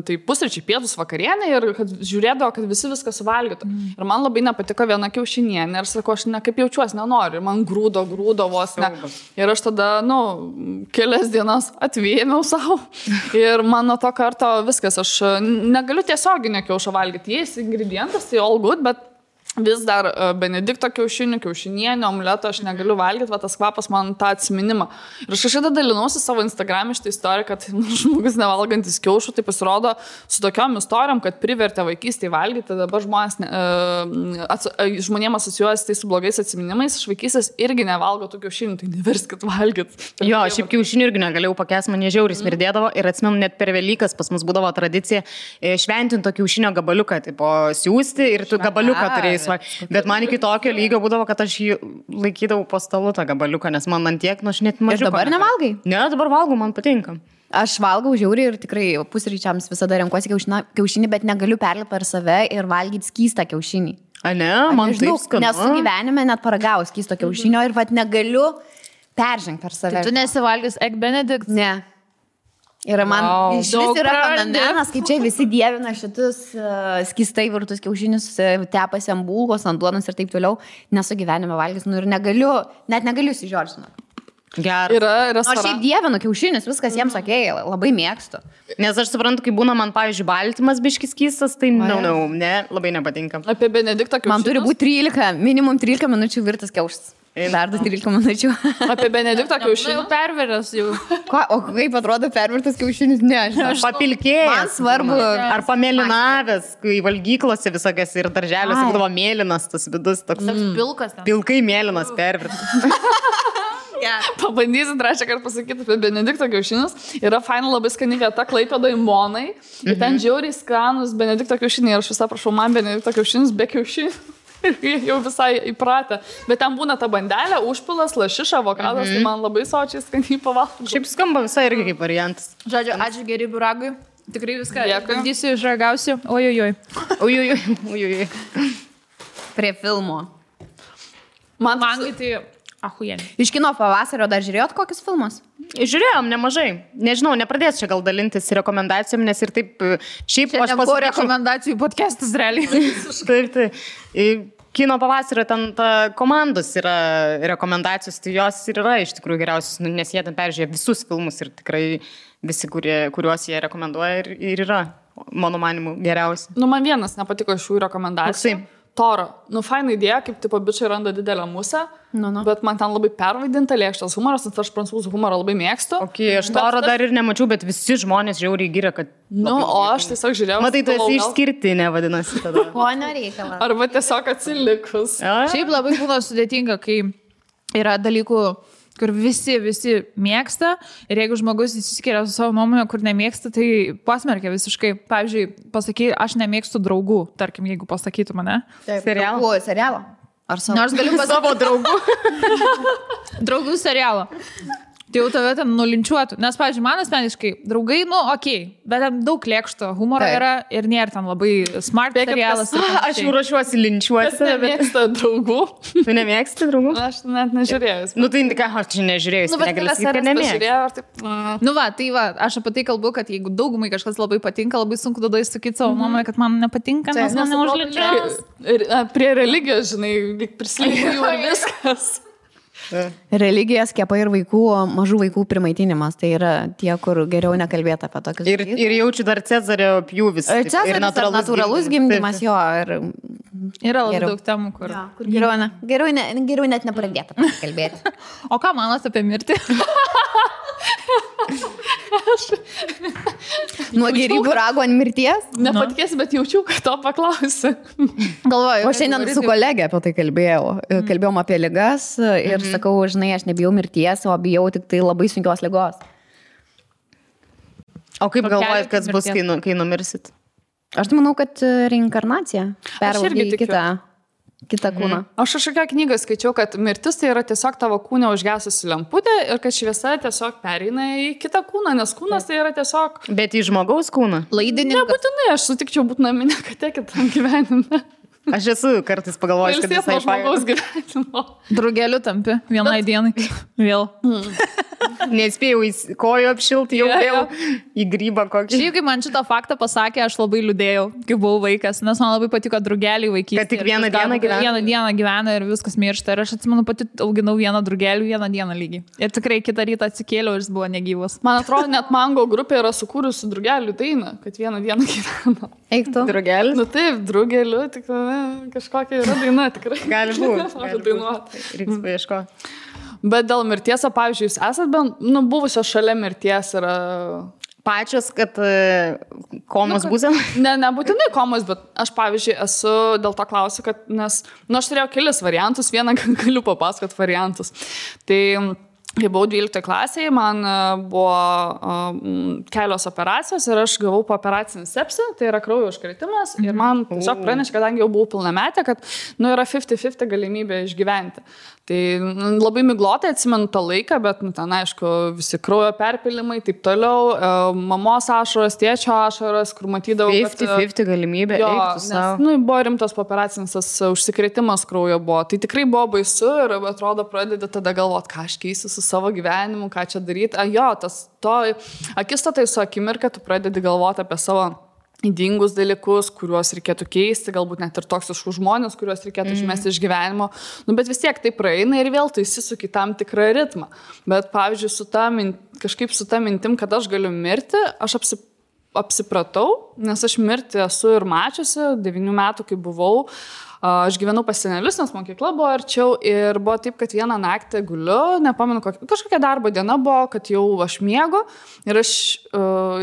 tai pusryčiai, pietus, vakarienė ir kad žiūrėdavo, kad visi viską suvalgytų. Ir man labai nepatiko viena kiaušinienė ir sako, aš nekaip jaučiuosi, nenoriu. Ir man grūdo vos ne. Ir aš tada, kelias dienas atvėmiau savo. Ir man nuo to karto viskas, aš negaliu tiesioginio kiaušo valgyti, jais ingredientas. Tai all good, bet vis dar Benedikto kiaušinių, kiaušinienio, omleto aš negaliu valgyti, va tas kvapas man tą atsiminimą. Ir aš kažkada dalinausi savo Instagram'e šitą istoriją, kad žmogus nevalgantis kiaušų, tai pasirodo su tokiom istorijom, kad privertė vaikystėje valgyti, tai dabar žmonėms asocijuojasi tai su blogais atsiminimais, iš vaikystės irgi nevalgo tų kiaušinių, tai neverskit valgyti. Jo, šiaip kiaušinių irgi negalėjau pakęsti, man jie žiauriai smirdėdavo ir atsimenu, net per Velykas pas mus būdavo tradicija šventinto kiaušinio gabaliuką, tipo siūsti ir tu gabaliuką turėjai. Bet man iki tokio lygio būdavo, kad aš jį laikydavau po stalu tą gabaliuką, nes man ant tiek, aš net mažiau. Ir dabar nevalgai? Ne, dabar valgau, man patinka. Aš valgau žiauriai ir tikrai pusryčiams visada renkuosi kiaušinį, bet negaliu perlipti per save ir valgyti skystą kiaušinį. A ne, man taip skanu. Nesu gyvenime net paragavus skysto kiaušinio ir negaliu peržengti per save. Tai tu nesivalgys Egg Benedict? Ne. Ir man iš vis yra fenomenas, kai čia visi dievina šitus skystai virtus kiaušinius, tepasi ant bulkos, ant duonos ir taip toliau. Nesu gyvenime valgys, ir net negaliu įsižiūrėti. Gerai. Aš šiaip dievinu kiaušinius, viskas jiems okei, labai mėgstu. Nes aš suprantu, kai būna man, pavyzdžiui, baltymas biškis skystas, tai labai nepatinka. Apie Benediktą kiaušinius? Man turi būti minimum 13 minučių virtas kiaušis. Dar 13 minučių. Apie Benediktą kiaušinį. Jau pervirtas jau. O kaip atrodo pervirtas kiaušinis? Ne, aš papilkėjęs. Man svarbu. Ar pamėlynavęs, kai valgyklose visokias ir darželiuose būdavo mėlynas tas vidus. Toks pilkas. Pilkai mėlynas pervirtas. Pabandysim trečią kartą pasakyti apie Benedikto kiaušinius. Yra faina labai skani vieta Klaipėdoje Monai. Ir ten žiauriai skanus Benedikto kiaušiniai. Ir aš visą prašau, man Benedikto kiaušinis be kiaušinių. Jau visai įpratę. Bet ten būna ta bandelė, užpilas, lašiša, avokadas, tai man labai sočiai skaniai pavalgau. Šiaip skamba visai irgi kaip variantas. Žodžiu, ačiū geri buragui. Tikrai viską. Dėkui. Bandysiu, išragausiu. Ojojoj. Ujujui. Prie filmo. Man tai ahujenė. Iš kino pavasario dar žiūrėjot kokius filmus? Žiūrėjom nemažai. Nežinau, nepradės čia gal dalintis rekomendacijom, nes ir taip šiaip Čia aš nebuvo rekomendacijų podcastas realiai. Taip. Kino pavasario ten komandos yra rekomendacijos, tai jos ir yra iš tikrųjų geriausios, nes jie ten peržiūrė visus filmus ir tikrai visi, kuriuos jie rekomenduoja ir yra, mano manimu, geriausi. man vienas nepatiko šių rekomendacijų. Toro. Faina idėja, kaip tipo bičiai randa didelę musę, bet man ten labai pervaidinta lėkštas humoras, nes aš prancūzų humorą labai mėgstu. Aš Toro dar ir nemačiau, bet visi žmonės žiauriai giria, kad... O aš tiesiog žiūrėjau. Matai, tu esi išskirtinė, vadinasi tada. O nereikalas. Arba tiesiog atsilikus. Šiaip labai būna sudėtinga, kai yra dalykų, kur visi mėgsta ir jeigu žmogus įsiskiria su savo nuomonę, kur nemėgsta, tai pasmerkia visiškai. Pavyzdžiui, pasakai, aš nemėgstu draugų, tarkim, jeigu pasakytų mane. Serialo? Ar savo? Nors galiu pasakyti savo draugų. Draugų serialo. Tai jau tave ten nulinčiuotų. Nes, pavyzdžiui, man asmeniškai draugai, bet ten daug lėkšto humoro yra ir nėra ten labai smart serialas. Aš jau ruošiuosi linčiuosi. Kas nemėgsta draugų? Tu nemėgsti draugų? Aš net nežiūrėjus. Tai ką, aš čia nežiūrėjus, negali sakyti, kad nemėgsti. Tai aš apie tai kalbu, kad jeigu daugumai kažkas labai patinka, labai sunku tada įsakyti savo nuomonę, kad man nepatinka, nes man neužlinčiaus. Prie religijos, žinai, prisilygų ir viskas. Religija, skiepai ir mažų vaikų primaitinimas. Tai yra tie, kur geriau nekalbėti apie tokius. Ir jaučiu dar Cezario pjūvis. Ir natūralus gimdymas jo. Yra labai daug temų, kur geriau net nepradėti kalbėti. O ką manot apie mirtį? Nuo gerybų rago ant mirties? Nepatikėsi, bet jaučiu, kad to paklausi. Galvoju, o šiandien su kolegė apie tai kalbėjau. Kalbėjom apie ligas ir sakau, žinai, aš nebijau mirties, o bijau tik tai labai sunkios ligos. O kaip galvojat, kas bus, kai numirsit? Aš manau, kad reinkarnacija pervalgy kitą kūną. Aš kažkokią knygą skaičiau, kad mirtis tai yra tiesiog tavo kūne užgesusi lemputė ir kad šviesa tiesiog pereina į kitą kūną, nes kūnas tai yra tiesiog... Bet į žmogaus kūną? Laidininkas. Nebūtinai, aš sutikčiau būti naminė katė kitam gyvenime. Aš esu kartais pagalvojęs, kad visai žmogaus gyvenimo. Drugeliu tampi vienai dienai. Vėl. Nespėjau kojo apšilti, jau vėl į grybą kokį. Šiaip, kai man šitą faktą pasakė, aš labai liūdėjau, kai buvau vaikas, nes man labai patiko drugeliai vaikystėje. Kad tik vieną dieną gyvena. Vieną dieną gyvena ir viskas miršta. Ir aš atsimenu, pati auginau vieną drugelį, vieną dieną lygiai. Ir tikrai kitą rytą atsikėliau ir jis buvo negyvas. Man atrodo, net Mango grupė yra sukūrusi drugelių dainą, kad vieną dieną gyvena. Eik tu. Drugelis? Taip, drugeliu, tik kažkokia yra daina tikrai. Gali būti. Reiks paieškoti. Bet dėl mirties, pavyzdžiui, jūs esate buvusios šalia mirties ir... Pačios, kad komos būsena? Nebūtinai komos, bet aš, pavyzdžiui, esu dėl to klausiu, kad nes... aš turėjau kelis variantus, vieną galiu papasakot variantus. Tai... Kai buvau 12 klasėje, man buvo kelios operacijos ir aš gavau po operacinį sepsį, tai yra kraujo užkritimas ir man tiesiog pranešė, kadangi jau buvau pilnametė, kad yra 50-50 galimybė išgyventi. Tai labai miglotai atsimenu tą laiką, bet ten aišku visi kraujo perpilimai, taip toliau, mamos ašaros, tėčio ašaros, kur matydavau, 50-50 galimybė, eik tu savo. Nes buvo rimtas operacinis užsikritimas kraujo buvo, tai tikrai buvo baisu ir atrodo pradedi tada galvoti, ką aš keisiu su savo gyvenimu, ką čia daryti. Akistatai su akimirka tu pradedi galvoti apie savo ydingus dalykus, kuriuos reikėtų keisti, galbūt net ir toksiškus žmonės, kuriuos reikėtų išmesti iš gyvenimo. Bet vis tiek tai praeina ir vėl tu įsisuki tam tikrą ritmą. Bet pavyzdžiui, kažkaip su ta mintim, kad aš galiu mirti, aš apsipratau, nes aš mirti esu ir mačiusi, 9 metų, kai buvau. Aš gyvenau pas senelius, nes mokykla buvo arčiau ir buvo taip, kad vieną naktį guliu, nepamenu, kažkokia darbo diena buvo, kad jau aš miegu ir aš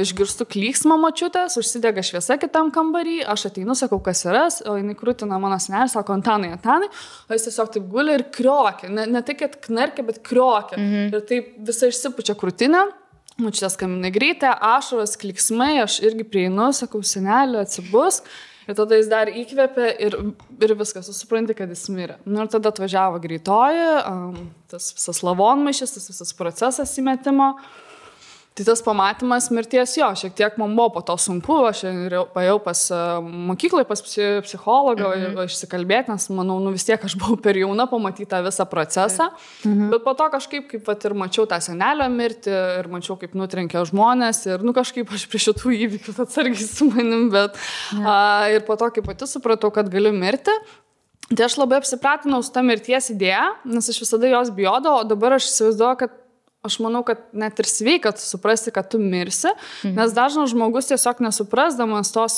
išgirstu klyksmą močiutės, užsidega šviesa kitam kambarį, aš ateinu, sakau, kas yra, o jinai krūtina mano senelį, sako, Antanai, o jis tiesiog taip guli ir kriokia, ne tai, kad knarkia, bet kriokia. Ir taip visai išsipučia krūtinę. Močiutė skambina greitą, ašaros, klyksmai, aš irgi prieinu, sakau, senelį, atsibusk. Ir tada jis dar įkvėpė ir viskas, supranti, kad jis mirė. Ir tada atvažiavo greitoji, tas visas lavonmaišis, tas visas procesas įmetimo. Tai tas pamatymas mirties jo, šiek tiek man buvo po to sunku, aš paėjau pas mokyklai, pas psichologą, išsikalbėti, nes manau, vis tiek aš buvau per jauna pamatyti tą visą procesą, bet po to kažkaip, kaip ir mačiau tą senelę mirtį ir mačiau, kaip nutrenkė žmonės ir kažkaip aš prie šitų įvykių atsargiai su manim, bet ir po to, kaip pati supratau, kad galiu mirti, tai aš labai apsipratinau su tą mirties idėją, nes aš visada jos bijodavau, o dabar aš įsivaizduoju, kad aš manau, kad net ir sveika suprasti, kad tu mirsi, nes dažnas žmogus tiesiog nesuprasdamas tos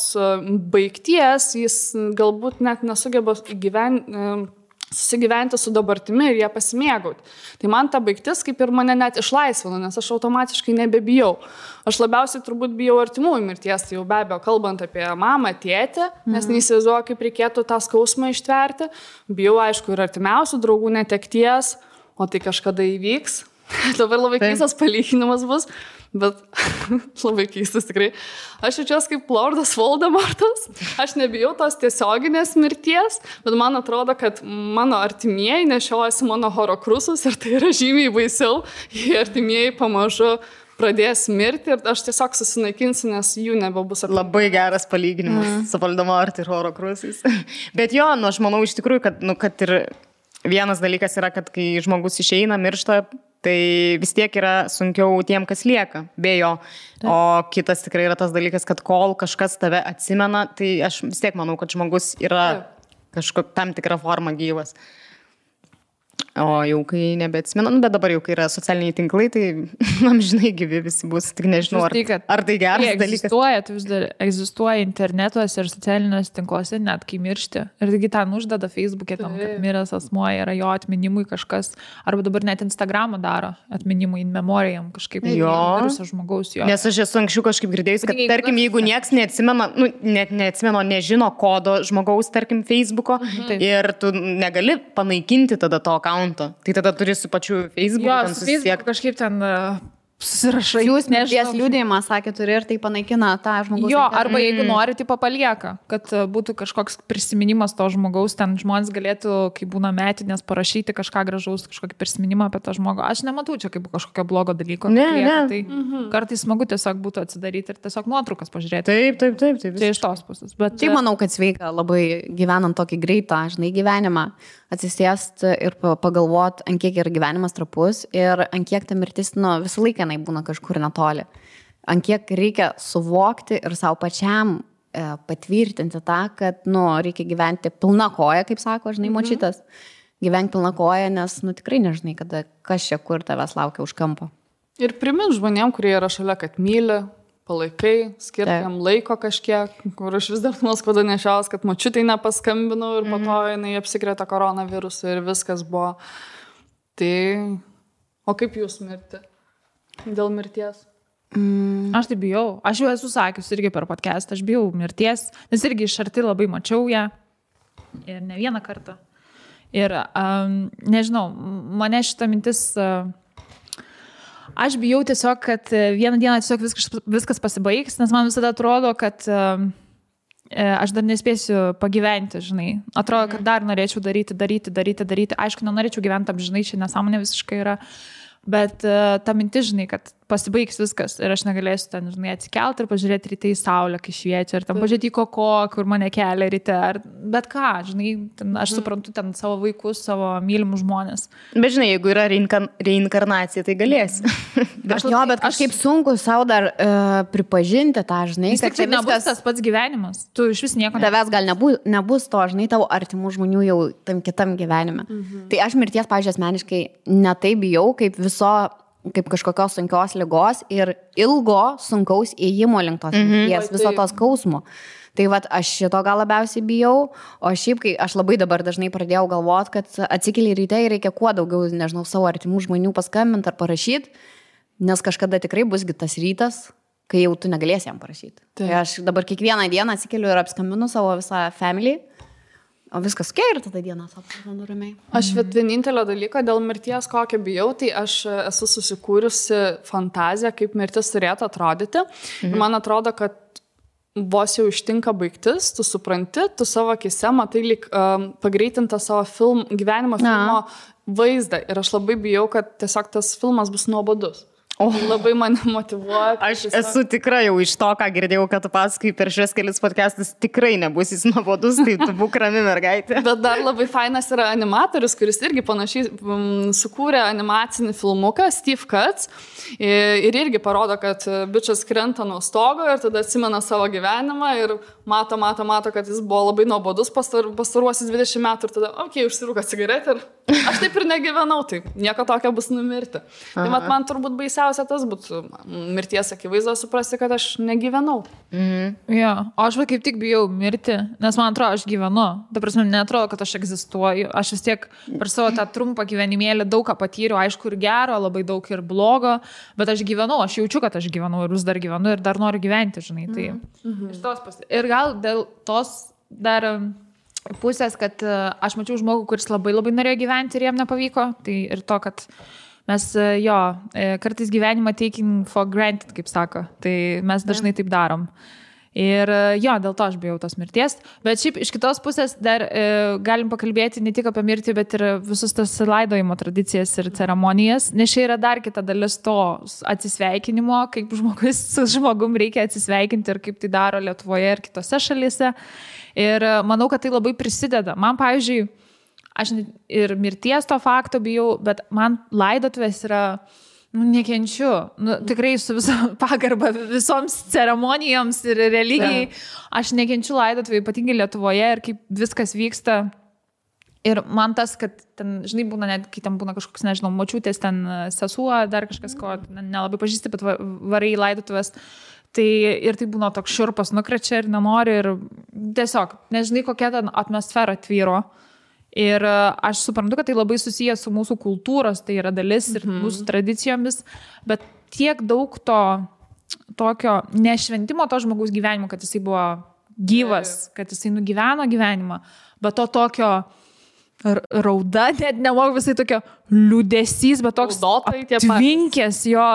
baigties, jis galbūt net nesugeba susigyventi su dabartimi ir ją pasimėgauti. Tai man ta baigtis kaip ir mane net išlaisvino, nes aš automatiškai nebebijau. Aš labiausiai turbūt bijau artimųjų mirties, tai jau be abejo, kalbant apie mamą, tėtį, nes neįsivaizduoju, kaip reikėtų tą skausmą ištverti. Bijau, aišku, ir artimiausių draugų netekties, o tai kažkada įvyks. Dabar labai keistas palyginimas bus, bet labai keistas tikrai. Aš jaučiuosi kaip Lordas Voldemortas, aš nebijau tos tiesioginės mirties, bet man atrodo, kad mano artimieji nešiojasi mano horokrusus ir tai yra žymiai baisiau, jei artimieji pamažu pradės mirti ir aš tiesiog susinaikinsiu, nes jų nebebus. Labai geras palyginimas su Voldemortu ir horokrusais. Bet jo, aš manau iš tikrųjų, kad ir vienas dalykas yra, kad kai žmogus išeina, miršta, tai vis tiek yra sunkiau tiem, kas lieka, be jo. O kitas tikrai yra tas dalykas, kad kol kažkas tave atsimena, tai aš vis tiek manau, kad žmogus yra kažkokia tam tikra forma gyvas. O jau kai nebeatsimenu, bet dabar jau kai yra socialiniai tinklai, tai amžinai gyvi visi bus, tik nežinau, ar tai geras dalykas. Tu vis dar egzistuoja internetuose ir socialiniuose tinkluose, net kai miršti. Ir taigi ten uždeda Facebook'e, tam, kad miręs asmuo yra jo atminimui kažkas, arba dabar net Instagramą daro atminimui in memoriam kažkaip mirusio žmogaus jo. Nes aš esu anksčiau kažkaip girdėjus, kad tarkim, jeigu nieks neatsimena, neatsimeno, nežino kodo žmogaus, tarkim, Facebook'o ir tu negali panaikinti tada to account'o. Tai tada turi su pačiu Facebook'u ten susisiekti. Kažkaip ten susirašai. Jūs mirties liudijimą, sakė, turi ir tai panaikina tą žmogaus. Jo, arba jeigu nori, tai palieka, kad būtų kažkoks prisiminimas to žmogaus, ten žmonės galėtų, kai būna metinės, parašyti kažką gražaus, kažkokį prisiminimą apie tą žmogų. Aš nematau čia kaip kažkokio blogo dalyko. Tai kartais smagu tiesiog būtų atsidaryti ir tiesiog nuotraukas pažiūrėti. Taip. Tai iš tos pusės. Bet tai manau, kad sveika labai gyvenant tokį greitą, žinai, gyvenimą, atsisėst ir pagalvot, ant kiek yra gyvenimas trapus ir ant kiek ta mirtis, visą laiką būna kažkur netoli. Ant kiek reikia suvokti ir savo pačiam patvirtinti tą, kad, reikia gyventi pilna koja, kaip sako, žinai, močitas. Gyventi pilna koja, nes, tikrai nežinai, kada kas čia kur tavęs laukia už kampo. Ir primint žmonėm, kurie yra šalia, kad myli, palaikai, skirti laiko kažkiek, kur aš vis dar nuoskaudą nešiaus, kad močiutai nepaskambinau ir po to jinai apsikrėtė koronavirusą ir viskas buvo. Tai, o kaip jūs mirti? Dėl mirties? Aš tai bijau. Aš jau esu sakius irgi per podcastą, aš bijau mirties, nes irgi iš arti labai mačiau ją ir ne vieną kartą. Ir nežinau, mane šita mintis... Aš bijau tiesiog, kad vieną dieną tiesiog viskas pasibaigs, nes man visada atrodo, kad aš dar nespėsiu pagyventi, žinai. Atrodo, kad dar norėčiau daryti. Aišku, nenorėčiau gyventi amžinai, čia nesąmonė visiškai yra. Bet ta mintis, žinai, kad pasibaigs viskas ir aš negalėsiu ten, žinai, atsikelti ir pažiūrėti ryte į saulę, kai šviečia, ir ten pažiūrėti į koko, kur mane kelia ryte, bet ką, žinai, ten, aš suprantu ten savo vaikus, savo mylimus žmonės. Bet žinai, jeigu yra reinkarnacija, tai galėsi. Bet kažkaip sunku savo dar pripažinti tą, žinai, kad čia nebus tas pats gyvenimas. Tu iš vis nieko tavęs gal nebus to, žinai, tavo artimų žmonių jau tam kitam gyvenime. Tai aš mirties, pavyzdžiui, asmeniškai netai bijau, kaip kažkokios sunkios ligos ir ilgo sunkaus ėjimo link tos mirties, viso tos skausmo. Tai aš šito gal labiausiai bijau, o šiaip, kai aš labai dabar dažnai pradėjau galvoti, kad atsikeli ryte ir reikia kuo daugiau, nežinau, savo artimų žmonių paskambinti ar parašyti, nes kažkada tikrai busgi tas rytas, kai jau tu negalėsi jam parašyti. Tai aš dabar kiekvieną dieną atsikeliu ir apskambinu savo visą family. O viskas ir tada dieną sapnu ramiai. Aš vienintelio dalyko dėl mirties, kokią bijau, tai aš esu susikūrusi fantaziją, kaip mirtis turėtų atrodyti. Ir man atrodo, kad vos jau ištinka baigtis, tu supranti, tu savo akise matai lyg pagreitintą savo gyvenimo filmo vaizdą. Ir aš labai bijau, kad tiesiog tas filmas bus nuobodus. Labai mane motyvuoja. Aš esu tikra jau iš to, ką girdėjau, kad tu pasakai per šios kelis podcastus, tikrai nebus jis nuobodus, tai tu būk rami mergaitė. Bet dar labai fainas yra animatorius, kuris irgi panašiai sukūrė animacinį filmuką, Steve Katz. Ir irgi parodo, kad bičias krenta nuo stogo ir tada atsimena savo gyvenimą ir mato, kad jis buvo labai nuobodus pastaruosius 20 metų ir tada, užsirūka cigaretę ir aš taip ir negyvenau, tai nieko tokio bus numirti. Tai man turbūt baisiausia tas būtų mirties akivaizdo suprasti, kad aš negyvenau. Jo, o aš kaip tik bijau mirti, nes man atrodo, aš gyvenu. Ta prasme, neatrodo, kad aš egzistuoju. Aš vis tiek per savo tą trumpą gyvenimėlį daug ką patyriau, aišku, ir gero, labai daug ir blogo, bet aš gyvenau, aš jaučiu, kad aš gyvenau ir vis dar gyvenu ir dar noriu gyventi, žinai. Tai iš tos pusės. Ir gal dėl tos dar pusės, kad aš mačiau žmogų, kuris labai norėjo gyventi ir jam nepavyko, tai ir to, kad mes kartais gyvenimą taking for granted, kaip sako, tai mes dažnai taip darom. Ir dėl to aš bijau tos mirties, bet šiaip iš kitos pusės dar galim pakalbėti ne tik apie mirtį, bet ir visus tas laidojimo tradicijas ir ceremonijas, nes čia yra dar kita dalis to atsisveikinimo, kaip žmogus su žmogum reikia atsisveikinti ir kaip tai daro Lietuvoje ir kitose šalyse. Ir manau, kad tai labai prisideda. Man, pavyzdžiui, aš ir mirties to fakto bijau, bet man laidotuvės yra, nekenčiu. Tikrai su visą pagarbą visoms ceremonijoms ir religijai. Aš nekenčiu laidotuvę, ypatingai Lietuvoje ir kaip viskas vyksta. Ir man tas, kad ten, žinai, būna net, kai ten būna kažkoks, nežinau, močiutės, ten sesuo, dar kažkas, ko nelabai pažįsti, bet varai į laidotuvės. Tai ir tai būna toks šiurpas, nukrečia ir nenori ir tiesiog, nežinai, kokia ten atmosfera tvyro. Ir aš suprantu, kad tai labai susijęs su mūsų kultūros, tai yra dalis ir mūsų tradicijomis, bet tiek daug to tokio nešventimo to žmogaus gyvenimo, kad jisai buvo gyvas, kad jisai nugyveno gyvenimą, bet to tokio rauda, net nemoku visai tokio liūdesys, bet toks atvinkęs jo.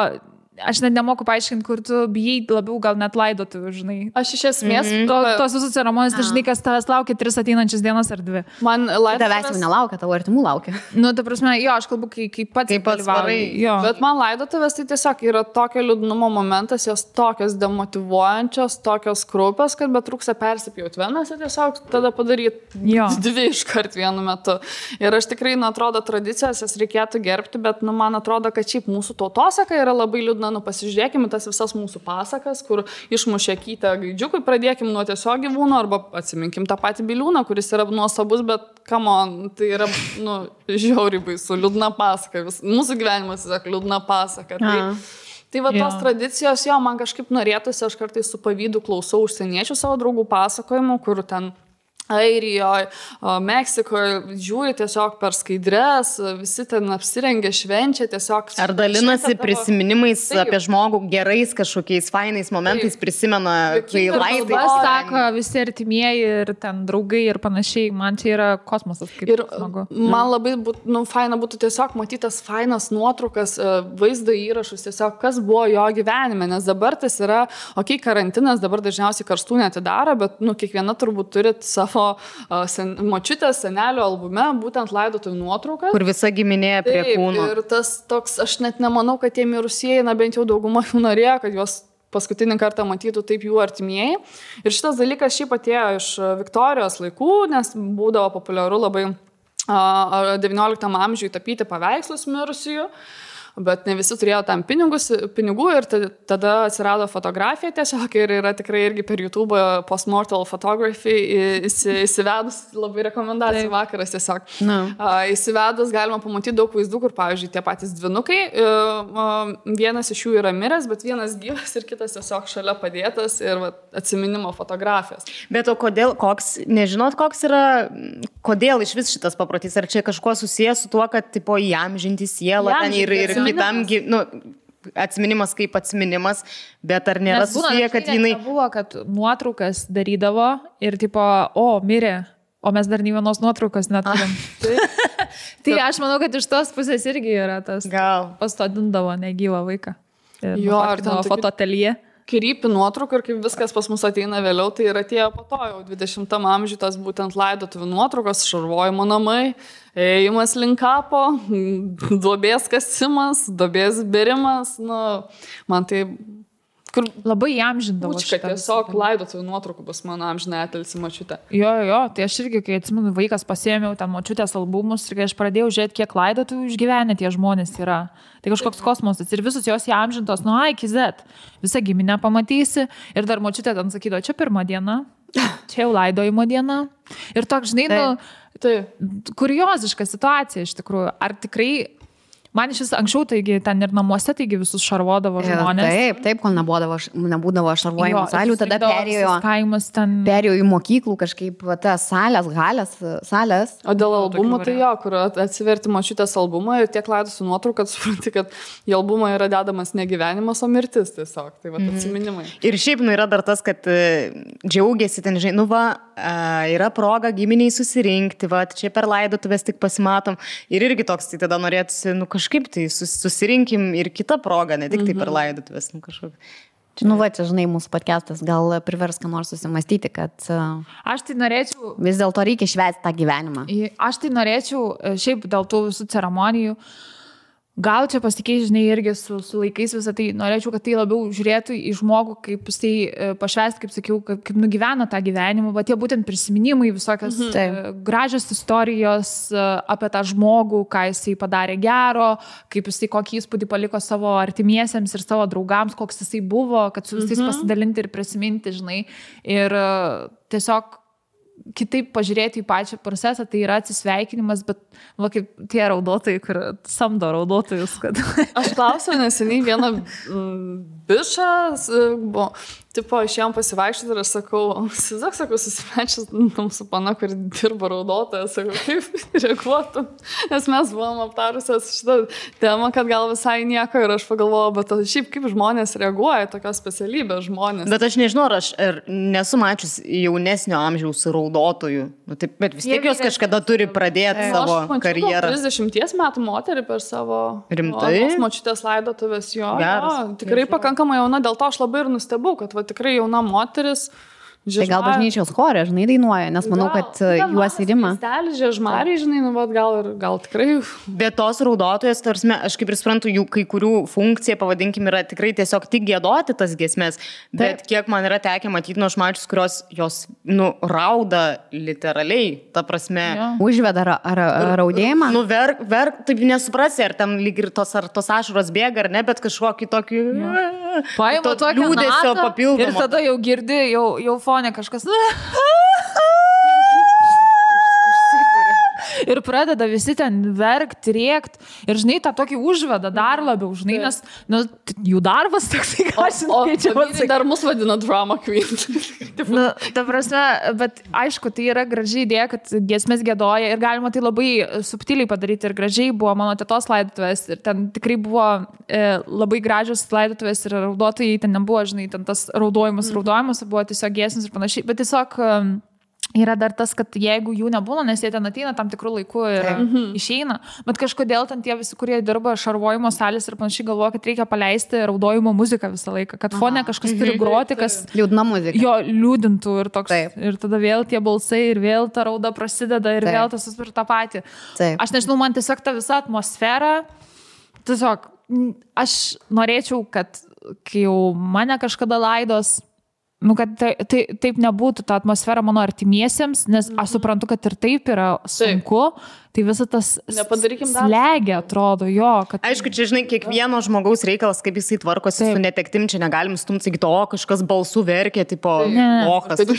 Aš net nemoku paaiškinti, kur tu bijai labiau gal net laidotuvių, žinai. Aš iš esmės... Tos visus ceremonijos, tai žinai, kas tavęs laukia 3 ateinančias dienas ar 2. Man laidotuvės... Tavęs jau nelaukia, tavo artimų laukia. Ta prasme, aš kalbu, kai pats varai. Bet man laidotuvės tai tiesiog yra tokio liūdnumo momentas, jos tokios demotyvuojančios, tokios kraupios, kad betrūksta persipjauti vienas ir tiesiog tada padaryti 2 iškart vienu metu. Ir aš tikrai, atrodo, tradicijas jas reikėtų gerbti, bet, man atrodo, kad šiaip mūsų tautosaka yra labai liūdna. Pasižiūrėkime tas visas mūsų pasakas, kur išmušė kytę gaidžiukui, pradėkim nuo tiesiog gyvūno, arba atsiminkim tą patį biliūną, kuris yra nuostabus, bet come on, tai yra, žiauriai baisu, liūdna pasaka, mūsų gyvenimas yra liūdna pasaka. Tai va tos tradicijos, man kažkaip norėtųsi, aš kartais su pavydu klausau užsieniečių savo draugų pasakojimų, kur ten Airijoje, Meksikoje žiūri tiesiog per skaidres, visi ten apsirengia, švenčia tiesiog. Ar dalinasi prisiminimais apie žmogų gerais kažkokiais fainais momentais, prisimena, kai laidai. Sako visi artimieji ir ten draugai ir panašiai, man čia yra kosmosas kaip smagu. Man labai faina būtų tiesiog matytas fainas nuotraukas, vaizdo įrašus, tiesiog kas buvo jo gyvenime, nes dabar tas yra, karantinas, dabar dažniausiai karstų neatidaro, bet kiekviena turbūt turit savo močiutės senelio albume, būtent laidotuvių nuotrauką. Kur visa giminė prie kūno. Ir tas toks, aš net nemanau, kad tie mirusieji, bent jau dauguma jų norėjo, kad juos paskutinį kartą matytų taip jų artimieji. Ir šitas dalykas šiaip atėjo iš Viktorijos laikų, nes būdavo populiaru labai 19 amžiuje tapyti paveikslus mirusiųjų. Bet ne visi turėjo tam pinigų ir tada atsirado fotografija tiesiog ir yra tikrai irgi per YouTube postmortal photography įsivedus, labai rekomendacijų vakaras tiesiog. Įsivedus galima pamatyti daug vaizdų, kur, pavyzdžiui, tie patys dvynukai, vienas iš jų yra miręs, bet vienas gyvas ir kitas tiesiog šalia padėtas ir atsiminimo fotografijos. Bet o kodėl, nežinot, koks yra, kodėl iš vis šitas paprotys, ar čia kažkuo susijęs su tuo, kad tipo įamžinti sielą ten ir kitam, atsiminimas kaip atsiminimas, bet ar nėra susiję, kad jinai... Buvo, kad nuotraukas darydavo ir tipo, mirė, o mes dar nei vienos nuotraukos neturim. Tai aš manau, kad iš tos pusės irgi yra tas, pastodindavo negyvą vaiką. Jo, ar ten fotoateljė. krypį nuotraukų ir kaip viskas pas mus ateina vėliau, tai yra atėjo po to jau 20 amžiuje tas būtent laidotuvių nuotraukos, šarvojimo namai, ėjimas link kapo, duobės kasimas, duobės berimas, nu, man tai... Kur labai įamžindavo. Kad tiesiog laidotuvių nuotraukų pas mano amžinai atilsi močiutę. Jo, tai aš irgi, kai atsimenu, vaikas pasiėmiau ten močiutės albumus ir kai aš pradėjau žiūrėti, kiek laidotuvių išgyvenę tie žmonės yra. Tai kažkoks kosmosas ir visus jos įamžintos nuo A iki Z. Visą giminę pamatysi ir dar močiutė ten sakydavo, čia pirma diena, čia jau laidojimo diena. Ir toks, žinai, kurioziška situacija iš tikrųjų. Ar tikrai... Man šis anksčiau, taigi ten ir namuose, taigi visus šarvodavo žmonės. Taip, kol nebūdavo šarvojimo salių, tada perėjo į mokyklų kažkaip tas salės. O dėl albumų tai jo, kur atsiverti močiutės albumą ir tiek laidosi nuotrauką, kad supranti, kad į albumą yra dedamas ne gyvenimas, o mirtis tiesiog. Tai va, atsiminimai. Ir šiaip, yra dar tas, kad džiaugiasi ten, žinai, yra proga giminiai susirinkti, čia per laidotuvės tik pasimatom. Ir irgi toks, tai tada norėtųsi, kažkaip tai susirinkim ir kitą progą, ne tik tai per laidotuvės, kažkaip. Čia, žinai, mūsų podcastas gal privers ką nors susimastyti, kad aš tai norėčiau... Vis dėlto reikia švęsti tą gyvenimą. Aš tai norėčiau, šiaip dėl tų visų ceremonijų, gal čia pasikeisti, žinai, irgi su laikais visą tai, norėčiau, kad tai labiau žiūrėtų į žmogų, kaip jisai pašvęsti, kaip sakiau, kaip nugyvena tą gyvenimą, bet tie būtent prisiminimai, visokios gražios istorijos apie tą žmogų, ką jisai padarė gero, kaip jisai kokį įspūdį paliko savo artimiesiems ir savo draugams, koks jisai buvo, kad su visais pasidalinti ir prisiminti, žinai, ir tiesiog kitaip pažiūrėti į pačią procesą, tai yra atsisveikinimas, bet va, kaip tie raudotojai, kur samdo raudotojus, kad... Aš klausiau neseniai vieną bišą, tipo, išėjom pasivaikščioti ir aš sakau, susimečias su pana, kur dirba raudotoja, sakau, kaip reaguotum, nes mes buvom aptarusios šitą temą, kad gal visai nieko ir aš pagalvojau, bet šiaip kaip žmonės reaguoja, tokios specialybės žmonės. Bet aš nežinau, aš nesu mačius jaunesnio amžiaus raudotojų, taip, bet vis tiek jos kažkada turi pradėti savo karjerą. Aš 30 metų moterį per savo močiutės laidotuvės, tikrai pakankamai jauna, dėl to aš labai ir nustebau, kad tikrai jauna moteris. Tai gal bažnyčios chore, žinai, dainuoja, nes manau, kad juos įrima. Žmariai, žinai, gal tikrai. Bet tos raudotojas, tarsi, aš kaip ir suprantu, jų kai kurių funkcija, pavadinkim, yra tikrai tiesiog tik giedoti tas giesmės, bet kiek man yra tekę matyti nuo žmačius, kurios jos, rauda literaliai, ta prasme. Užveda raudėjimą? Verk, taip nesuprasi, ar tam lyg ir tos ašaros bėga, ar ne, bet kažkokį tokį paima tokį liūdesio papildomą. Ir tada jau girdi, jau fone kažkas. Ir pradeda visi ten verkti, rėkti. Ir, žinai, tą tokį užveda dar labiau, žinai, nes jų darbas toksai, ką dar mus vadina drama queen. Ta prasme, bet aišku, tai yra graži idėja, kad giesmės giedoja ir galima tai labai subtiliai padaryti ir gražiai buvo mano tetos laidotuvės ir ten tikrai buvo labai gražios laidotuvės ir raudotojai, ten nebuvo, žinai, ten tas raudojimas, buvo tiesiog giesmės ir panašiai, bet tiesiog yra dar tas, kad jeigu jų nebūna, nes jie ten ateina tam tikrų laikų ir išeina, bet kažkodėl ten tie visi, kurie dirba šarvojimo salės ir panašiai galvoja, kad reikia paleisti raudojimo muziką visą laiką, kad fone kažkas turi groti, kas liūdna muzika. Jo liūdintų ir toks. Ir tada vėl tie balsai ir vėl ta rauda prasideda ir vėl tas ir tą patį. Aš nežinau, man tiesiog ta visa atmosfera, tiesiog aš norėčiau, kad kai jau mane kažkada laidos, kad taip nebūtų ta atmosfera mano artimiesiems, nes aš suprantu, kad ir taip yra sunku, tai visą tas slegia, atrodo, jo. Kad... Aišku, čia, žinai, kiekvieno žmogaus reikalas, kaip jisai tvarkosi su netektim, čia negalim stumti, sakyti, kažkas balsų verkia, tipo, ohas. Bet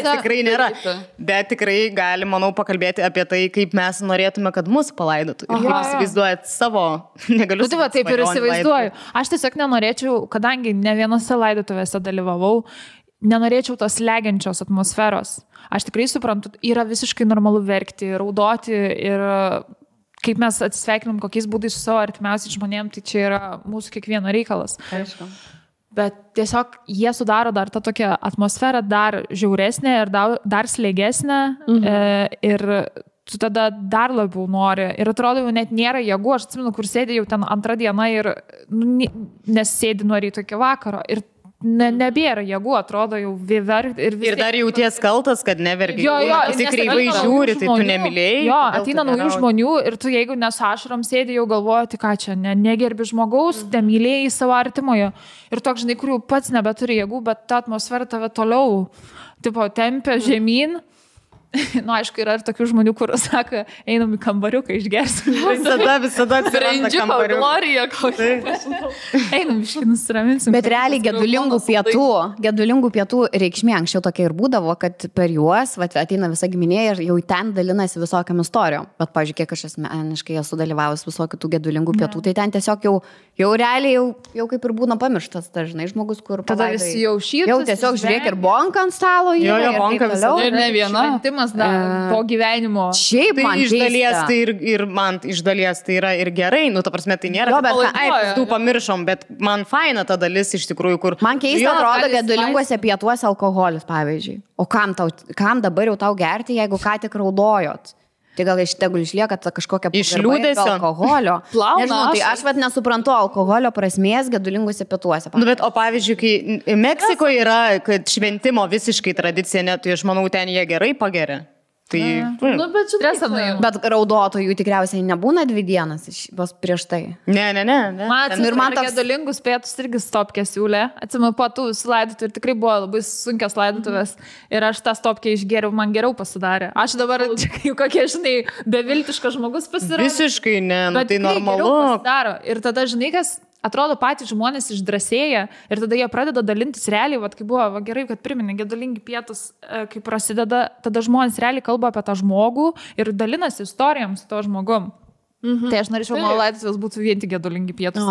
tikrai nėra. Bet tikrai galim, manau, pakalbėti apie tai, kaip mes norėtume, kad mus palaidotų. Ir kaip įsivaizduojat savo, negaliu sakyti. Taip ir įsivaizduoju. Aš tiesiog nenorėčiau, kadangi ne vienose laidotuvėse dalyvavau, nenorėčiau tos slegiančios atmosferos. Aš tikrai suprantu, yra visiškai normalu verkti, raudoti ir kaip mes atsisveikinam kokiais būdais su savo artimiausiais žmonėm, tai čia yra mūsų kiekvieno reikalas. Aišku. Bet tiesiog jie sudaro dar tą tokią atmosferą dar žiauresnę ir dar slėgesnę ir tu tada dar labiau nori. Ir atrodo, jau net nėra jėgų. Aš atsimenu, kur sėdė jau ten antrą dieną ir nes sėdi nuo ryto iki vakaro. Ir nebėra jėgų, atrodo jau verkti. Ir dar jauties kaltas, kad nevergi. Jo, tik kreivai žiūri, tai tu nemylėjai. Jo, ateina naujų žmonių ir tu jeigu nesašarom sėdi, jau galvoji, tai ką čia, negerbi žmogaus, nemylėjai savo artimojo. Ir toks, žinai, kur jau pats nebeturi jėgų, bet ta atmosfera tave toliau, tipo, tempia žemyn. Nu, aišku, yra ir tokių žmonių, kur sako, einam į kambariuką, išgersim. Visada atsiranda kambariuką. Glorija, einam, iškai nusiraminsim. Bet realiai gedulingų pietų reikšmė anksčiau tokia ir būdavo, kad per juos ateina visa giminė ir jau ten dalinasi visokiam istorijom. Bet, pavyzdžiui, kiek aš asmeniškai esu dalyvavus visokių tų gedulingų pietų, tai ten tiesiog jau realiai jau kaip ir būna pamirštas dažnai žmogus, kur tada visi jau šypsosi. Jau tiesiog žiūrėk ir bonka ant stalo. Jo, bonka visada. Ir ne viena. Po gyvenimo. Šiaip man iš dalies tai ir man iš dalies tai yra ir gerai, nu, ta prasme, tai nėra, tu pamiršom, bet man faina ta dalis iš tikrųjų, kur... Man keista atrodo gedulinguose pietuose alkoholis, pavyzdžiui. O kam dabar jau tau gerti, jeigu ką tik raudojot? Tai gal tegul išlieka kažkokia išliūdėsio alkoholio. Nežinau, tai aš nesuprantu alkoholio prasmės gedulinguose pietuose. Nu, bet, o pavyzdžiui, kai Meksikoje yra, kad šventimo visiškai tradicija, net, tai aš manau, ten jie gerai pageria. Tai... Nu, bet raudotojų tikriausiai nebūna 2 dienas prieš tai. Ne. Man gedulingus pietus irgi stopkę siūlė. Atsimenu, po tų laidotuvių ir tikrai buvo labai sunkios laidotuvės. Ir aš tą stopkę išgėriau, man geriau pasidarė. Aš dabar, kokie, žinai, beviltiškas žmogus pasirodė. Visiškai ne, tai normalu. Ir tada, žinai, kas... Atrodo, patys žmonės išdrasėja ir tada jie pradeda dalintis realiai, kai buvo gerai, kad priminė gedulingi pietus, kai prasideda, tada žmonės realiai kalba apie tą žmogų ir dalinasi istorijom su to žmogum. Tai aš norėčiau, mano laidotuvės būtų vien tik gedulingi pietus.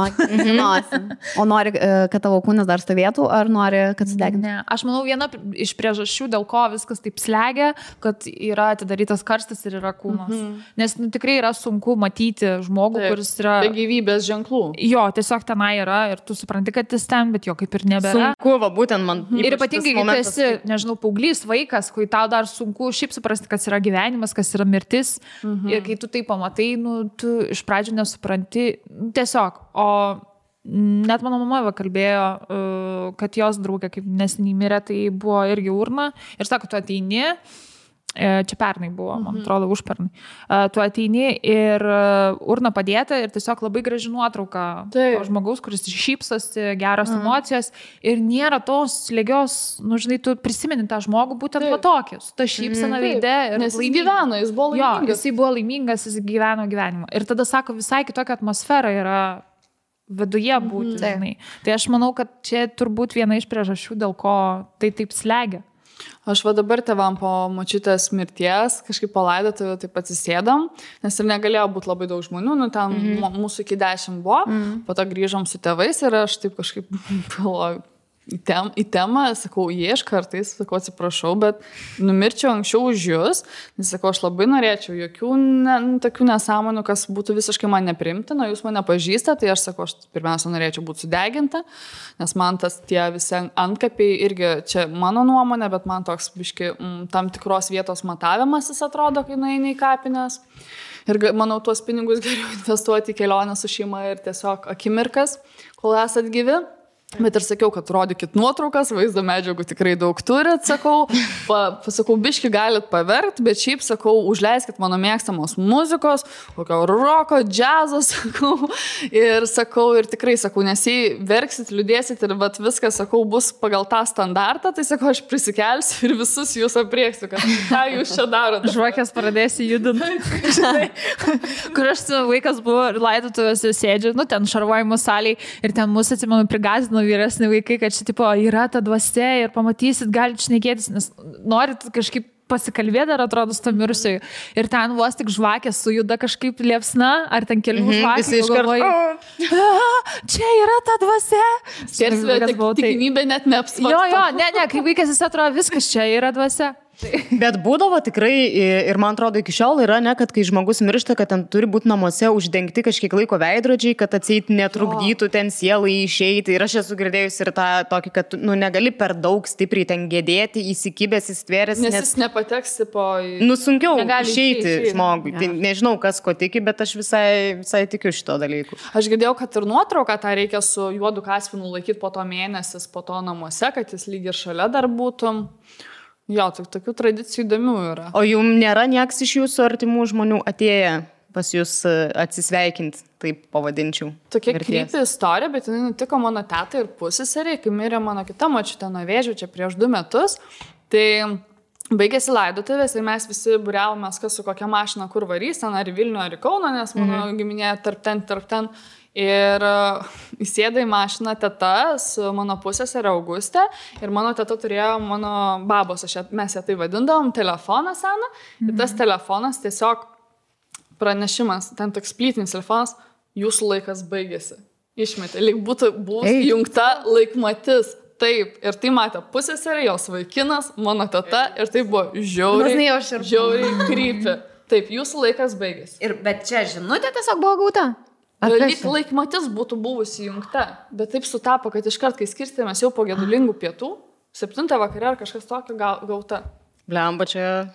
O nori, kad tavo kūnas dar stovėtų, ar nori, kad sudegintų? Ne, aš manau, viena iš priežasčių, dėl ko viskas taip slegia, kad yra atidarytas karstas ir yra kūnas. Nes tikrai yra sunku matyti žmogų, kuris yra... Be gyvybės ženklų. Jo, tiesiog tenai yra ir tu supranti, kad jis ten, bet jo kaip ir nebėra. Sunku, būtent man. Ir ypatingai, kai tu esi, nežinau, paauglys, vaikas, kai tau dar sunku šiaip suprasti, kas yra gyvenimas, kas yra mirtis. Ir kai tu tai pamatai, tu iš pradžių nesupranti tiesiog, o net mano mama kalbėjo, kad jos draugė, kaip neseniai mirė, tai buvo irgi urna ir sako, tu ateini, čia pernai buvo, man atrodo, užpernai, tu ateini ir urna padėta ir tiesiog labai graži nuotrauka žmogaus, kuris šypsosi, geros emocijos ir nėra tos lygios, nu žinai, tu prisimeni tą žmogų būtent va tokį, su ta šypsena veide. Nes jis gyveno, jis buvo laimingas. Jo, jisai buvo laimingas, jis gyveno gyvenimą. Ir tada sako, visai kitokia atmosfera yra viduje būti. Tai aš manau, kad čia turbūt viena iš priežasčių, dėl ko tai taip slegia. Aš dabar tėvam po močiutės mirties kažkaip palaidotuvių taip atsisėdam, nes ir negalėjo būti labai daug žmonių, nu ten mūsų iki 10 buvo, po to grįžom su tėvais ir aš taip kažkaip galvoju, į temą, sakau, aš kartais, sakau, atsiprašau, bet numirčiau anksčiau už jūs, nes sakau, aš labai norėčiau jokių tokių nesąmonių, kas būtų visiškai man neprimtina, jūs mane pažįstate, tai aš sakau, aš pirmiausia norėčiau būti sudeginta, nes man tie visi antkapiai irgi, čia mano nuomonė, bet man toks biški tam tikros vietos matavimas jis atrodo, kai nueini į kapines. Ir manau, tuos pinigus geriau investuoti į kelionę su šeima ir tiesiog akimirkas, kol esat gyvi. Bet ir sakiau, kad rodykit nuotraukas, vaizdo medžiagų tikrai daug turit, sakau, pasakau, biški galit paverkt, bet šiaip, sakau, užleiskit mano mėgstamos muzikos, kokio roko, džiazo, sakau, ir tikrai, sakau, nes jei verksit, liūdėsit ir viskas, sakau, bus pagal tą standartą, tai sakau, aš prisikelsiu ir visus jūs aprieksiu, kad ką jūs čia darot. Žvakės pradėsi judinti. Kur aš su vaikas buvo laidotuvėse sėdžiu, nu ten šarvojimo salėje ir ten mūsų, atsimenu, prigąsdino vyresni vaikai, kad čia tipo yra ta dvasia ir pamatysit, galit šnekėtis, nes norit kažkaip pasikalbėti, ar atrodo su to mirusiu. Ir ten vos tik žvakės sujuda kažkaip liepsna, ar ten kelių žvakės. Čia yra ta dvasia. Tikimybė net neapsvarsto. Jo, ne, kai vaikas jis atrodo viskas čia yra dvasia. Bet būdavo tikrai, ir man atrodo iki šiol yra, ne, kad kai žmogus miršta, kad ten turi būti namuose uždengti kažkiek laiko veidrodžiai, kad atseit netrukdytų ten sielai išeiti. Ir aš esu girdėjusi ir tą tokį, kad negali per daug stipriai ten gedėti, įsikibęs, įstvėręs. Nes jis nepateksi po... Sunkiau išeiti žmogui. Tai nežinau, kas ko tiki, bet aš visai tikiu šito dalyku. Aš girdėjau, kad ir nuotrauką tą reikia su juodu kaspinu laikyti po to mėnesis, po to namuose, kad jis lyg ir šalia dar būtum. Jo, tokių tradicijų įdomių yra. O jums nėra nieks iš jūsų artimų žmonių atėję pas jūs atsisveikinti, taip pavadinčiau? Tokia krypti istorija, bet jinai nutiko mano tetai ir pusseserei, kai mirė mano kita močiutė nuo vėžio čia prieš 2 metus. Tai baigėsi laidotuvės ir mes visi būriavomės, kas su kokia mašina kur varys, ten ar į Vilnių, ar į Kauną, nes mano giminė tarp ten. Ir įsėda į mašiną teta su mano pusseserė Augustė ir mano teta turėjo mano babos, mes ją tai vadindavom, telefoną seną. Ir tas telefonas tiesiog pranešimas, ten toks plytinis telefonas, jūsų laikas baigėsi. Išmetė, lyg būtų jungta laikmatis. Taip, ir tai matė pusseserė, jos vaikinas, mano teta ir tai buvo žiauriai krypi. Taip, jūsų laikas baigėsi. Bet čia žinutė tiesiog buvo gauta? Lyg laikmatis būtų buvusi jungta, bet taip sutapo, kad iškart, kai skirstėmės jau po gedulingų pietų, 7 vakare ar kažkas tokio gauta. Blemba čia.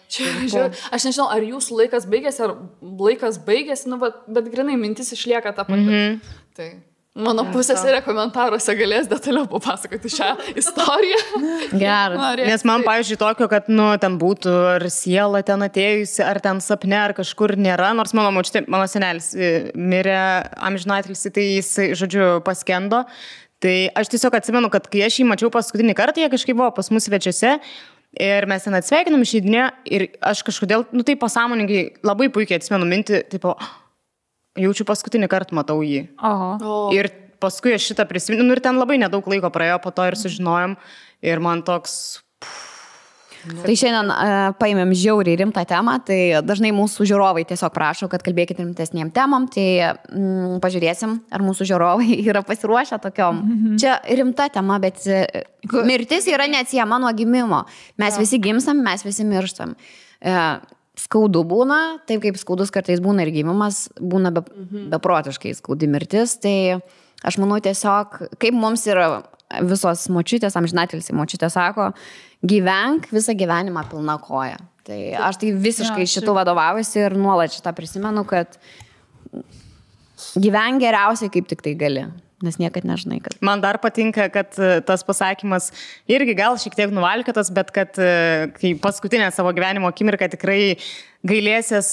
Aš nežinau, ar jūsų laikas baigėsi, ar laikas baigėsi, bet grinai mintis išlieka tą patį. Tai mano pusseserė komentaruose galės detaliau papasakoti šią istoriją. Gerai. Nes man, pavyzdžiui, tokio, kad, ten būtų ar siela ten atėjusi, ar ten sapne, ar kažkur nėra, nors mano senelis mirė amžinatilsi, tai jis, žodžiu, paskendo. Tai aš tiesiog atsimenu, kad kai aš jį mačiau paskutinį kartą, jie kažkaip buvo pas mus svečiuose ir mes ten atsveikinom išeidinė ir aš kažkodėl, tai pasąmoningai labai puikiai atsimenu mintį, tipo, jaučiu paskutinį kartą matau jį. Ir paskui aš šitą prisimenu ir ten labai nedaug laiko praėjo, po to ir sužinojom ir man toks... Tai šiandien paėmėm žiauriai rimtą temą, tai dažnai mūsų žiūrovai tiesiog prašo, kad kalbėkite rimtesniem temam, tai pažiūrėsim, ar mūsų žiūrovai yra pasiruošę tokiom. Čia rimta tema, bet mirtis yra neatsiejama nuo gimimo. Mes visi gimstam, mes visi mirštam. Skaudu būna, taip kaip skaudus kartais būna ir gimimas, būna beprotiškai skaudi mirtis, tai aš manau tiesiog, kaip mums yra visos močiutės, amžinatilsi močiutė sako, gyvenk visą gyvenimą pilna koja. Tai aš tai visiškai šitų vadovavusi ir nuolat šitą prisimenu, kad gyvenk geriausiai kaip tik tai gali. Nes niekad nežinai, kad... Man dar patinka, kad tas pasakymas irgi gal šiek tiek nuvalkėtas, bet kad kai paskutinę savo gyvenimo akimirką tikrai gailėsies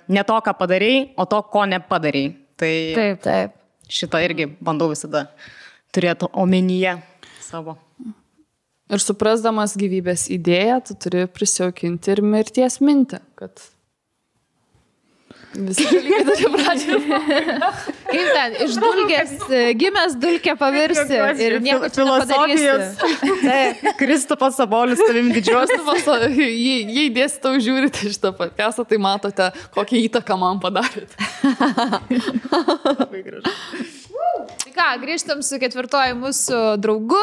ne to, ką padarei, o to, ko nepadarei. Tai taip. Šitą irgi bandau visada turėti omenyje savo. Ir suprasdamas gyvybės idėją, tu turi prisijaukinti ir mirties mintį, kad... Visi dalykai turi pradžią. Kaip ten, iš dulkės, gimęs dulkė pavirsi ir nieko čia nepadarysi. Kristupas Sabolis tavim didžiuosi. Jei dėstau žiūrite šitą podcastą, tai matote, kokią įtaką man padarėte. Labai gražu. Tai ką, grįžtam su 4 mūsų draugu,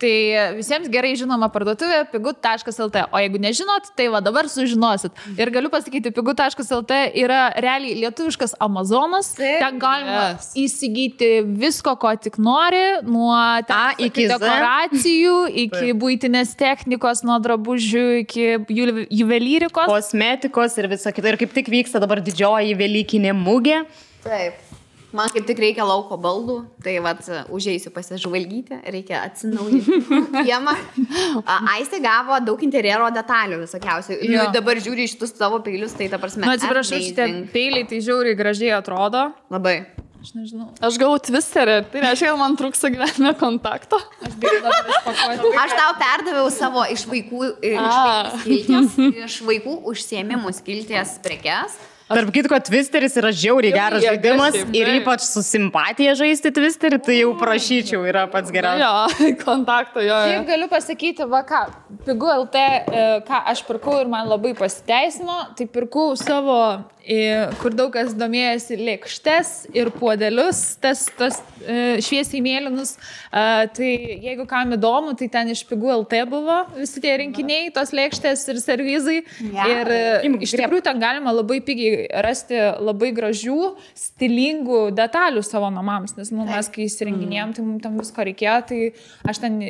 tai visiems gerai žinoma parduotuvė pigu.lt, o jeigu nežinot, tai va dabar sužinosit. Ir galiu pasakyti, pigu.lt yra realiai lietuviškas Amazonas, ten galima įsigyti visko, ko tik nori, nuo iki dekoracijų, iki buitinės technikos, nuo drabužių, iki juvelyrikos. Kosmetikos ir viso kito. Ir kaip tik vyksta dabar didžioji velykinė mugė. Taip. Man kaip tik reikia lauko baldų, tai užeisiu pasižvalgyti, reikia atsinaujinti kiemą. Aistė gavo daug interjero detalių visokiausių. Dabar žiūri iš šitus savo peilius, tai ta prasme. Atsiprašau, šitie peiliai tai žiauriai gražiai atrodo. Labai. Aš nežinau. Aš gavau twisterį, tai reiškia, kad man trūksta gyvenime kontakto. Aš tau perdaviau savo iš vaikų užsiėmimų skilties prekes. Tarp kitko, twisteris yra žiauriai geras žaidimas ir ypač su simpatija žaisti twisterį, tai jau prašyčiau, yra pats geriausias. Jo, kontakto, jo. Šiaip galiu pasakyti, ką, Pigu.lt, ką aš pirkau ir man labai pasiteisino, tai pirkau savo kur daug kas domėjasi lėkštes ir puodelius, tos šviesiai mėlynus. Tai jeigu kam įdomu, tai ten iš Pigų LT buvo visi tie rinkiniai, tos lėkštės ir servizai. Ir iš tikrųjų ten galima labai pigiai rasti labai gražių, stilingų detalių savo namams, nes mes kai įsirenginėjom, tai mums tam visko reikėjo, tai aš ten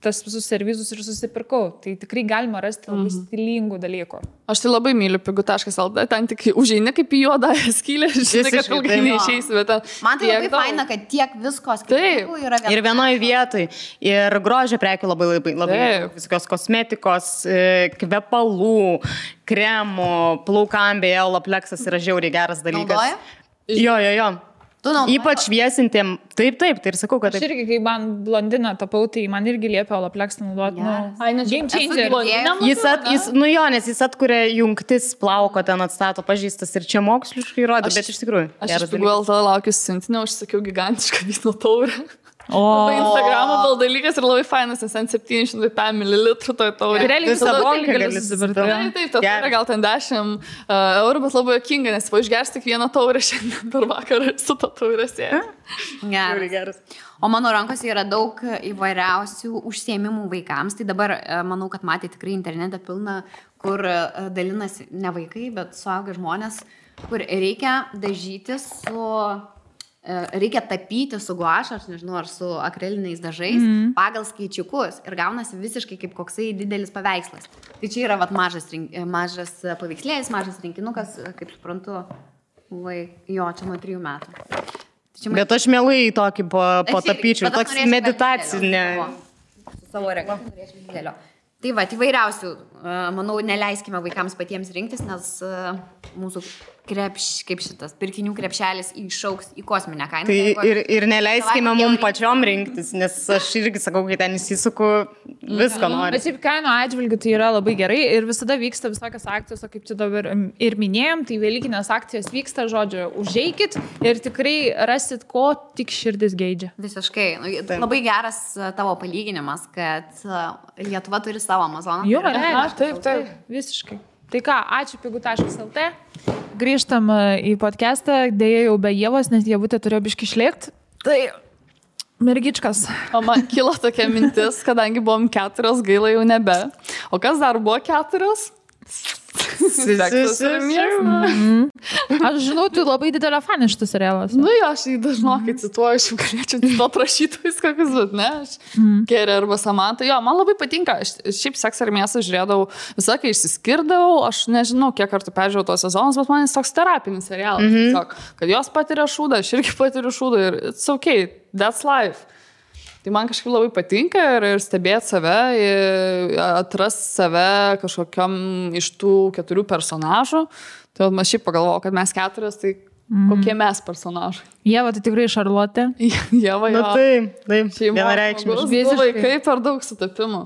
tas visus servizus ir susipirkau. Tai tikrai galima rasti labai stilingų dalykų. Aš tai labai myliu Pigų.lt, ten tik užeini kaip į juodą skylę, žinai, kad ilgai neišeisi, bet ten... Man tai labai faina, kad tiek visko skirtingų yra vienoje. Ir vienoje vietoje. Ir grožio prekių labai visokios kosmetikos, kvepalų, kremų, plaukam, beje, Olapleksas yra žiauriai geras dalykas. Naudoja? Jo. Ypač šviesintiem. Taip, tai ir sakau, kad taip. Aš irgi, kai man blondina tapau, tai man irgi liepia Olaplex naudoti. Game changer. Nes jis atkuria jungtis plauko, ten atstato pažįstas ir čia moksliškai įrodė, bet iš tikrųjų. Aš iš Pigų LT laukiu siuntinio, užsakiau gigantišką vyno taurę. Labai Instagramo dalykas ir labai fainas, nes ant 700 ml toj taurė. Realiai visą bonką gali susipirkti. Taip, ta taurė gal ten 10 eurų, bet labai jokinga, nes išgers tik vieną taurę šiandien per vakarą su ta taurė sėdi. Geras. O mano rankose yra daug įvairiausių užsiėmimų vaikams, tai dabar manau, kad matė tikrai internete pilna, kur dalinasi ne vaikai, bet suaugę žmonės, kur reikia dažyti reikia tapyti su guašu, aš nežinau, ar su akreliniais dažais pagal skaičiukus ir gaunasi visiškai kaip koksai didelis paveikslas. Tai čia yra mažas paveikslėlis, mažas rinkinukas, kaip suprantu, čia nuo 3 metų. Bet aš mielai tokį potapyčiau, toks meditacinė. Su savo reklamu norėčiau didelio. Tai įvairiausių, manau, neleiskime vaikams patiems rinktis, nes mūsų pirkinių krepšelis išauks į kosminę kainą. Tai ir neleiskime mums pačiom rinktis, nes aš irgi sakau, kai ten įsisuku, viską noriu. Bet šiaip kaino atžvilgių tai yra labai gerai ir visada vyksta visokios akcijos, o kaip čia dabar ir minėjom, tai velykinės akcijos vyksta, žodžiu, užeikit ir tikrai rasit, ko tik širdis geidžia. Visiškai. Labai geras tavo palyginimas, kad Lietuva turi savo Amazoną. Jo, taip, visiškai. Tai ką, ačiū Pigų.lt. Grįžtam į podcastą, dėja jau be Ievos, nes Ievutė turėjo biškį išlėkti. Tai mergičkas. O man kilo tokia mintis, kadangi buvom 4, gaila jau nebe. O kas dar buvo 4? Seksas ir miestas. Aš žinau, tu labai didelė fanė šitas serialas. Aš jį dažnokai cituoju, aš jau galėčiau cituoti rašytojus kokius, bet ne, aš Kerė arba Samantha. Jo, man labai patinka, šiaip Seksą ir miestą žiūrėdavau, visą kai išsiskirdavau, aš nežinau, kiek kartų peržiūrėjau tos sezonus, bet man jis toks terapinis serialas. Tiesiog, kad jos patiria šūdą, aš irgi patiriu šūdą ir it's okay, that's life. Tai man kažkaip labai patinka ir stebėti save, atrasti save kažkokiam iš tų 4 personažų. Tai aš šiaip pagalvojau, kad mes 4, tai kokie mes personažai. Ieva, tai tikrai Šarlotė. Ieva, jo. Taip, vienareikšmiškai. Vaikai per daug sutapimų.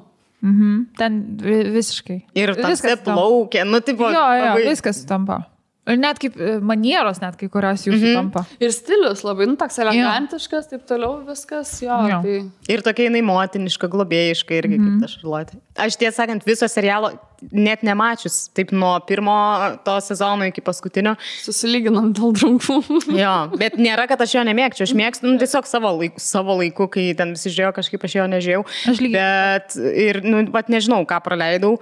Ten visiškai. Ir tamsiai plaukė, tipo. Jo, viskas sutampa. Ir net kaip manieros, net kai kurios jų sutampa. Ir stilius labai, toks elegantiškas, taip toliau viskas, jo. Tai... Ir tokia jinai motiniška, globėjiška irgi kaip ta Šarlotė. Aš tiesą sakant, viso serialo net nemačius, taip nuo pirmo to sezono iki paskutinio. Susilyginam dėl draugų. Jo, bet nėra, kad aš jo nemėgčiau. Aš mėgstu tiesiog savo laiku, kai ten visi žiūrėjo, kažkaip aš jo nežiūrėjau. Bet ir, nežinau, ką praleidau.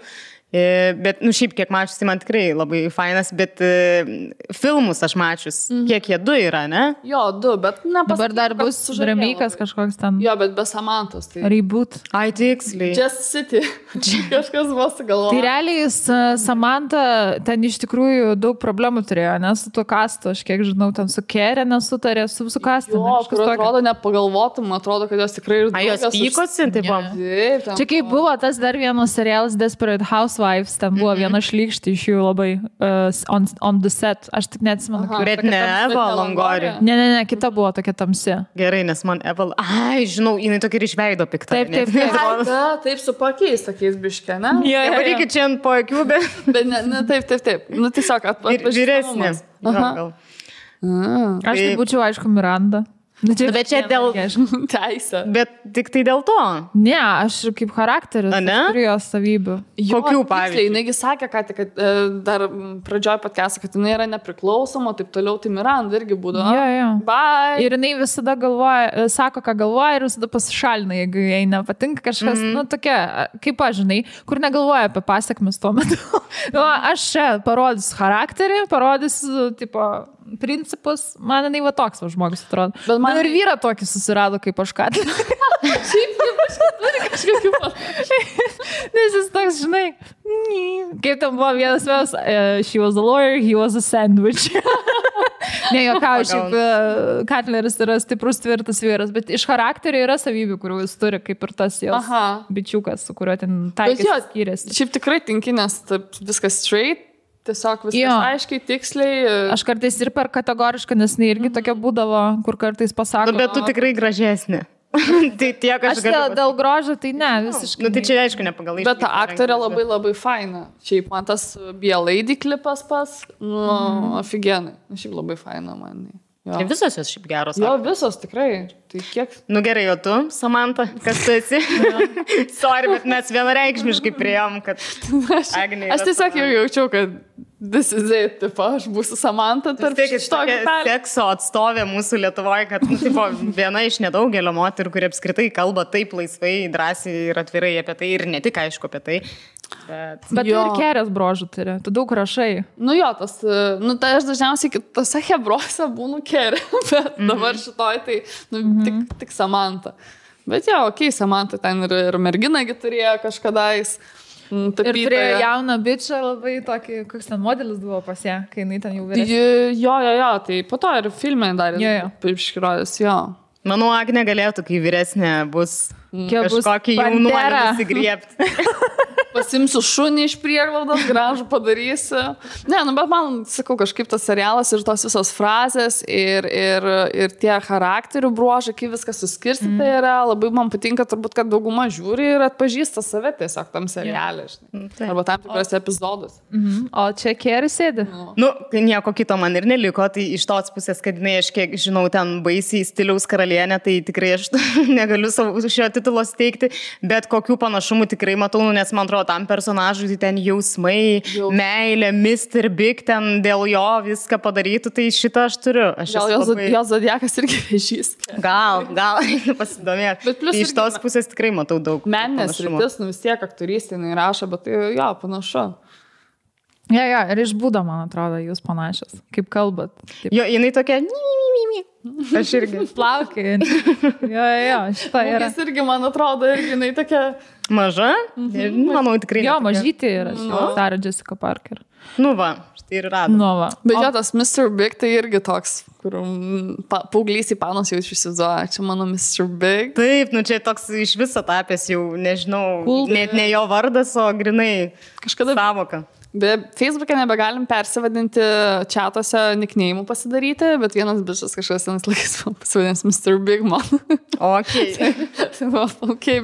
Bet, šiaip kiek mačius, tai man tikrai labai fainas, bet filmus aš mačius, kiek jie 2 yra, ne? Jo, 2, bet nepasakysiu. Dabar dar bus remake'as kažkoks ten. Jo, bet be Samantos. Tai... Reboot. Ai, tiksliai. Just City. Kažkas buvo sugalvojo. Tai realiai Samantha ten iš tikrųjų daug problemų turėjo, nes su tuo kastu, aš kiek žinau, ten su Kerė nesutarė, su kastu. Jo, kur atrodo nepagalvotum, atrodo, kad jos tikrai ir... Ai, jos pykosi, tai buvo. Čia kaip buvo tas dar vienas serialas Desperate Housewives, ten buvo viena šlykštė iš jų labai on the set, aš tik neatsimenu. Bet ne Eva Longoria. Ne, kita buvo tokia tamsi. Gerai, nes man Eva... Ai, žinau, jinai tokia ir išveido pikta. Taip, su pakeis tokiais biškė, ne? Nepareikia čia ant po akių, bet... Bet ne, taip. Tiesiog vyresnė. Aš tai būčiau, aišku, Miranda. Bet čia dėl teisę. Bet tik tai dėl to. Ne, aš kaip charakteris turiu jos savybių. Kokių pavyzdžių? Jinai sakė, kad dar pradžioj podcast'o, kad jinai yra nepriklausoma, taip toliau, tai Miranda irgi būdavo. Jo. Bye. Ir jinai visada galvoja, sako, ką galvoja ir visada pasišalina, jeigu jai nepatinka kažkas, tokia, kaip aš, žinai, kur negalvoja apie pasiekmes tuo metu. Aš čia parodysiu charakterį, parodysiu, tipo, principus, man jinai va toks žmogus atrodo. Bet man ir vyrą tokį susirado, kaip aš ką. Šiaip kaip aš turi kažkokiu Nes jis toks, žinai, kaip tam buvo vienas, she was a lawyer, he was a sandwich. Ne, jokau, šiaip Katleris yra stiprus, tvirtas vyras, bet iš charakterio yra savybių, kurių jis turi, kaip ir tas jos bičiukas, su kuriuo ten taikės skiriasi. Šiaip tikrai tinki, nes viskas straight. Tiesiog viskas aiškiai, tiksliai. Aš kartais ir per kategorišką, nes jinai irgi tokia būdavo, kur kartais pasako. Bet tu tikrai gražesnė. Tai tiek aš galiu. Dėl grožio, tai ne, visiškai. Tai čia aišku nepagal. Bet ta aktorė labai labai faina. Šiaip man tas Be a Lady klipas aфиgenai. Šiaip labai faina man. Ir visos jos šiaip geros. Jo, visos tikrai. Tai kiek? Nu gerai, o tu, Samanta, kas tu esi? Sorry, bet mes vienareikšmiškai priėjom, kad Agnė. Aš tiesiog jau jaučiau, kad this is it, tipo, aš būsiu Samanta tarp šito sekso atstovė mūsų Lietuvoje, kad tipo, viena iš nedaugelio moterų, kurie apskritai kalba taip laisvai, drąsiai ir atvirai apie tai ir ne tik aišku apie tai. Bet ir kerės brožų turi, tu daug rašai. Nu jo, tai aš dažniausiai kitose hebrose būnu kerė, bet dabar šitoj tai tik Samanta. Bet jo, Samanta ten ir merginagi turėjo kažkadais. Ir turėjo jauną bičią labai tokį, koks ten modelis buvo pas ją, kai jinai ten jau vyresnė. Jo, tai po to ir filmai dar iškirodės, jo. Manau, Agnė galėtų, kai vyresnė bus kažkokį jaunuolį nusigriebti. Pasimsiu šunį iš prieglaudos, gražų padarysiu. Ne, bet man, sakau, kažkaip tas serialas ir tos visos frazės ir tie charakterių bruožai, kai viskas suskirstyta yra, labai man patinka turbūt, kad dauguma žiūri ir atpažįsta save tiesiog tam serialė, arba tam tikrose epizodus. O čia Kerry sėdi? Nu, nieko kito man ir neliko, tai iš tos pusės, kad jinai, aš kiek žinau, ten baisiai stiliaus karalienė, tai tikrai aš negaliu šio titulo steigti, bet kokių panašumų tikrai matau, nes man atrodo, tam personažui tai ten jausmai, meilė, Mr. Big, ten dėl jo viską padarytų, tai šitą aš turiu. Gal jo zodiakas irgi vėžys. Gal, pasidomėk. Tai iš tos pusės tikrai matau daug. Meninės rytis, vis tiek aktorystė jinai rašo, bet tai jo, panašu. Jo, ir iš būdo, man atrodo, jūs panašios, kaip kalbat. Taip. Jo, jinai tokia... Aš irgi. Plaukiai. Jo, šitą yra. Jis irgi, man atrodo, irgi jinai tokia... Maža? Manau, tikrai. Jo, mažytė yra. Sarah Jessica Parker. Nu va, štai ir rado. Nu va. Bet jo, tas Mr. Big tai irgi toks, kur paauglys į panos jau išsizuoja. Čia mano Mr. Big. Taip, nu čia toks iš viso tapęs jau, nežinau, net ne jo vardas, o grinai kažkada savoka. Bet Facebook'e nebegalim persivadinti čatuose nickname'ų pasidaryti, bet vienas bišas kažkas tenas laikys pasivadins Mr. Big Man. Okay,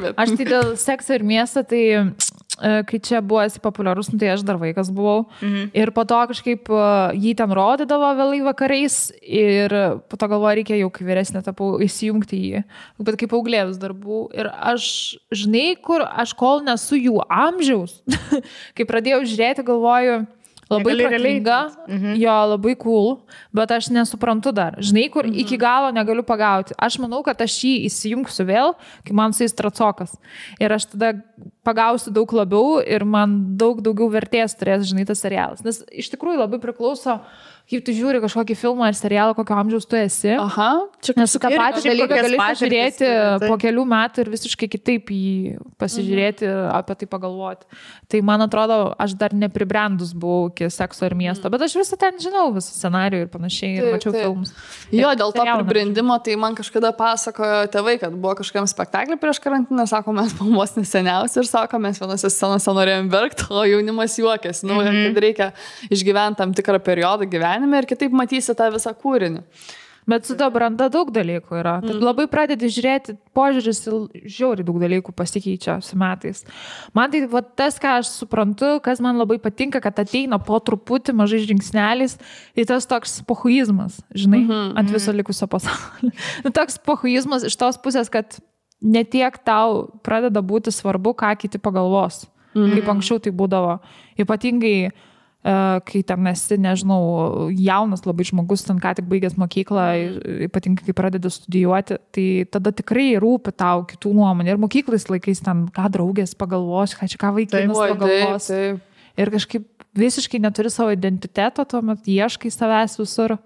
bet... Aš tai dėl sekso ir miesto, tai kai čia buvo esi populiarus, tai aš dar vaikas buvau. Ir po to kažkaip jį ten rodydavo vėlai vakarais ir po to galvoju, reikia jau kai vyresnė tapau įsijungti jį. Bet kaip auglėvis dar buvau. Ir aš, žinai, kur aš kol nesu jų amžiaus, kai pradėjau žiūrėti, galvoju, labai protinga, jo labai cool, bet aš nesuprantu dar. Žinai, kur iki galo negaliu pagauti. Aš manau, kad aš jį įsijungsiu vėl, kai man su jis tracokas. Ir aš tada pagausiu daug labiau ir man daug daugiau vertės turės, žinai, tas serialas. Nes iš tikrųjų labai priklauso, kaip tu žiūri kažkokį filmą ar serialą, kokio amžiaus tu esi. Aha, čia nes tą patį dalyką gali pažiūrėti po kelių metų ir visiškai kitaip jį pasižiūrėti, apie tai pagalvoti. Tai man atrodo, aš dar nepribrendus buvau iki sekso ir miesto, bet aš visą ten žinau, visą scenarijų ir panašiai, ir mačiau filmus. Jo, dėl to pribrendimo, tai man kažkada pasakojo tėvai, kad buvo kažkam spektaklį prieš karantiną, sako, mes mamos neseniausi ir sako, mes vienose scenose norėjom verkti, o jaunimas juokėsi, kad reikia išgyventi tam tikrą periodą gyvenime ir kitaip matysi tą visą kūrinį. Bet su ta branda daug dalykų yra. Tad labai pradedi žiūrėti, požiūris žiauriai daug dalykų pasikeičia su metais. Man tai va, tas, ką aš suprantu, kas man labai patinka, kad ateina po truputį mažai žingsneliais, tai tas toks pochuizmas, žinai, ant viso likusio pasaulio. Toks pochuizmas iš tos pusės, kad netiek tau pradeda būti svarbu, ką kiti pagalvos. Kaip anksčiau tai būdavo. Ypatingai kai ten esi, nežinau, jaunas labai žmogus, ten ką tik baigęs mokyklą, ypatingai kai pradedi studijuoti, tai tada tikrai rūpi tau kitų nuomonė. Ir mokyklais laikais ten, ką draugės pagalvos, ką vaikinas pagalvos. Ir kažkaip visiškai neturi savo identiteto, tuomet ieškai savęs visur.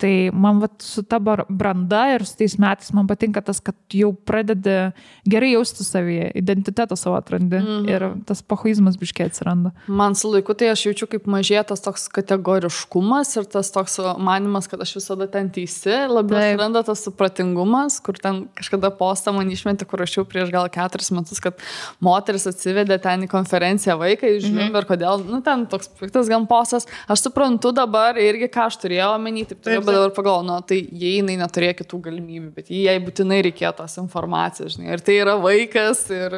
Tai man su ta branda ir su tais metais man patinka tas, kad jau pradedi gerai jausti savyje, identitetą savo atrandi ir tas pochuizmas biškiai atsiranda. Man su laiku tai aš jaučiu kaip mažėja tas toks kategoriškumas ir tas toks manimas, kad aš visada ten teisi, labiau atsiranda tas supratingumas, kur ten kažkada postą man išmetė, kur rašiau prieš gal 4 metus, kad moteris atsivedė ten į konferenciją vaiką, žinau, ir kodėl, ten toks piktas gan postas. Aš suprantu dabar irgi, ką aš turėjau omeny, taip, dabar pagalvoju, tai jei jinai neturėjo kitų galimybių, bet jai būtinai reikėjo tos informacijos, žinai, ir tai yra vaikas ir,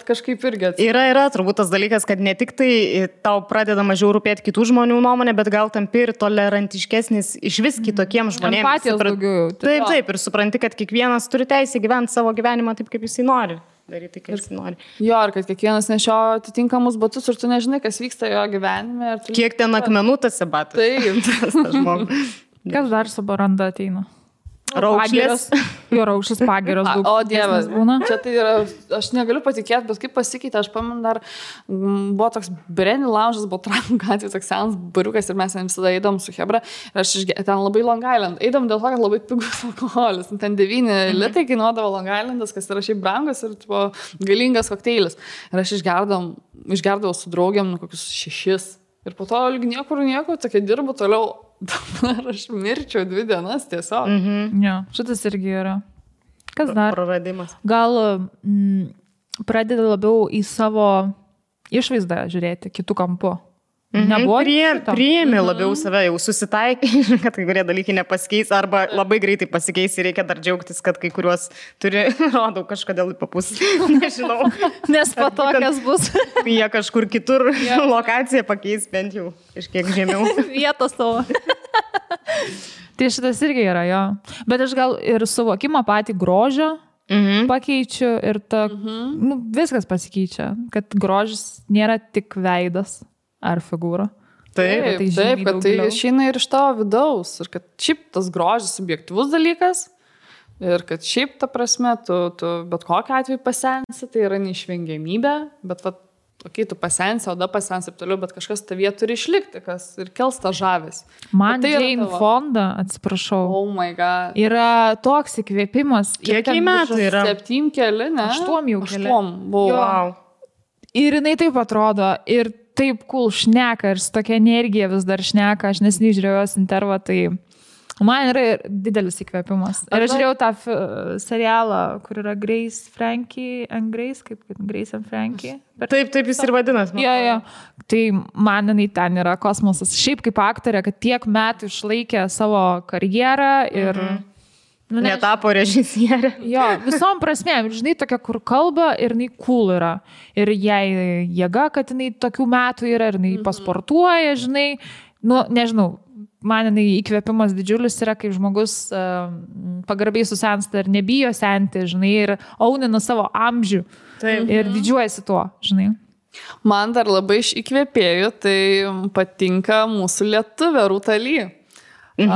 kažkaip irgi atsiprašau. Yra turbūt tas dalykas, kad ne tik tai tau pradeda mažiau rūpėti kitų žmonių nuomonė, bet gal tampi ir tolerantiškesnis iš vis kitokiems žmonėms. Empatijos daugiau. Taip, ir supranti, kad kiekvienas turi teisę gyventi savo gyvenimą taip, kaip jisai nori. Daryti, kaip jis nori. Jo, ir kad kiekvienas nešio atitinkamus batus ir tu nežinai, kas vyksta jo gyvenime. Kiek ten akmenų tose batus. Taip. Kas dar su baranda ateina? Raukšlės. Jo, raukšlės pagiros daug. O Dievas, būna. Čia tai yra, aš negaliu patikėti, bet kaip pasikeitė, aš pamenu dar, buvo toks Bereni laužas, buvo Trakų gatvė, toks senas bariukas ir mes ten visada eidom su Hebra ir aš ten labai Long Island. Eidom dėl to, kad labai pigus alkoholis. Ten 9 litai kainuodavo Long Islandas, kas yra šiaip brangus ir galingas kokteilis. Ir aš išgerdavau su draugiam kokius 6. Ir po to niekur, tokia dirbu toliau. Dabar aš mirčiau 2 dienas tiesiog. Jo, šitas irgi yra. Kas dar? Praradimas. Gal pradedi labiau į savo išvaizdą žiūrėti kitų kampų. Nebuvo? Priėmė labiau save, jau susitaikė, kad kai kurie dalykai nepasikeis arba labai greitai pasikeis ir reikia dar džiaugtis, kad kai kuriuos turi, rodau, kažkodėl papus. Nežinau. Nes po to, kas bus. Jie kažkur kitur lokaciją pakeis bent jau kažkiek žemiau. Vietą savo. Tai šitas irgi yra, jo. Bet aš gal ir suvokimą patį grožio pakeičiu ir viskas pasikeičia. Kad grožis nėra tik veidas. Ar figūra. Taip, kad tai išeina ir iš tavo vidaus. Ir kad šiaip tas grožis subjektyvus dalykas. Ir kad šiaip, ta prasme, tu bet kokiu atveju pasensi, tai yra neišvengiamybė. Bet tu pasensi, oda pasensi ir toliau, bet kažkas tavyje turi išlikti, kas ir kels tą žavės. Man tai Jane Fonda, atsiprašau. Oh my God. Yra toks įkvėpimas. Kiek metų yra? 7 keli, ne? 8 jau keli. 8 buvo. Wow. Ir jinai taip atrodo. Ir taip cool šneka ir su tokia energija vis dar šneka. Aš nesiniai žiūrėjau jos intervą, tai man yra didelis įkvėpimas. Ir aš žiūrėjau tą serialą, kur yra Grace Frankie and Grace, kaip Grace and Frankie. Taip, jis ir vadinas. Jo. Tai man jinai ten yra kosmosas. Šiaip kaip aktorė, kad tiek metų išlaikė savo karjerą ir... Netapo režisierė. Jo, visom prasmėm, žinai, tokia, kur kalba ir jinai cool yra. Ir jai jėga, kad jinai tokių metų yra ir jinai pasportuoja, žinai. Nežinau, man jinai įkvėpimas didžiulis yra, kaip žmogus pagarbiai susensta ir nebijo senti, žinai, ir aunina savo amžių. Taip. Ir didžiuojasi tuo, žinai. Man dar labai iš įkvėpėjų, tai patinka mūsų lietuvė Rūta Lee. Tu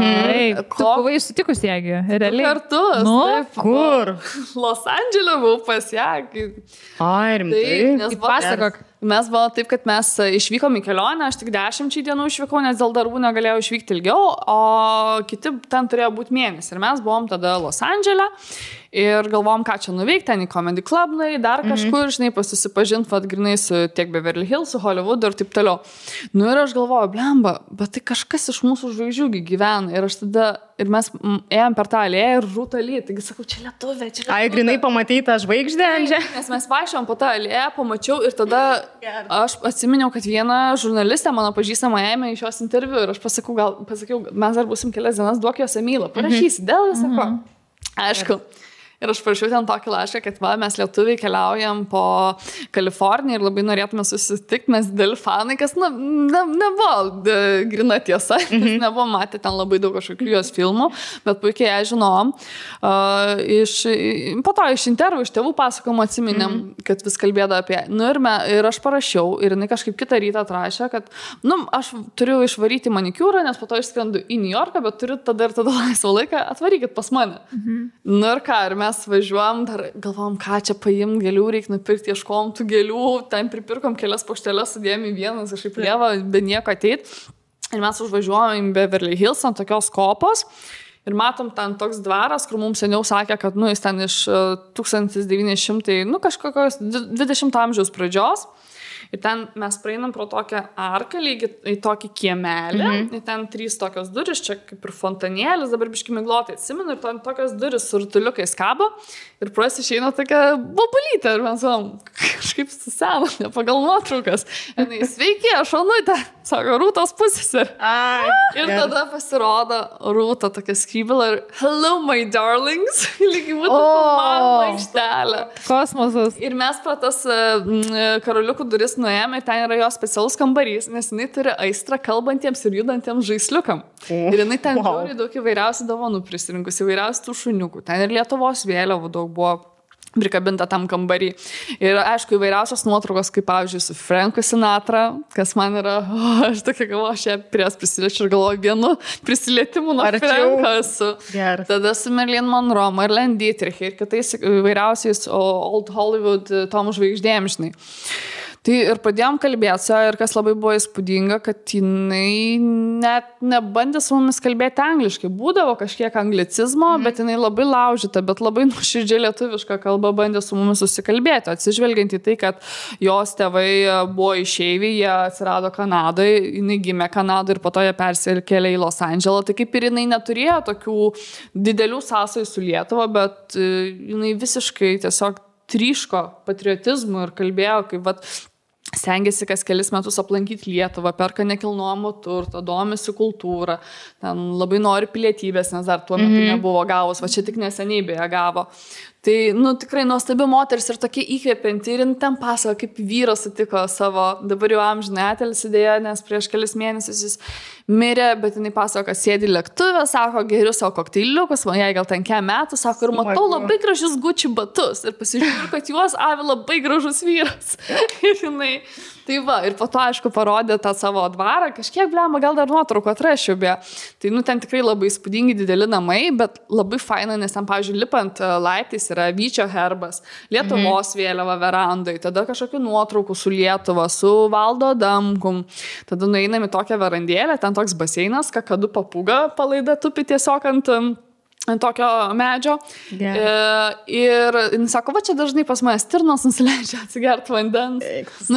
buvai sutikus jėgi, realiai. Kartus. Taip, kur? Los Andžele buvau pas ją. Ai, rimtai. Pasakok. Mes buvo taip, kad mes išvykom į kelionę, aš tik 10 dienų išvykau, nes dėl darbų negalėjau išvykti ilgiau, o kiti ten turėjo būti mėnesį. Ir mes buvom tada Los Andžele ir galvom, ką čia nuveikti, ten į Comedy Club, dar kažkur, žinai, pasisusipažint, grinai su tiek Beverly Hills, su Hollywoodu ir taip toliau. Ir aš galvoju, blemba, bet tai kažkas iš mūsų žvaigždžių gyvena. Ir aš tada, ir mes ėjom per tą alėją ir Rūta Lee, taigi sakau, čia lietuvė. Ai, grinai pamatei tą žvaigždę, Andžė? Nes mes vaikščiom po tą alėją, pamačiau ir tada aš atsiminiau, kad viena žurnalistė mano pažįstama ėmė iš jos interviu ir aš pasakiau, mes dar būsim kelias dienas, duok jos e-mailą, parašysi, dėl visako. Aišku. Ir aš parašiau ten tokį laišką, kad mes lietuviai keliaujam po Kaliforniją ir labai norėtume susitikti, mes dėl fanai, kas nebuvo grina tiesa, nes nebuvo matę ten labai daug kažkokių jos filmų, bet puikiai ją žinom. Po to iš intervų, iš tėvų pasakomų atsiminėm, kad vis kalbėdavo apie... Ir aš parašiau ir jinai kažkaip kitą rytą atrašė, kad aš turiu išvaryti manikiūrą, nes po to išskrendu į New Yorką, bet turiu tada ir tada laisvą laiką, atvarykit pas mane. Ir ką, ir mes važiuojam, dar galvom, ką čia paim gėlių, reikia nupirkti, ieškom tų gėlių, ten pripirkom kelias paukšteles, sudėjom į vienas, kažkaip lieva, be nieko ateit. Ir mes užvažiuojam į Beverly Hills ant tokios kopos ir matom ten toks dvaras, kur mums seniau sakė, kad jis ten iš 1900, kažkokios 20 amžiaus pradžios. Ir ten mes praeinam pro tokią arką, lygiai į tokį kiemelį, ir ten 3 tokios durys, čia kaip ir fontanėlis, dabar biški miglotai atsimenu, ir ten tokios durys su rutuliukais kabo, ir pras išeina tokia bobulytė, ir mes sakom, kažkaip suseno, ne pagal nuotraukas. Ir sveiki, aš Onutė, sako, Rūtos pusseserė. Ir tada pasirodo Rūta tokia skrybėlė ir hello my darlings, lygiai būtų filmavimo aikštelė. Kosmosas. Ir mes pro tas karoliukų duris nuėjome, ten yra jos specialus kambarys, nes jinai turi aistrą kalbantiems ir judantiems žaisliukam. Ir jinai ten žiūri daug įvairiausių dovanų prisirinkus, įvairiausių tų šuniukų. Ten ir Lietuvos vėliavų daug buvo prikabinta tam kambarį. Ir aišku, įvairiausios nuotraukos, kaip pavyzdžiui, su Franku Sinatra, kas man yra, aš tokia galvoju, aš ją pries prisiliečiu ir galvoju vienu prisilietimu nuo Franko esu. Tada su Marilyn Monroe, Marlene Dietrich ir kitais įvairiausiais Old Hollywood Tom žvaigždėm, žinai. Tai ir pradėjom kalbėti su ir kas labai buvo įspūdinga, kad jinai net nebandė su mumis kalbėti angliškai. Būdavo kažkiek anglicizmo, bet jinai labai laužyta, bet labai nuoširdžiai lietuvišką kalbą bandė su mumis susikalbėti. Atsižvelgiant į tai, kad jos tėvai buvo išeiviai, jie atsirado Kanadoje, jinai gimė Kanadoje ir po to jie persikėlė į Los Andželą. Tai kaip ir jinai neturėjo tokių didelių sąsajų su Lietuva, bet jinai visiškai tiesiog tryško patriotizmu ir kalbėjo, kaip stengiasi kas kelis metus aplankyti Lietuvą, perka nekilnojamo turto, domisi kultūrą, ten labai nori pilietybės, nes dar tuo metu nebuvo gavus, čia tik neseniai beje gavo. Tai, tikrai nuostabi moteris ir tokia įkvepianti ir ten pasako, kaip vyras sutiko savo, dabar jau amžinai atilsi dėja, nes prieš kelis mėnesius jis mirė, bet jinai pasako, kad sėdi lėktuvė, sako, geriu savo kokteiliukus, man jai gal ten kem metų, sako, ir matau labai gražius Gucci batus ir pasižiūrėjau, kad juos avi labai gražus vyras. Ir jinai, tai ir po to, aišku, parodė tą savo dvarą, kažkiek, blema, gal dar nuotraukų atrašiu, bet tai, ten tikrai labai įspūdingi dideli namai, bet labai faina, nes ten, pavyzdžiui, lipant laiptais yra Vyčio herbas, Lietuvos vėliava verandai, tada kažkokių nuotraukų su Lietuva, su Valdo Adamkum, tada nueinam į tokią verandėlę, ten toks baseinas, kakadu papūga palaida tupi tiesiog ant tokio medžio. Ir jis sako, čia dažnai pas mane stirnos nusileidžia atsigerti vandens.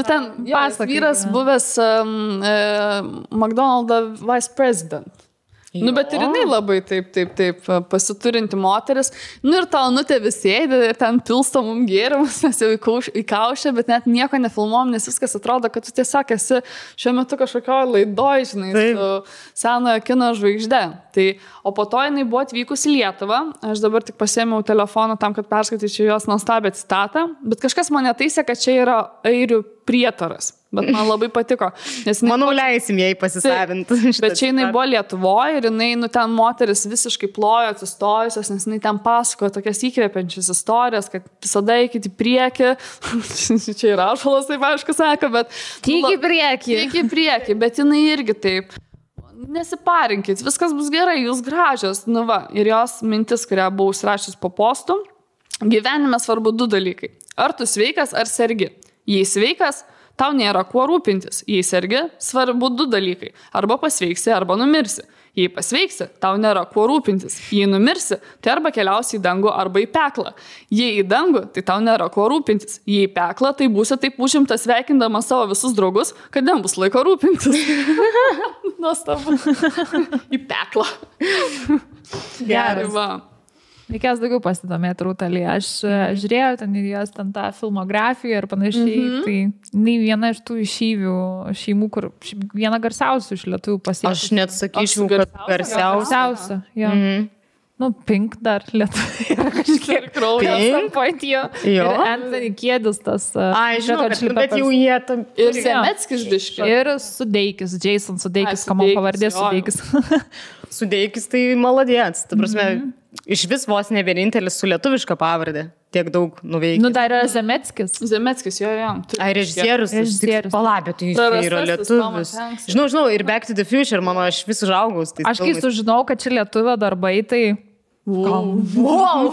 Ten vyras buvęs McDonald's vice president. Bet ir jinai labai taip pasiturinti moteris. Ir ta Onutė vis sėdi ir ten pilsto mum gėrimus, mes jau įkaušė, bet net nieko nefilmuom, nes viskas atrodo, kad tu tiesiog esi šiuo metu kažkokio laidoj, žinai, su senojo kino žvaigžde. O po to jinai buvo atvykusi į Lietuvą. Aš dabar tik pasiėmiau telefoną tam, kad perskaityčiau jos nuostabią citatą, bet kažkas mane taisė, kad čia yra airių prietaras. Bet man labai patiko. Manau, leisim jai pasisavinti. Bet čia jinai buvo Lietuvoje ir jinai, ten moteris visiškai plojo atsistojusios, nes jinai ten pasakojo tokias įkvepiančias istorijas, kad visada eikit į priekį. Čia yra Ąžuolas, taip aišku sako, bet... Tik į priekį. Tik į priekį, bet jinai irgi taip. Nesiparinkit, viskas bus gerai, jūs gražios. Ir jos mintis, kurią buvau užsirašęs po postų, gyvenime svarbu 2 dalykai. Ar tu sveikas, ar sergi. Jei sveikas, tau nėra kuo rūpintis. Jei sergi, svarbu 2 dalykai. Arba pasveiksi, arba numirsi. Jei pasveiksi, tau nėra kuo rūpintis. Jei numirsi, tai arba keliausi į dangų, arba į peklą. Jei į dangų, tai tau nėra kuo rūpintis. Jei į peklą, tai būsi taip užimtas sveikindamas savo visus draugus, kad nebus laiko rūpintis. Nuostabu. Į peklą. Gerai. Reikės daugiau pasidomėti Rūtalį. Aš žiūrėjau ten ir jos ten tą filmografiją ir panašiai. Tai nei viena iš tų šeimų, kur viena garsiausių iš lietuvių pasiekė. Aš net sakyčiau, kad garsiausia. Jo. Nu, Pink dar lietuvių yra kažkiek Pink? poetijo. Ir Anthony Kiedis tas. Ai, žinau, bet jau jie tam... Ir Zemeckis biški. Ir Sudeikis, Jason Sudeikis, kam pavardė Sudeikis. Sudeikis tai maladėts. Ta prasme, iš vis vos ne vienintelis su lietuviška pavardė. Tiek daug nuveikė. Nu, dar yra Zemeckis. Zemeckis, jo. Ai, režisierius. Palabė, tai jis yra lietuvis. Žinau, ir Back to the Future, mano, aš vis užaugus. Aš kai sužinau, kad čia lietuvio darbai, tai... Wow.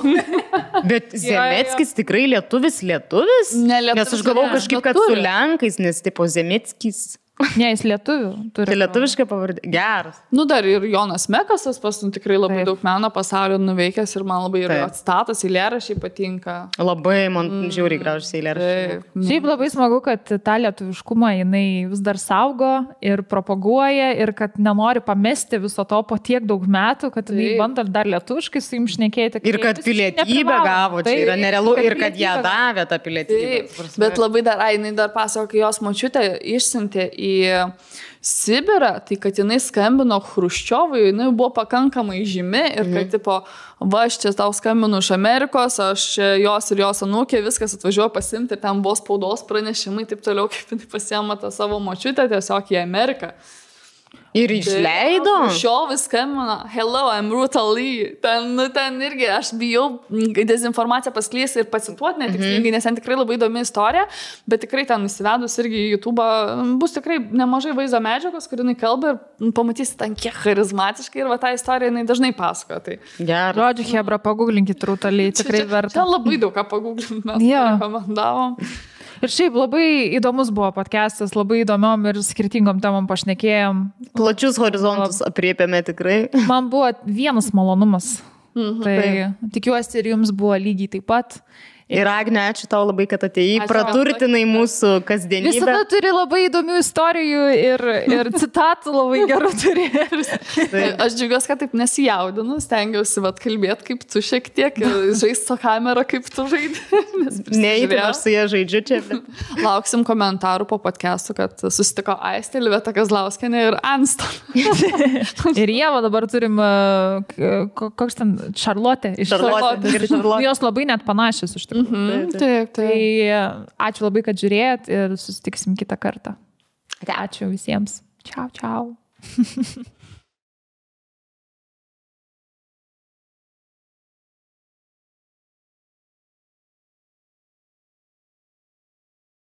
Bet Zemeckis tikrai lietuvis? Ne lietuvis. Nes aš galvau kažkaip, kad su lenkais, nes tipo Zemeckis. Ne, jis lietuvių turi. Tai lietuviška pavardė. Geras. Nu, dar ir Jonas Mekas, tas pas, tikrai labai daug meno pasaulio nuveikęs ir man labai ir atstatas, eilėraščiai patinka. Labai, man žiauriai gražus eilėraščiai. Šiaip labai smagu, kad tą lietuviškumą jinai vis dar saugo ir propaguoja ir kad nenori pamesti viso to po tiek daug metų, kad jinai bando dar lietuviškai su jums šnekėti. Ir kad pilietybę gavo, čia yra nerealu, ir kad ją davė tą pilietybę. Bet labai dar, jinai dar pasako, kai jos močiutė išsiuntė į Sibirą, tai kad jinai skambino Chruščiovui, jinai buvo pakankamai žymi ir kad, tipo, va, aš čia tau skambinu iš Amerikos, aš jos ir jos anūkė, viskas atvažiuoja pasimti ir ten buvo spaudos pranešimai, taip toliau, kaip jinai pasiema tą savo močiutę tiesiog į Ameriką. Ir išleido? Chruščiovas skambino, hello, I'm Rūtalį. Ten irgi aš bijau dezinformaciją paskleisti ir pacituoti netikslingai, nes ten tikrai labai įdomi istorija, bet tikrai ten įsivedus irgi į YouTube bus tikrai nemažai vaizdo medžiagos, kur jinai kalba ir pamatysi ten kiek charizmatiškai ir va tą istoriją jinai dažnai pasakoja. Tai. Žodžiu, Hebra, pagooglinkit Rūtalį, tikrai verta. Čia labai daug ką pagooglinti mes rekomendavom. Ir šiaip labai įdomus buvo podcastas, labai įdomiom ir skirtingom temom pašnekėjom. Plačius horizontus apriepėme tikrai. Man buvo vienas malonumas. Tai tikiuosi ir jums buvo lygiai taip pat. Ir Agne, ačiū tau labai, kad atėjai, praturtinai mūsų kasdienybę. Visada turi labai įdomių istorijų ir citatų labai gerų turi. Aš džiaugiuosi, kad taip nesijaudinu, stengiausi kalbėti kaip tu šiek tiek, žaisti su kamera, kaip tu žaidži. Neįtin, aš su jie žaidžiu čia. Bet... Lauksim komentarų po podcastų, kad susitiko Aistė, Liveta Kazlauskienė ir Anston. Ir Ieva dabar turim, koks ten, Šarlotė. Jos labai net panašios iš tikrųjų. Taip. Tai ačiū labai, kad žiūrėjot ir susitiksim kitą kartą. Ačiū visiems. Čiau, čiau.